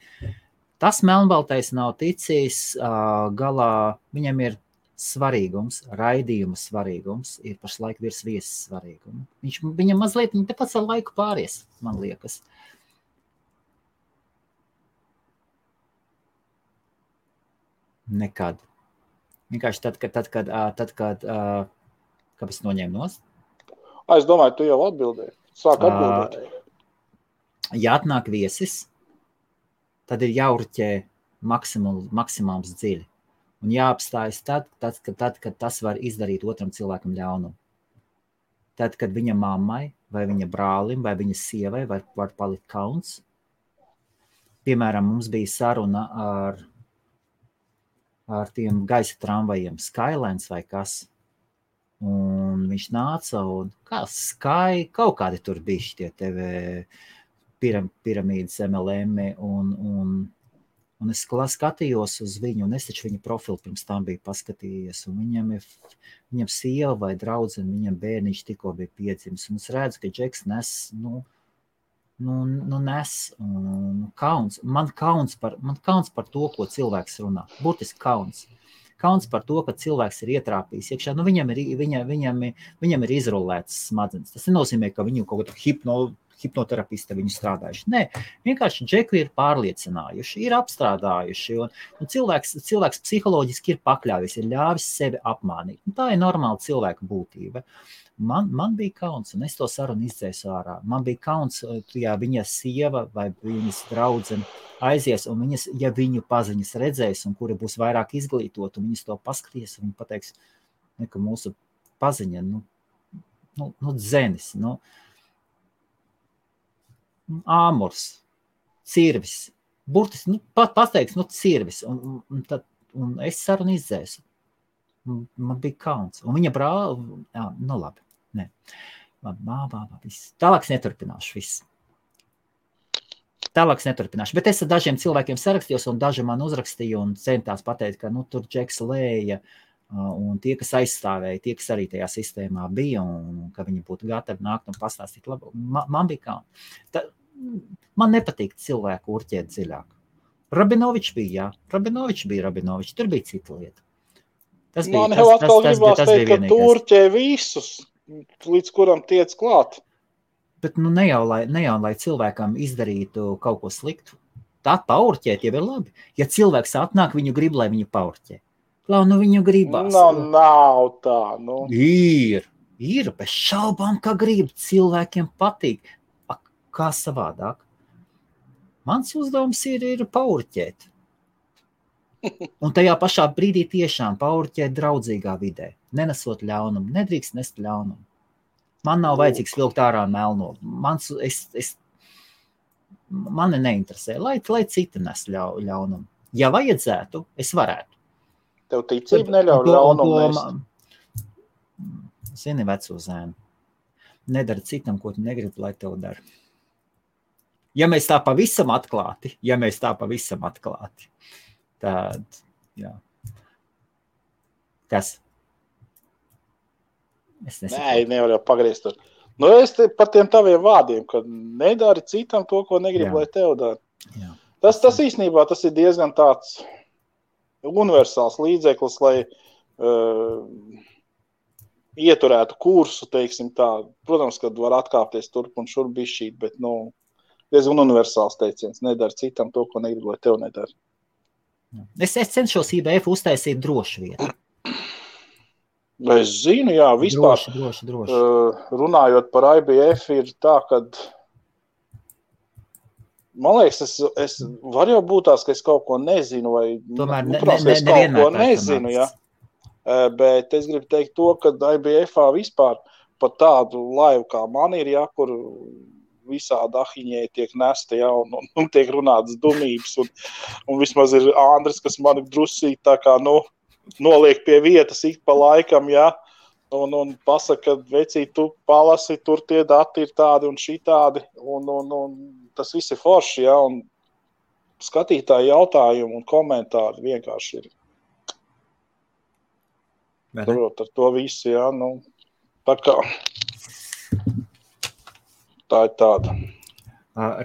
Tas melnbaltais nav ticis galā, viņam ir svarīgums, raidījuma svarīgums, ir pašlaik virs viesas svarīguma. Viņam mazliet, viņa tāpēc ar laiku pāries, man liekas. Nekad. Vienkārši tad, kad kāpēc noņēma nost? Es domāju, tu jau atbildēji. Sāk atbildēt. Ja atnāk viesis, tad ir jāurķē maksimums dziļi. Un jāapstājas tad, kad tas var izdarīt otram cilvēkam ļaunumu. Tad, kad viņa mammai, vai viņa brālim, vai viņa sievai var palikt kauns. Piemēram, mums bija saruna ar tiem gaisa tramvajiem, Skylines vai kas. Un viņš nāca un kaut kādi tur bija šitie TV piramīdas MLM un es skatījos uz viņu, un es taču viņa profilu pirms tam biju paskatījies, un viņam sieva vai draudzene, viņam bērniņš tikko bija piedzimis, un es redzu, ka Džeks nes, nes kauns. Man kauns par to, ko cilvēks runā. Burtiski kauns. Kauns par to, ka cilvēks ir ietrāpījis iekšā. Viņam ir izrulētas smadzenes. Tas nenozīmē, ka viņu kaut kādu hipnoterapisti viņu strādājuši. Nē, vienkārši Džeku ir pārliecinājuši, ir apstrādājuši, un cilvēks psiholoģiski ir pakļāvis, ir ļāvis sevi apmānīt. Un tā ir normāla cilvēka būtība. Man bija kauns, un es to sarunu izdzēsu ārā. Man bija kauns, ja viņa sieva vai viņas draudzene aizies, un ja viņu paziņas redzēs, un kura būs vairāk izglītot, un viņas to paskatīs, un viņi pateiks, ka mūsu paziņa, dzenis, āmurs, cirvis, burtiski, pateiks, cirvis, un es sarunu izdzēsu. Man bija kauns, un viņa brāla, labi. Nē. Viss. Tālāk neturpināšu viss. Bet es ar dažiem cilvēkiem sarakstījos, un daži man uzrakstīja un centās pateikt, ka tur Džeks lēja, un tie, kas aizstāvēja, tie, kas arī tajā sistēmā bija, un ka viņi būtu gatavi nākt un pastāstīt labu. Man bija kauns. Man nepatīk cilvēku urķēt dziļāk. Rabinovičs bija, Rabinovičs, tur bija cita lieta. Man jau atkal gribās teikt, ka tu urķē visus, līdz kuram tiec klāt. Bet ne jau, lai cilvēkam izdarītu kaut ko sliktu. Tā paurķēt jau ir labi. Ja cilvēks atnāk, viņu grib, lai viņu paurķē. Viņu gribās. Nav tā. Ir, bez šaubām, ka grib. Cilvēkiem patīk. Kā savādāk? Mans uzdevums ir paurķēt. Un tajā pašā brīdī tiešām paurķēt draudzīgā vidē, nenesot ļaunumu, nedrīkst nest ļaunumu. Man nav vajadzīgs vilkt ārā melno. Mani neinteresē, lai citi nes ļaunumu. Ja vajadzētu, es varētu. Tev ticība neļauj ļaunumu nest? Zini, veco zēnu, nedara citam, ko tu negribi, lai tev dara. Ja mēs tā pavisam atklāti, tad, jā. Kas? Es nesaku. Nē, nevar jau pagriezt tur. Es par tiem taviem vārdiem, ka nedari citam to, ko negrib, lai tev dara. Jā. Tas īstenībā tas ir diezgan tāds universāls līdzeklis, lai ieturētu kursu, teiksim tā. Protams, kad var atkāpties turp un šurp bišķīt, bet, diezgan universāls teiciens. Nedara citam to, ko negribu, lai tev nedara. Es cenšos IBF uztaisīt drošu vietu. Es zinu, jā, vispār. Droši. Runājot par IBF, ir tā, kad man liekas, es var jau būt tās, ka es kaut ko nezinu, vai tomēr es kaut ko nezinu, jā. Bet es gribu teikt to, ka IBF-ā vispār pat tādu laivu kā man ir, jā, kur visādi ahiņē tiek nesta, jā, un tiek runātas dumības, un vismaz ir Andris, kas mani drusīt tā kā, noliek pie vietas ik pa laikam, jā, un pasaka, ka vecī, tu palasi, tur tie dati ir tādi un šitādi, un tas viss ir forši, jā, un skatītāji jautājumi un komentāri vienkārši ir. Turot ar to visu, jā, tā kā. Tā ir tāda.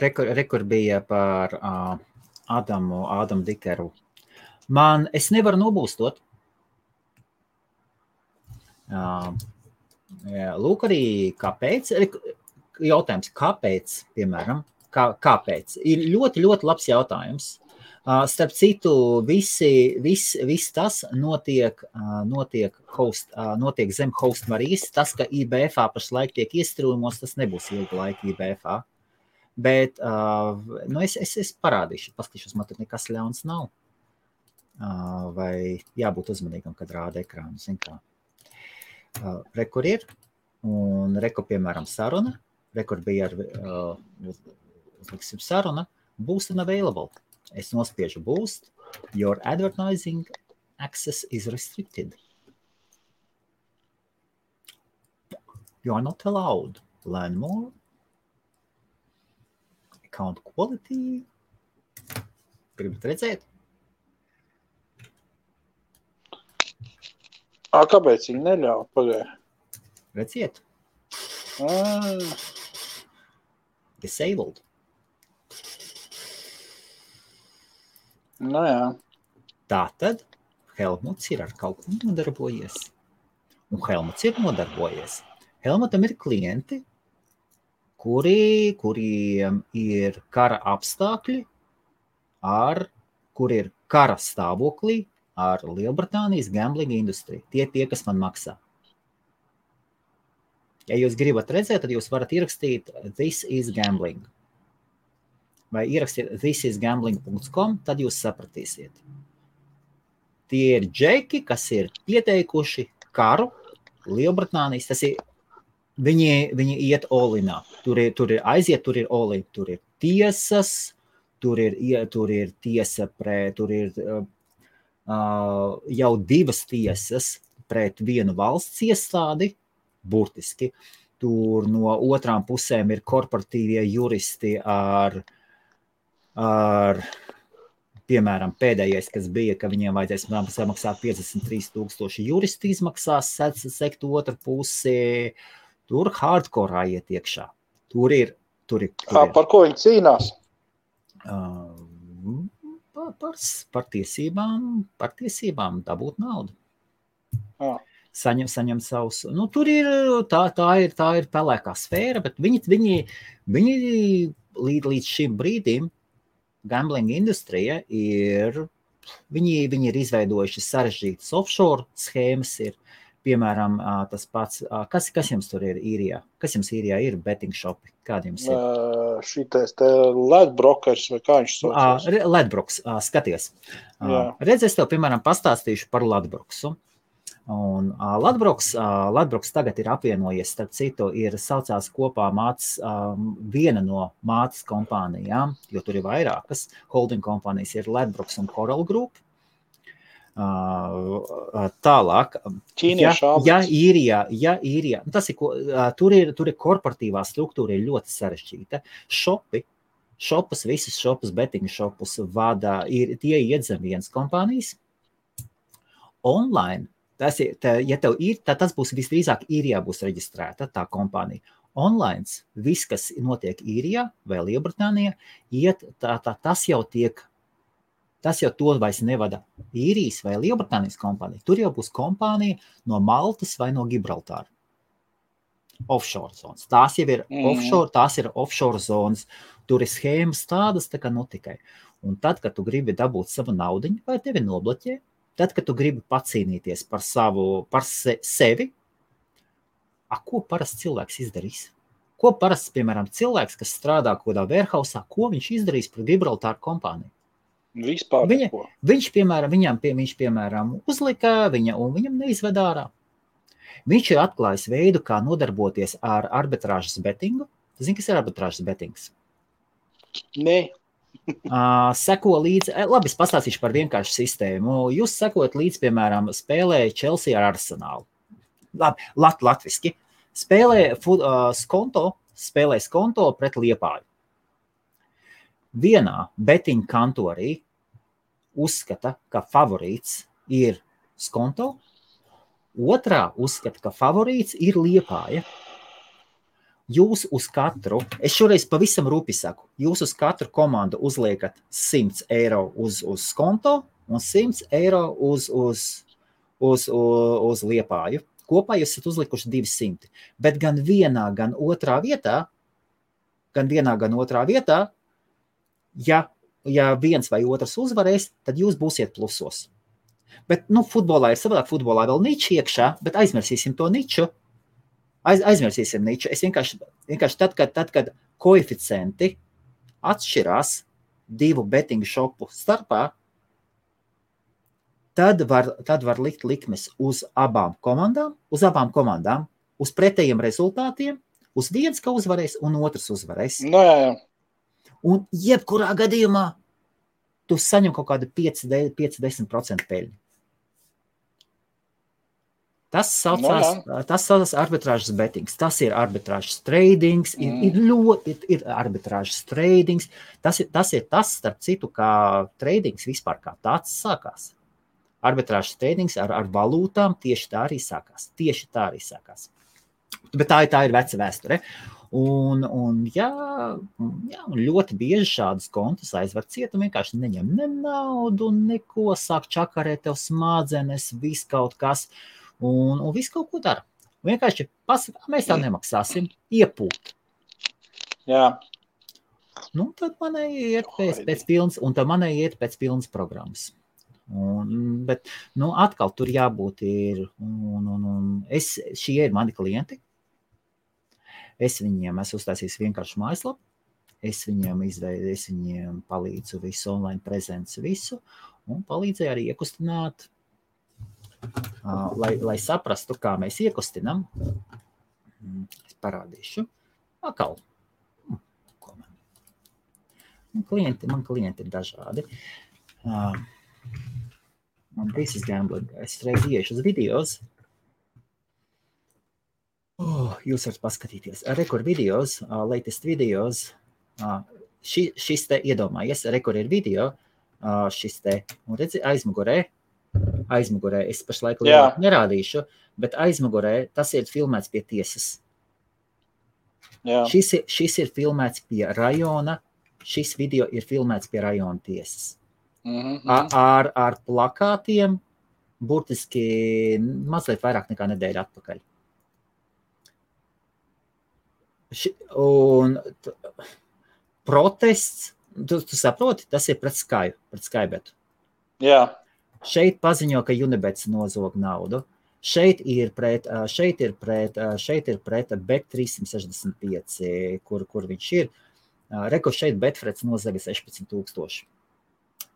Rekur bija par Ādamu Dikeru. Es nevaru nobūstot. Lūk arī kāpēc. Jautājums, kāpēc, piemēram, kāpēc? Ir ļoti, ļoti labs jautājums. Starp citu, viss tas notiek zem host Marijas. Tas, ka IBF-ā pašlaik tiek iestrūmos, tas nebūs ilga laika IBF-ā. Bet es parādīšu, paskatīšos, man tur nekas ļauns nav. Vai jābūt uzmanīgam, kad rāda ekrānu, zin kā. Rekur ir, un rekur, piemēram, saruna. Rekur bija saruna, boost and available. Es nospiežu boost, your advertising access is restricted. You are not allowed. Learn more. Account quality. Gribat redzēt? Kāpēc viņi neļauj? Pagāja. Redziet. Disabled. Jā. Tātad Helmuts ir ar kaut ko nodarbojies. Un Helmuts ir nodarbojies. Helmutam ir klienti, kuriem ir kara apstākļi, kur ir kara stāvoklī ar Lielbritānijas gambling industriju. Tie, kas man maksā. Ja jūs gribat redzēt, tad jūs varat ierakstīt This is gambling. Vai ierakstīt thisisgambling.com, tad jūs sapratīsiet. Tie ir džeki, kas ir pieteikuši karu Lielbritānijas. Tas ir, viņi iet all-inā. Tur ir aiziet, tur ir all-in. Tur ir tiesas, tur ir tiesa pret, tur ir jau 2 tiesas pret vienu valsts iestādi, burtiski. Tur no otrām pusēm ir korporatīvie juristi ar piemēram, pēdējais, kas bija, ka viņiem vajadzēs samaksāt 53,000 juristi izmaksās, sekt otru pusi. Tur hardcore iet iekšā. Tur ir. Par ko viņi cīnās? Par tiesībām dabūt naudu. Saņem savus. Tur ir, tā ir pelēkā sfēra, bet viņi līdz šim brīdim gambling industrija viņi ir izveidojuši sarežģītas offshore schēmas, ir, piemēram, tas pats, kas jums tur ir īrijā? Kas jums īrijā ir betting shopi? Kādi jums ir? Šitais te Ledbrokers vai kā viņš saucās? Ledbroks, skaties. Redz, es tev, piemēram, pastāstīšu par Ledbroksu. Un Ledbroks tagad ir apvienojies, starp citu, ir saucās kopā viena no mātes kompānijām, jo tur ir vairākas holding kompānijas, ir Ledbroks un Coral Group. Tālāk, īrijā, tas ir, tur ir korporatīvā struktūra ir ļoti sarežģīta. Visus šopus, betting šopus vada, tie iet zem vienas kompānijas. Online, ja tev ir, tad tas būs visdrīzāk īrijā būs reģistrēta tā kompānija. Online, viss, kas notiek īrijā vai Lielbritānijā, tas jau tiek tas jau to vairs nevada Īrijas vai Lielbritānijas kompānija. Tur jau būs kompānija no Maltas vai no Gibraltāra. Offshore zonas. Tās jau ir offshore zonas. Tur ir schēmas tādas, tā kā tikai. Un tad, kad tu gribi dabūt savu naudiņu, vai tevi nobloķē, tad, kad tu gribi pacīnīties par sevi, ko parasts cilvēks izdarīs? Ko parasts, piemēram, cilvēks, kas strādā kodā warehousā, ko viņš izdarīs par Gibraltāru kompāniju? Vispār neko. Viņš, piemēram, uzlika un viņam neizved ārā. Viņš ir atklājis veidu, kā nodarboties ar arbitrāžas betingu. Tu zini, kas ir arbitrāžas betings? Nē. Seko līdzi, labi, es pastāstīšu par vienkāršu sistēmu. Jūs sekojat līdzi, piemēram, spēlē Chelsea ar Arsenālu. Labi, latviski. Spēlē skonto pret Liepāju. Vienā betinga kantorī uzskata, ka favorīts ir skonto, otrā uzskata, ka favorīts ir Liepāja. Jūs uz katru, es šoreiz pavisam rūpi saku, jūs uz katru komandu uzliekat 100 eiro uz skonto un 100 eiro uz Liepāju. Kopā jūs esat uzlikuši 200, bet gan vienā, gan otrā vietā, ja viens vai otrs uzvarēs, tad jūs būsiet plusos. Bet, futbolā ir savādāk, futbolā vēl niči iekšā, bet aizmirsīsim to niču. Aizmirsīsim niču. Es vienkārši tad, kad koeficienti atšķirās divu betingu šopu starpā, tad var likt likmes uz abām komandām, uz pretējiem rezultātiem, uz viens, ka uzvarēs, un otrs uzvarēs. Jā. Un jebkurā gadījumā tu saņem kaut kādu 5-10% peļņu. Tas saucās arbitrāžas betings, tas ir arbitrāžas tradings, ir arbitrāžas tradings, tas ir tas, starp citu, kā tradings vispār kā tāds sākās. Arbitrāžas tradings ar valūtām tieši tā arī sākās. Bet tā ir veca vēsture. Un ļoti bieži šādas kontus aizver ciet un vienkārši neņem ne naudu, neko, sāk čakarēt tev smadzenes, viss kaut kas. Un viss kaut ko dara. Vienkārši mēs tā nemaksāsim, iepūt. Jā. Tad manai iet pēc pilnas pilnas programmas. Bet atkal tur jābūt ir. Šie ir mani klienti. Es viņiem esmu uztaisījis vienkārši mājaslapu. Es viņiem palīdzu visu, online prezents visu. Un palīdzēju arī iekustināt. Lai saprastu, kā mēs iekustinam, es parādīšu. Atkal. Man klienti ir dažādi. This is gambling. Es reiz iešu uz videos. Jūs varat paskatīties. Rekord videos, latest videos. Šis te iedomājies, rekord ir video. Šis te, un redzi, aizmugurē, es pašlaik nerādīšu, bet aizmugurē tas ir filmēts pie tiesas. Jā. Šis ir filmēts pie rajona, šis video ir filmēts pie rajona tiesas. Ar plakātiem burtiski mazliet vairāk nekā nedēļa atpakaļ. Un protests, tu saproti, tas ir pret Skybetu. Jā. Šeit paziņo, ka Unibets nozog naudu. Šeit ir pret Bet365, kur viņš ir. Reko šeit Betfreds nozaga 16,000.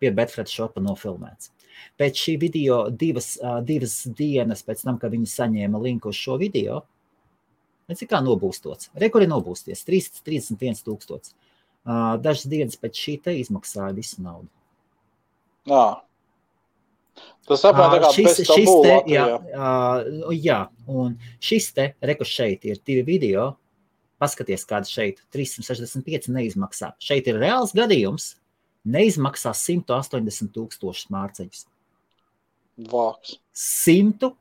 Pie Betfreds šopa nofilmēts. Pēc šī video divas dienas pēc tam, kad viņi saņēma linku uz šo video, cik kā nobūstots. Reko ir nobūsties, 31,000. Dažas dienas pēc šī te izmaksāja visu naudu. Jā. Tas saprāt, tā kā bez tabū Latvijā. Jā, un šis te, Reko šeit ir 2 video, paskaties, kāda šeit 365 neizmaksā. Šeit ir reāls gadījums, neizmaksā 180,000 mārciņus. Vāks.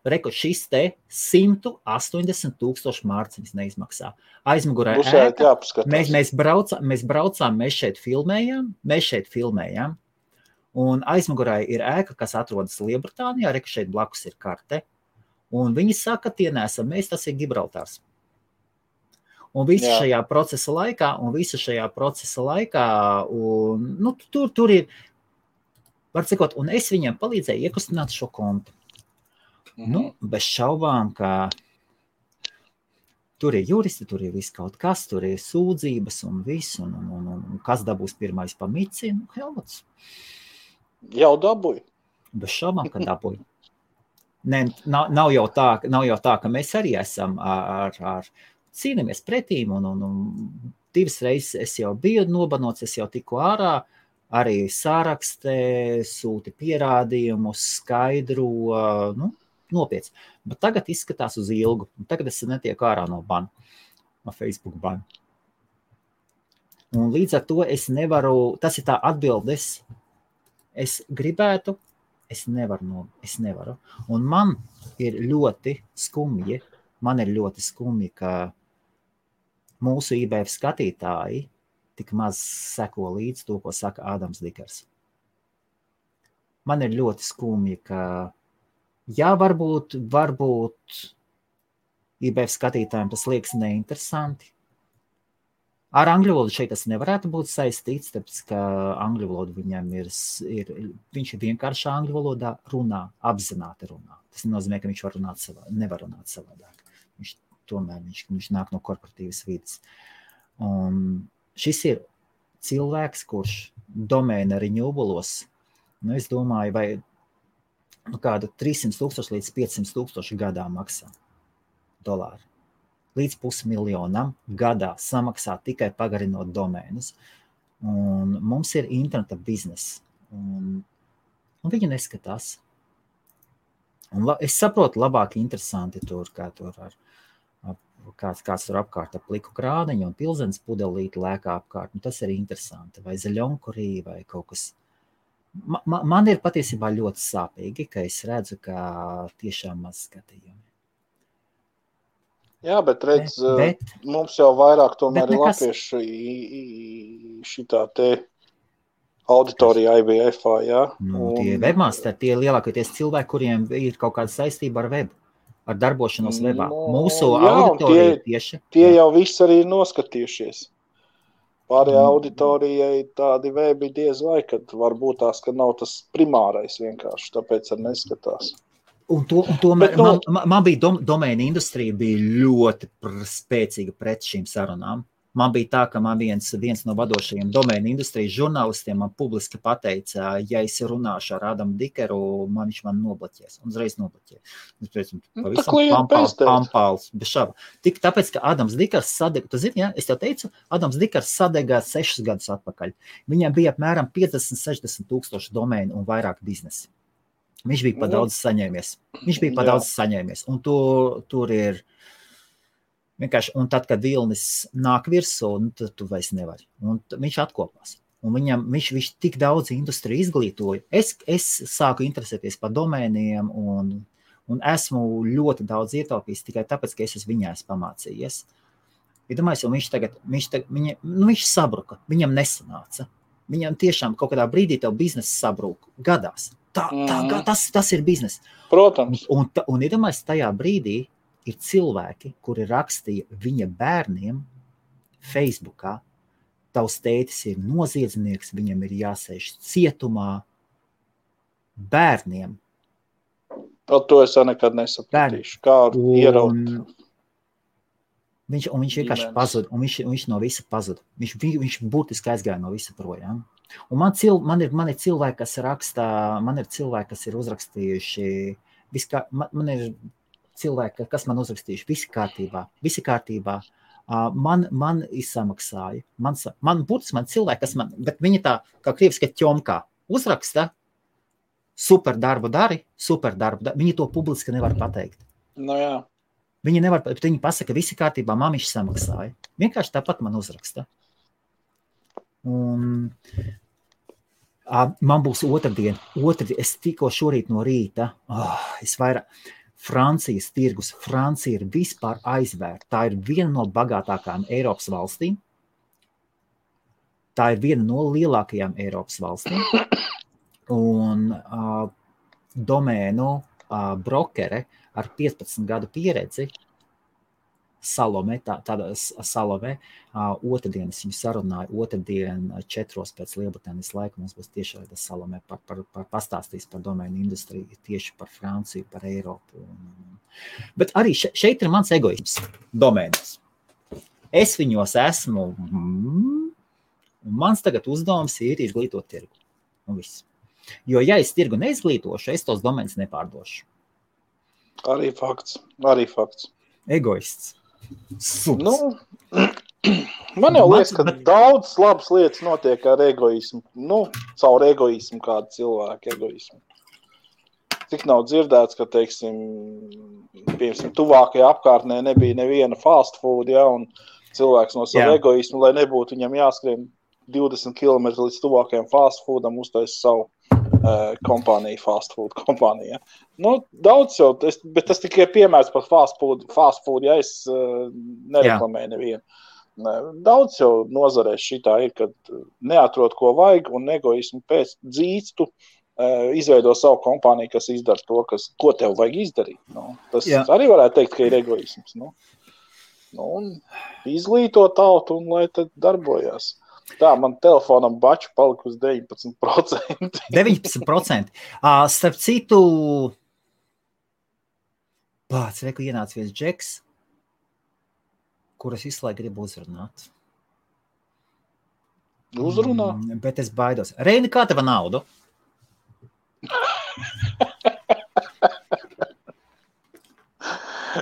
Reko šis te 180,000 mārciņus neizmaksā. Aizmugurē ēka, mēs braucām, mēs šeit filmējām, Un aizmugurē ir ēka, kas atrodas Lielbritānijā, re, ka šeit blakus ir karte. Un viņi saka, tie nesam mēs, tas ir Gibraltārs. Un visu šajā procesa laikā, un, nu, tur ir, var cikot, un es viņiem palīdzēju iekustināt šo kontu. Nu, bez šaubām, ka tur ir juristi, tur ir viss kaut kas, tur ir sūdzības un viss, un kas dabūs pirmais pa mici, nu, Helmuts. Jau dabūju. Bez šaubām, ka dabūju. Ne, nav jau tā, ka mēs arī esam ar cīnamies pretīm, un 2 reizes es jau biju nobanots, es jau tiku ārā, arī sārakstē, sūti pierādījumus, skaidro, nu, nopietni. Bet tagad izskatās uz ilgu, un tagad es netieku ārā no bana, no Facebook bana. Un līdz ar to es nevaru, tas ir tā atbildes, es gribētu, es nevaru. Un man ir ļoti skumji, ka mūsu IBF skatītāji tik maz seko līdz to, ko saka Ādams Dikers. Man ir ļoti skumji, ka, jā, varbūt IBF skatītājiem tas liekas neinteresanti. Ar angļu valodu šeit tas nevarētu būt saistīts, tāpēc, ka angļu valodu viņam viņš ir vienkārši angļu valodā runā, apzināti runā. Tas nenozīmē, ka viņš nevar runāt savādāk. Viņš nāk no korporatīvas vidas. Un šis ir cilvēks, kurš domēna renewables, nu, es domāju, vai kādu 300,000 līdz 500,000 gadā maksā dolāru. Līdz $500,000 gadā samaksā tikai pagarinot domēnus. Un mums ir interneta biznesa. Un viņi neskatās. Un es saprotu, labāk interesanti tur, kā tur ar kāds tur apkārt ap pliku krāniņu un pilzenes pudelīti lēkā apkārt. Un tas ir interesanti. Vai zaļonkurī, vai kaut kas. Man ir patiesībā ļoti sāpīgi, ka es redzu, ka tiešām maz skatījumi. Jā, bet redz, mums jau vairāk tomēr ir latvieši šitā te auditorija IBF-ā, jā? Nu, tie webmasteri, tie lielākoties cilvēki, kuriem ir kaut kāda saistība ar webu, ar darbošanos webā. Mūsu auditorija tieši. Tie jau viss arī ir noskatījušies. Pārējā auditorijai tādi webi diez vai, kad varbūt tās, ka nav tas primārais vienkārši, tāpēc arī neskatās. Un tomēr man bija domēna industrija bija ļoti spēcīga pret šīm sarunām. Man bija tā, ka man viens no vadošajiem domēna industrijas žurnālistiem man publiski pateica, ja es runāšu ar Ādamu Dikeru, viņš man nobloķēs. Un uzreiz nobloķēja. Pavisam pampāls, bez šāba. Tik tāpēc, ka Ādams Dikers sadega, tu zini, ja? Es tev teicu, Ādams Dikers sadega 6 gadus atpakaļ. Viņam bija apmēram 50-60,000 domēnu un vairāk biznesi. Viņš bija pa daudz saņēmies. Un tur ir vienkārši, un tad, kad vilnis nāk virsū, tad tu vairs nevari. Un viņš atkopās. Un viņš tik daudz industriju izglītoja. Es sāku interesēties par domēniem un esmu ļoti daudz ietaupījis tikai tāpēc, ka es viņā esmu pamācījies. Iedomājies, un viņš sabruka, viņam nesanāca. Viņam tiešām kaut kādā brīdī tev biznesa sabruka gadās. Tas ir biznes. Protams. Un iedomājies, tajā brīdī ir cilvēki, kuri rakstīja viņa bērniem Facebookā, tavs tētis ir noziedznieks, viņam ir jāsēž cietumā bērniem. To es nekad nesapratīšu. Kādu ieraut. Viņš vienkārši pazuda, un viņš no visa pazuda. Viņš būtiski aizgāja no visa projām. Un man ir cilvēki, kas rakstā, man ir cilvēki, kas ir uzrakstījuši, man ir cilvēki, kas man uzrakstījuši, visi kārtībā. Man izsamaksāja. Man cilvēki, kas man, bet viņi tā, kā krieviski ķomkā, uzraksta, super darbu dari. Viņi to publiski nevar pateikt. No jā. Viņi nevar, bet viņi pasaka, visi kārtībā, mamiši samaksāja. Vienkārši tāpat man uzraksta. Un man būs otrdien, es tikko šorīt no rīta, Francijas tirgus, Francija ir vispār aizvērta. Tā ir viena no bagātākajām Eiropas valstīm. Tā ir viena no lielākajām Eiropas valstīm. un domēnu brokere ar 15 gadu pieredzi, Salome, tāda Salome, otrdienas viņu sarunāju, otrdien 4 pēc Lielbritānijas laika mums būs tieši Salome pastāstīs par domēnu industriju, tieši par Franciju, par Eiropu. Bet arī šeit ir mans egoisms domēnos. Es viņos esmu, un mans tagad uzdevums ir izglītot tirgu. Un viss. Jo, ja es tirgu neizglītošu, es tos domēnus nepārdošu. Arī fakts. Egoists. Suns. Nu, man jau liekas, ka daudz labas lietas notiek ar egoismu. Nu, caur egoismu, kādu cilvēku egoismu. Tik nav dzirdēts, ka, teiksim, piemēram, tuvākajā apkārtnē nebija neviena fast food, ja, un cilvēks no savu egoismu, lai nebūtu viņam jāskrien 20 km līdz tuvākajam fast foodam, uztais savu kompāniju, fast food kompāniju. Ja. Nu, daudz jau, bet tas tikai piemērs par fast food, ja es nereklamēju nevienu. Daudz jau nozarēs šitā ir, kad neatrod, ko vajag, un egoismu pēc dzīstu izveido savu kompāniju, kas izdara to, ko tev vajag izdarīt. Nu, tas arī varētu teikt, ka ir egoisms. Nu, un izglīto tautu, un lai tad darbojās. Tā, man telefonam baču palika uz 19%. 19%. Starp citu, reku ienāca viens džeks, kuras visu laiku gribu uzrunāt. Uzrunā? Bet es baidos. Reini, kā teva naudu?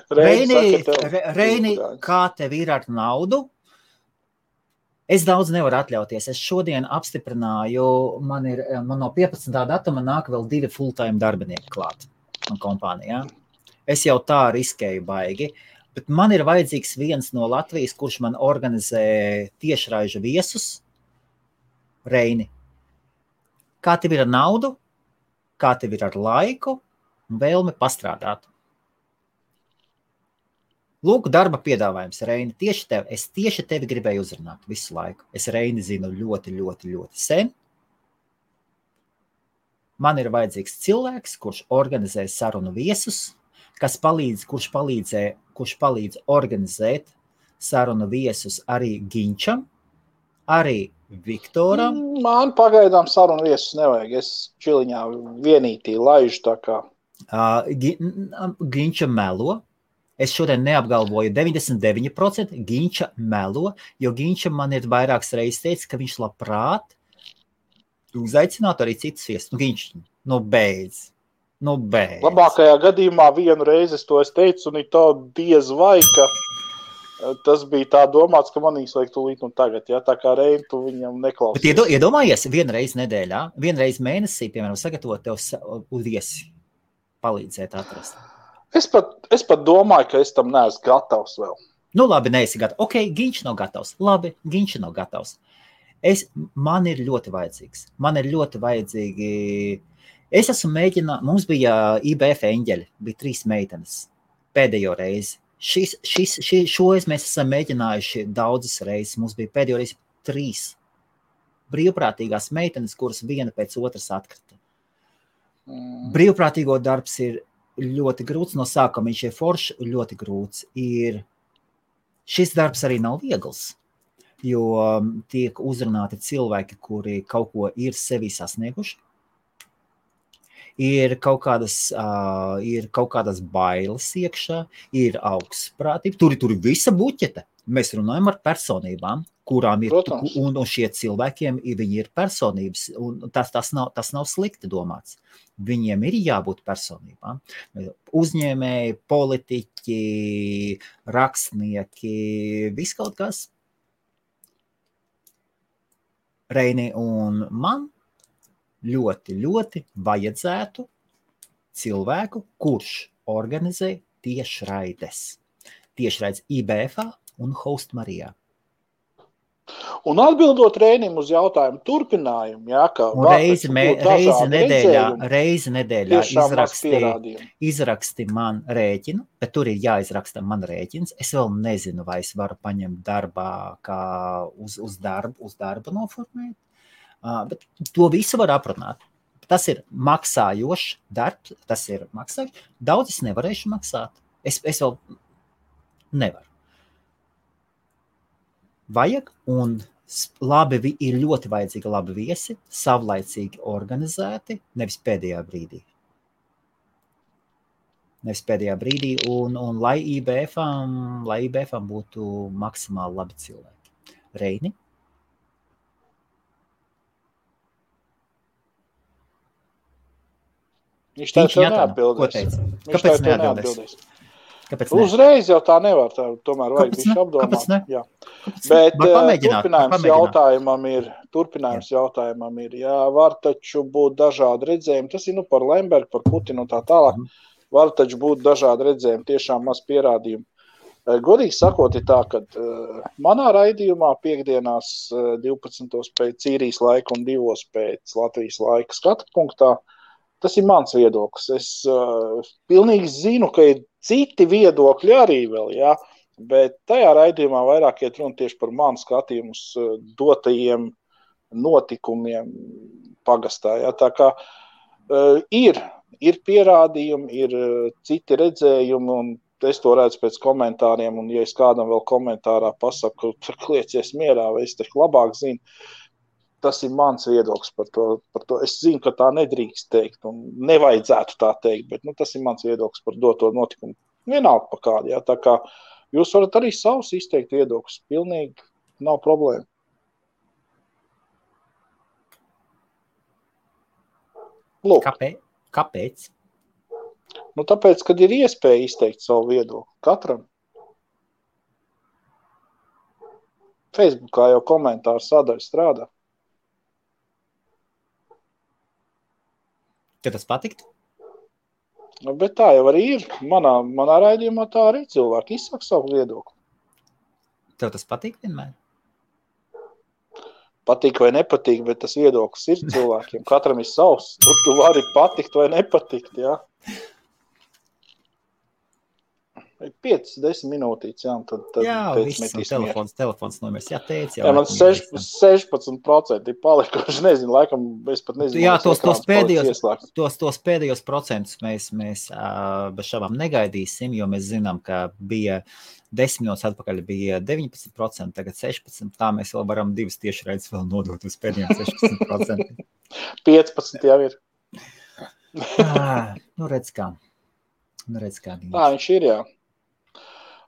Reini, kā tev ir ar naudu? Es daudz nevaru atļauties. Es šodien apstiprināju, man no 15. datuma nāk vēl 2 full-time darbinieki klāt man kompānijā. Es jau tā riskēju baigi, bet man ir vajadzīgs viens no Latvijas, kurš man organizē tiešraižu viesus. Reini, kā tev ir ar naudu? Kā tev ir ar laiku un vēlmi pastrādāt? Lūk, darba piedāvājums, Reini, es tieši tevi gribēju uzrunāt visu laiku. Es Reini zinu ļoti, ļoti, ļoti sen. Man ir vajadzīgs cilvēks, kurš organizē sarunu viesus, kurš palīdz organizēt sarunu viesus arī Ginčam, arī Viktoram. Man pagaidām sarunu viesus nevajag. Es čiliņā vienītī laižu tā kā. Ginča melo. Es šodien neapgalvoju 99%, Ginča melo, jo Ginča man ir vairākas reizes teicis, ka viņš labprāt uzaicinātu arī citas viesus. Ginč, beidz. Labākajā gadījumā vienu reizi es to teicu, un tā diez vai, ka tas bija tā domāts, ka manīs vajag tūlīt un tagad, ja tā kā Reini, tu viņam neklausies. Bet iedomājies, vienreiz nedēļā, vienreiz mēnesī, piemēram, sagatavot tev viesi palīdzēt atrast. Es pat domāju, ka es tam neesmu gatavs vēl. Nu labi, neesi gatavs. Ok, Ginč nav gatavs. Labi, Ginč nav gatavs. Man ir ļoti vajadzīgs. Man ir ļoti vajadzīgi. Es esmu mēģinājis, mums bija IBF eņģeļi, bija 3 meitenes pēdējo reizi. Šoreiz mēs esam mēģinājuši daudzas reizes. Mums bija pēdējo reizi 3 brīvprātīgās meitenes, kuras viena pēc otras atkrita. Brīvprātīgo darbs ir ļoti grūts, no sākuma viņš ir foršs, ļoti grūts. Šis darbs arī nav viegls, jo tiek uzrunāti cilvēki, kuri kaut ko ir sevi sasnieguši. Ir kaut kādas bailes iekšā, ir augstprātība, tur ir visa buķete. Mēs runājam ar personībām, kurām ir, un šie cilvēkiem viņi ir personības, un tas nav slikti domāts. Viņiem ir jābūt personībām. Uzņēmēji, politiķi, rakstnieki, viss kaut kas. Reini, un man ļoti, ļoti vajadzētu cilvēku, kurš organizē tiešraides. Tiešraides IBF-ā un Host Marijā. Un atbildot Reinim uz jautājumu turpinājumu, jā, ka reizi nedēļā izraksti man rēķinu, bet tur ir jāizraksta man rēķins. Es vēl nezinu, vai es varu paņemt darbā, kā uz darbu noformēt, bet to visu var aprunāt. Tas ir maksājošs darbs, tas ir maksājošs. Daudz es nevarēšu maksāt. Es vēl nevaru. Vajag, un ir ļoti vajadzīgi labi viesi, savlaicīgi organizēti, nevis pēdējā brīdī. Un lai IBF-am būtu maksimāli labi cilvēki. Reini? Viņš tā neatbildēs. Kāpēc neatbildēs? Uzreiz jau tā nevar, tomēr vajag bišķi apdomāt. Jā. Bet turpinājums jautājumam ir, jā, var taču būt dažādi redzējumi, tas ir par Lembergu, par Putinu un tā tālāk, var taču būt dažādi redzējumi, tiešām maz pierādījumi. Godīgi sakot, ir tā, ka manā raidījumā piekdienās 12. pēc Īrijas laika un 2. pēc Latvijas laika skatu punktā, tas ir mans viedoklis. Es pilnīgi zinu, ka ir citi viedokļi arī vēl, jā, bet tajā raidījumā vairāk iet runa tieši par manu skatījumus dotajiem notikumiem pagastā. Jā. Tā kā ir pierādījumi, ir citi redzējumi, un es to redzu pēc komentāriem, un ja es kādam vēl komentārā pasaku, ka kliecies mierā, vai es taču labāk zinu, tas ir mans viedoklis par to. Es zinu, ka tā nedrīkst teikt, un nevajadzētu tā teikt, bet tas ir mans viedoklis par doto notikumu. Vienalga pa kādu, jā. Tā kā jūs varat arī savus izteikt viedokļus. Pilnīgi nav problēma. Lūk. Kāpēc? Tāpēc, kad ir iespēja izteikt savu viedokli. Katram. Facebookā jau komentāru sadaļa strādā. Tev tas patikt? Bet tā jau arī ir. Manā raidījumā tā arī cilvēki izsaka savu viedokli. Tev tas patīk vienmēr? Patīk vai nepatīk, bet tas viedoklis ir cilvēkiem. Katram ir savs. Tu vari patikt vai nepatikt, jā. 5-10 minūtītes, jā, un tad viss, telefons nomers. Jā, teic, jā, man 16% ir palikuši, nezinu, laikam, es pat nezinu. Jā, tos pēdējos procentus mēs bez šabām negaidīsim, jo mēs zinām, ka bija 10 minūtes atpakaļ bija 19%, tagad 16%, tā mēs vēl varam divas tiešraides vēl nodot uz pēdējiem 16%. 15 jau ir. Redz kā. Tā viņš ir, jā.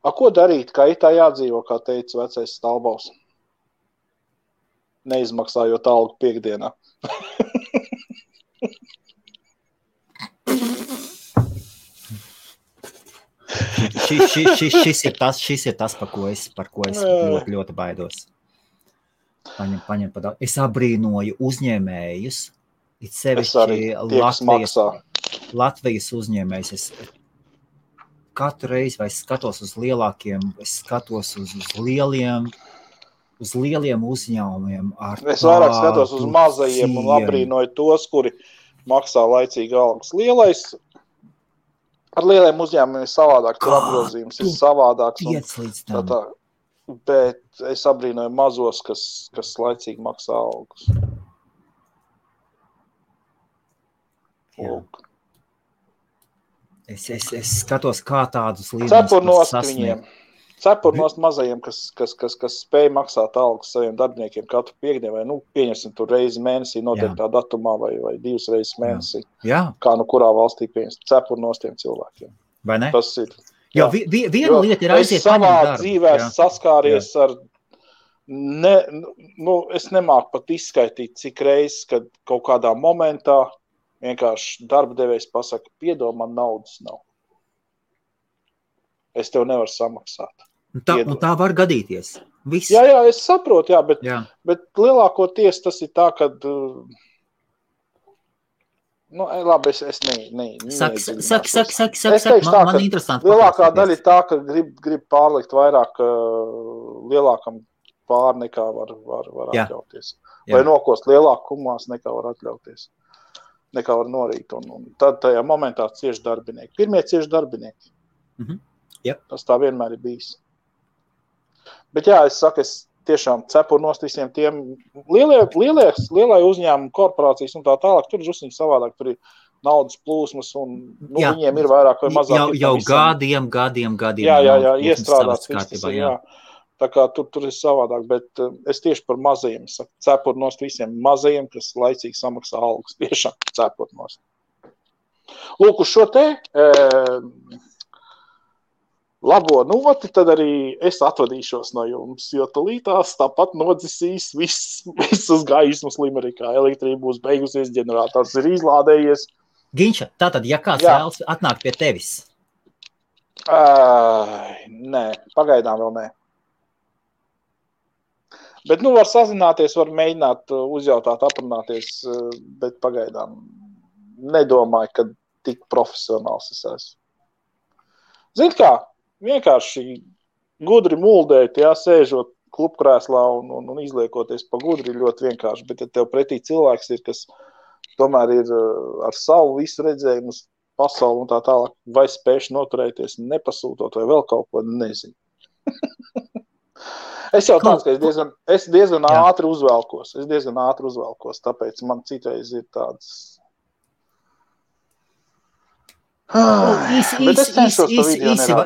Ko darīt, kā itā jādzīvo, kā teica vecais Stalbaus? Neizmaksājot algu piekdienā. Šis ir tas, par ko es ļoti, ļoti baidos. Paņem pa daudz. Es abrīnoju uzņēmējus, it sevišķi Latvijas uzņēmējus. Katru reizi, vai es skatos uz lielākiem, es skatos uz lieliem uzņēmumiem. Es vairāk skatos uz mazajiem un abrīnoju tos, kuri maksā laicīgi algas. Ar lieliem uzņēmumiem ir savādāk, tur apgrozījums ir savādāks. Bet es abrīnoju mazos, kas laicīgi maksā algas. Lūk. Es skatos, kā tādus līdzenos sasniegt. Cepurnost mazajiem, kas spēj maksāt algas saviem darbiniekiem katru piekdienu, vai, pieņemsim tur reizi mēnesī, noteiktā datumā, vai 2 reizes mēnesī. Jā. Kā kurā valstī pieņemsim cepurnostiem cilvēkiem. Vai ne? Tas ir. Jo viena lieta ir aiziet savā darbu, dzīvē saskāries ar, es nemāku pat izskaitīt, cik reizes, kad kaut kādā momentā vienkārši darba devējs pasaka, piedod, man naudas nav. Es tev nevaru samaksāt. Un tā var gadīties. Viss. Jā, es saprotu, bet lielākoties tas ir tā, kad... labi, es Saki, man interesanti. Lielākā daļa ir tā, ka grib pārlikt vairāk lielākam pār nekā var atļauties. Vai nokost lielākumās nekā var atļauties. Nekā var norīt, un tad tajā momentā cieši darbinieki. Pirmie cieši darbinieki. Yep. Tas tā vienmēr ir bijis. Bet jā, es saku, es tiešām cepur nost visiem tiem lielai uzņēmumu korporācijas un tā tālāk. Tur ir drusciņi savādāk, tur ir naudas plūsmas un viņiem ir vairāk vai mazāk. Jau gadiem. Jā, iestrādāts viss tas ir, jā. Tā kā tur ir savādāk, bet es tieši par mazajiem saku, cepur nost visiem mazajiem, kas laicīgi samaksā algas, tiešām cepur nost. Lūk, uz šo te labo noti, tad arī es atvadīšos no jums, jo tulītās tāpat nodzisīs visas gaismas Limerikā. Elektrība būs beigusies, ģenerators ir izlādējies. Ginča, tātad, ja kāds vēlas atnākt pie tevis? Nē, pagaidām vēl nē. Bet, var sazināties, var mēģināt uzjautāt, aprunāties, bet pagaidām nedomāju, ka tik profesionāls es esmu. Zini kā, vienkārši gudri muldēt, sēžot klubkrēslā un izliekoties pa gudri ļoti vienkārši, bet ja tev pretī cilvēks ir, kas tomēr ir ar savu visu redzējumu uz pasauli un tā tālāk, vai spējuši noturēties nepasūtot vai vēl kaut ko, nezinu. Es jau tāds, ka es diezgan ātri uzvelkos, tāpēc man citreiz ir tāds...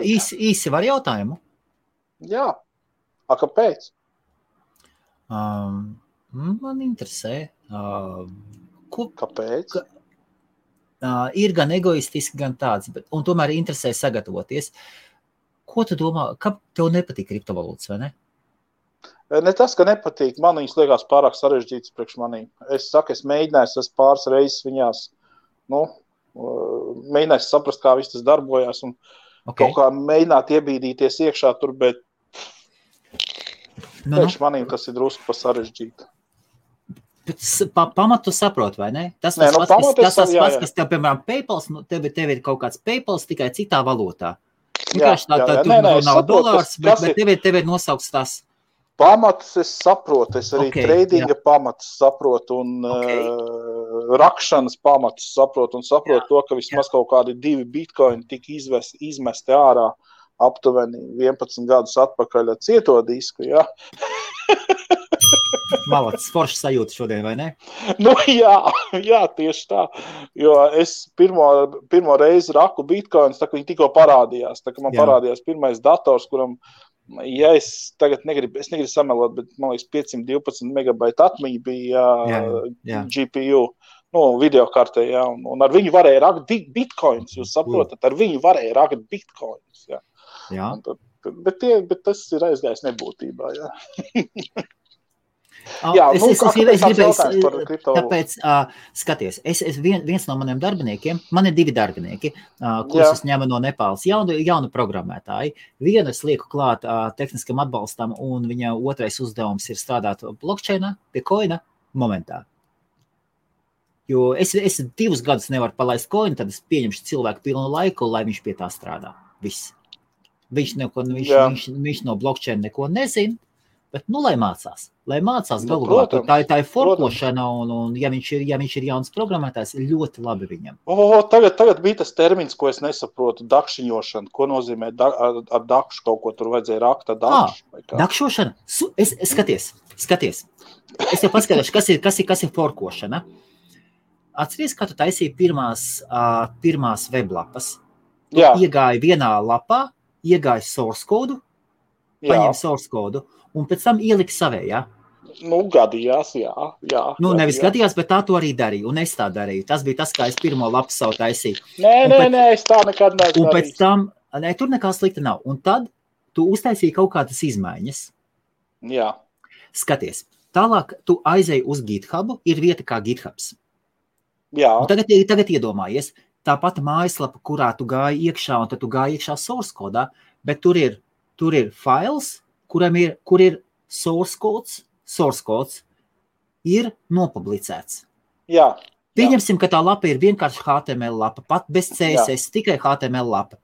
Īsi var jautājumu? Jā. Kāpēc? Man interesē. Kāpēc? Ir gan egoistiski, gan tāds, un tomēr interesē sagatavoties. Ko tu domā, kā tev nepatīk kriptovalūtas, vai ne? Ne tas, ka nepatīk, man viņas liekas pārāk sarežģītas priekš manī. Es mēģināju, es pāris reizes viņās, mēģināju saprast, kā viss tas darbojās un kaut kā mēģināt iebīdīties iekšā tur, bet priekš manī tas ir drusku pa sarežģīti. Pamatu saprot, vai ne? Tas pats, kas tev, piemēram, PayPals, tev ir kaut kāds PayPals tikai citā valūtā. Vienkārši nav dolārs, bet tev ir nosaukts tas. Pamatus es saprotu, es arī tradinga pamatus saprotu un rakšanas pamatus saprotu un saprotu to, ka vismaz kaut kādi 2 bitcoini tika izmesti ārā aptuveni 11 gadus atpakaļ ar cieto disku, jā. Malacis, forši sajūta šodien, vai ne? Jā, tieši tā, jo es pirmo reizi raku bitcoins, tā kā viņi tikko parādījās, tā kā man parādījās pirmais dators, kuram ja es tagad negribu samelot, bet man liekas 512 megabaita atmiņa bija GPU, videokartē, un ar viņu varēja rakt bitcoins, jūs saprotat, ar viņu varēja rakt bitcoins, jā. Bet tas ir aizgājis nebūtībā, Tāpēc, skaties, viens no maniem darbiniekiem, man ir 2 darbinieki, kurus es ņemu no Nepāles, jaunu programmētāji. Vienu es lieku klāt tehniskam atbalstam, un viņa otrais uzdevums ir strādāt blockchainā, pie coina momentā. Jo es 2 gadus nevaru palaist coinu, tad es pieņemšu cilvēku pilnu laiku, lai viņš pie tā strādā. Viss. Viņš no blockchaina neko nezina. Bet, lai mācās galvā, tā ir forkošana, un ja viņš ir jauns programmētājs, ļoti labi viņam. Tagad bija tas termins, ko es nesaprotu, dakšiņošana. Ko nozīmē ar dakšu kaut ko tur vajadzēja rakt ar dakšu? Dakšošana? Skaties. Es jau paskatīšu, kas ir forkošana. Atceries, kā tu taisīji pirmās weblapas. Tu iegāji vienā lapā, iegāji source kodu, paņem source kodu, un pēc tam ielika savējā. Gadījās, jā. Nevis gadījās, bet tā to arī darīju, un es tā darīju. Tas bija tas, kā es pirmo lapu savu taisīju. Nē, es tā nekad neesmu. Un pēc tam, tur nekā slikta nav. Un tad tu uztaisīji kaut kādas izmaiņas. Jā. Skaties, tālāk tu aizēji uz GitHubu, ir vieta kā GitHubs. Jā. Un tagad iedomājies, tā pati mājaslapa, kurā tu gāji iekšā, un tad tu gāji iekšā source kodā, bet tur ir files, kur ir source codes, ir nopublicēts. Jā. Pieņemsim, ka tā lapa ir vienkārši HTML lapa, pat bez CSS, tikai HTML lapa.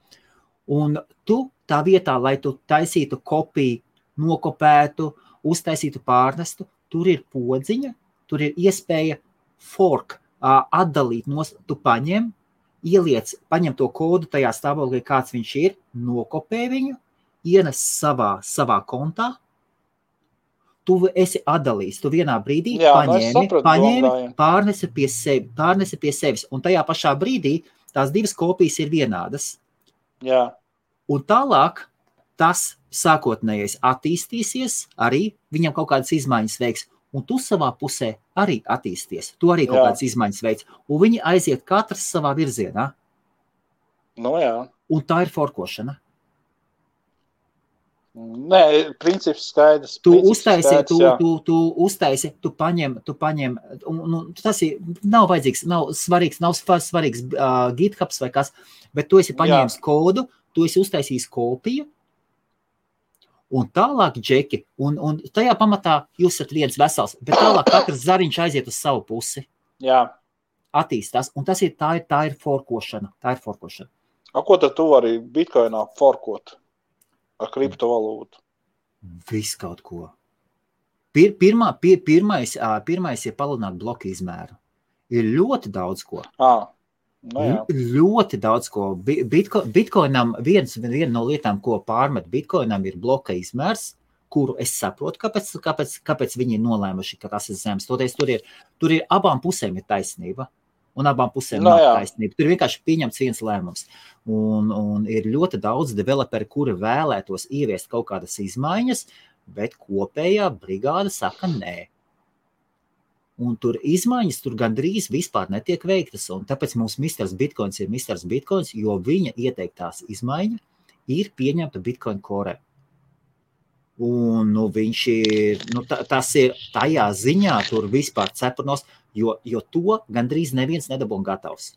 Un tu tā vietā, lai tu taisītu kopiju, nokopētu, uztaisītu pārnestu, tur ir podziņa, tur ir iespēja fork, atdalīt, tu paņem to kodu tajā stāvoklī, kāds viņš ir, nokopē viņu, ienes savā kontā, tu esi atdalījis, tu vienā brīdī paņēmi, pārnesi pie sevis, un tajā pašā brīdī tās divas kopijas ir vienādas. Jā. Un tālāk tas sākotnējais attīstīsies, arī viņam kaut kādas izmaiņas veiks, un tu savā pusē arī attīsties. Tu arī kaut kādas izmaiņas veiks, un viņi aiziet katrs savā virzienā. Jā. Un tā ir forkošana. Nē, princips skaidrs. Tu uztaisi, tu paņem, tas ir, nav vajadzīgs, nav svarīgs GitHubs vai kas, bet tu esi paņēmis kodu, tu esi uztaisījis kopiju, un tālāk džeki, un tajā pamatā jūs esat viens vesels, bet tālāk katrs zariņš aiziet uz savu pusi. Jā. Attīstās, un tā ir forkošana. Ko tad tu vari Bitcoinā forkot ar kriptovalūtu? Viss kaut ko. Pirmais ir palielināt bloku izmēru. Ir ļoti daudz ko. Ļoti daudz ko. Bitcoinam viena no lietām, ko pārmet Bitcoinam, ir bloka izmērs, kuru es saprotu, kāpēc viņi ir nolēmuši, ka tas ir zems. Toties tur ir abām pusēm ir taisnība. Un abām pusēm nav taisnība. Tur vienkārši pieņemts viens lēmums. Un ir ļoti daudz developeri, kuri vēlētos ieviest kaut kādas izmaiņas, bet kopējā brigāda saka nē. Un tur izmaiņas tur gandrīz vispār netiek veiktas. Un tāpēc mums Mr. Bitcoins ir Mr. Bitcoins, jo viņa ieteiktās izmaiņa ir pieņemta Bitcoin Core. Un viņš ir, tas ir tajā ziņā tur vispār cepurnos, jo to gandrīz neviens nedabūn gatavs.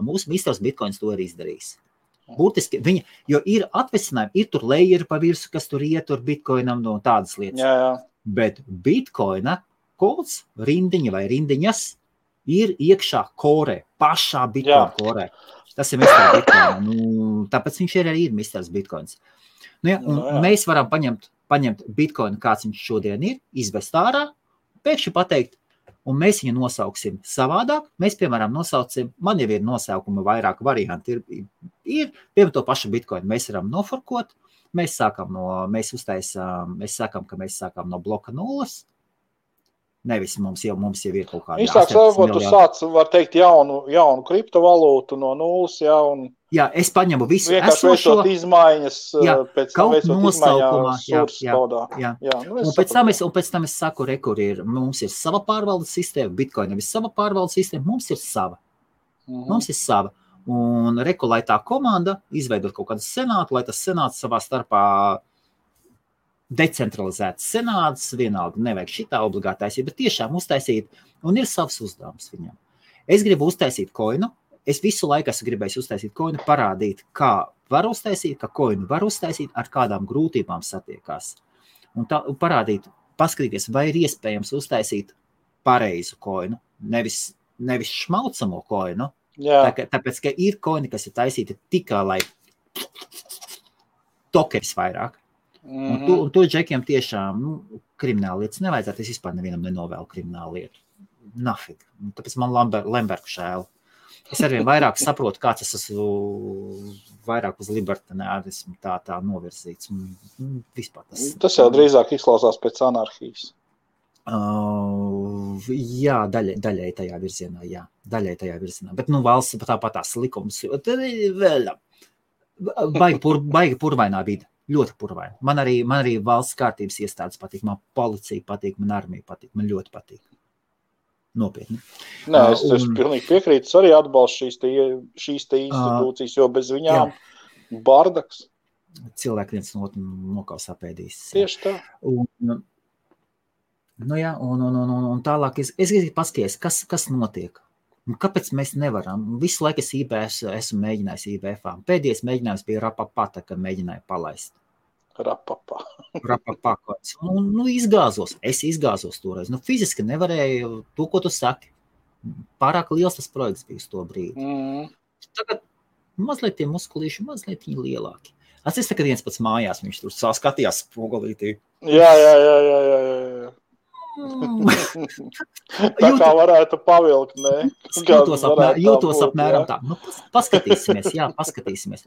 Mūsu Mr. Bitcoins to ir izdarījis. Būtiski viņa, jo ir atvesinājumi, ir tur layeri pa virsu, kas tur ietur Bitcoinam no tādas lietas. Jā. Bet Bitcoina kods, rindiņa vai rindiņas ir iekšā Core, pašā Bitcoin Core. Tas ir Mr. Bitcoin. Tāpēc viņš ir arī Mr. Bitcoins. Mēs varam paņemt Bitcoinu, kāds viņš šodien ir, izvest ārā, pēkšņi pateikt, un mēs viņu nosauksim savādāk. Mēs, piemēram, nosaucim, man jau ir nosaukuma vairāk varianti, ir piemēram to pašu Bitcoinu. Mēs varam noforkot, mēs sākam, ka mēs sākam no bloka 0. Nevis mums jau ir kaut kāda. Īsāk sakot, tu sāc, var teikt, jaunu kriptovalūtu no 0, Jā, es paņemu visu vienkārši esošo. Veicot izmaiņas, pēc tam veicot nosaukumā, izmaiņas kodā. Un pēc tam es saku, mums ir sava pārvaldes sistēma, Bitcoinam ir sava pārvaldes sistēma, mums ir sava. Mums ir sava. Un lai tā komanda izveidot kaut kādu senātu, lai tas senāts savā starpā decentralizēts senāts, vienalga nevajag šitā obligātais, bet tiešām uztaisīt, un ir savs uzdevums viņam. Es gribu uztaisīt koinu, es visu laiku esmu gribējis uztaisīt koinu, parādīt, kā var uztaisīt, ka koinu var uztaisīt, ar kādām grūtībām satiekās. Un parādīt, paskatīties, vai ir iespējams uztaisīt pareizu koinu, nevis šmaucamo koinu. Tāpēc, ka ir koini, kas ir taisīti tikai, lai tokeris vairāk. Un to džekiem tiešām krimināla lietas nevajadzētu. Es vispār nevienam nenovēlu kriminālu lietu. Nafig. Tāpēc man Lembergu šēl. Es arvien vairāk saprotu, kāds es esmu vairāk uz libertārismu tā novirzīts. Vispār tas jau drīzāk izklausās pēc anarhijas. Jā, daļai tajā virzienā, jā. Daļai tajā virzienā. Bet valsts tāpat tās likums. Baigi purvainā vide. Ļoti purvaini. Man arī valsts kārtības iestādes patīk, man policija patīk, man armija patīk, man ļoti patīk. Nopietni. Nē, es pilnīgi piekrītu, es arī atbalstu šīs institūcijas, jo bez viņām bardaks. Cilvēki viens no otru nokaus apēdīs. Tieši tā. Un tālāk es gribu paskaties, kas notiek. Kāpēc mēs nevaram? Visu laiku es IBF esmu mēģinājis IBF-ā. Pēdējais mēģinājums bija Rapapā, kad mēģināju palaist. Rapapā. Izgāzos. Es izgāzos toreiz. Fiziski nevarēju to, ko tu saki. Pārāk liels tas projekts bija uz to brīdi. Tagad mazliet tie muskulīši, mazliet viņi lielāki. Es tagad viens pats mājās, viņš tur skatījās spogulītī. Jā. Tā kā varētu pavilkt, ne? Jūtos apmēram tā. Paskatīsimies.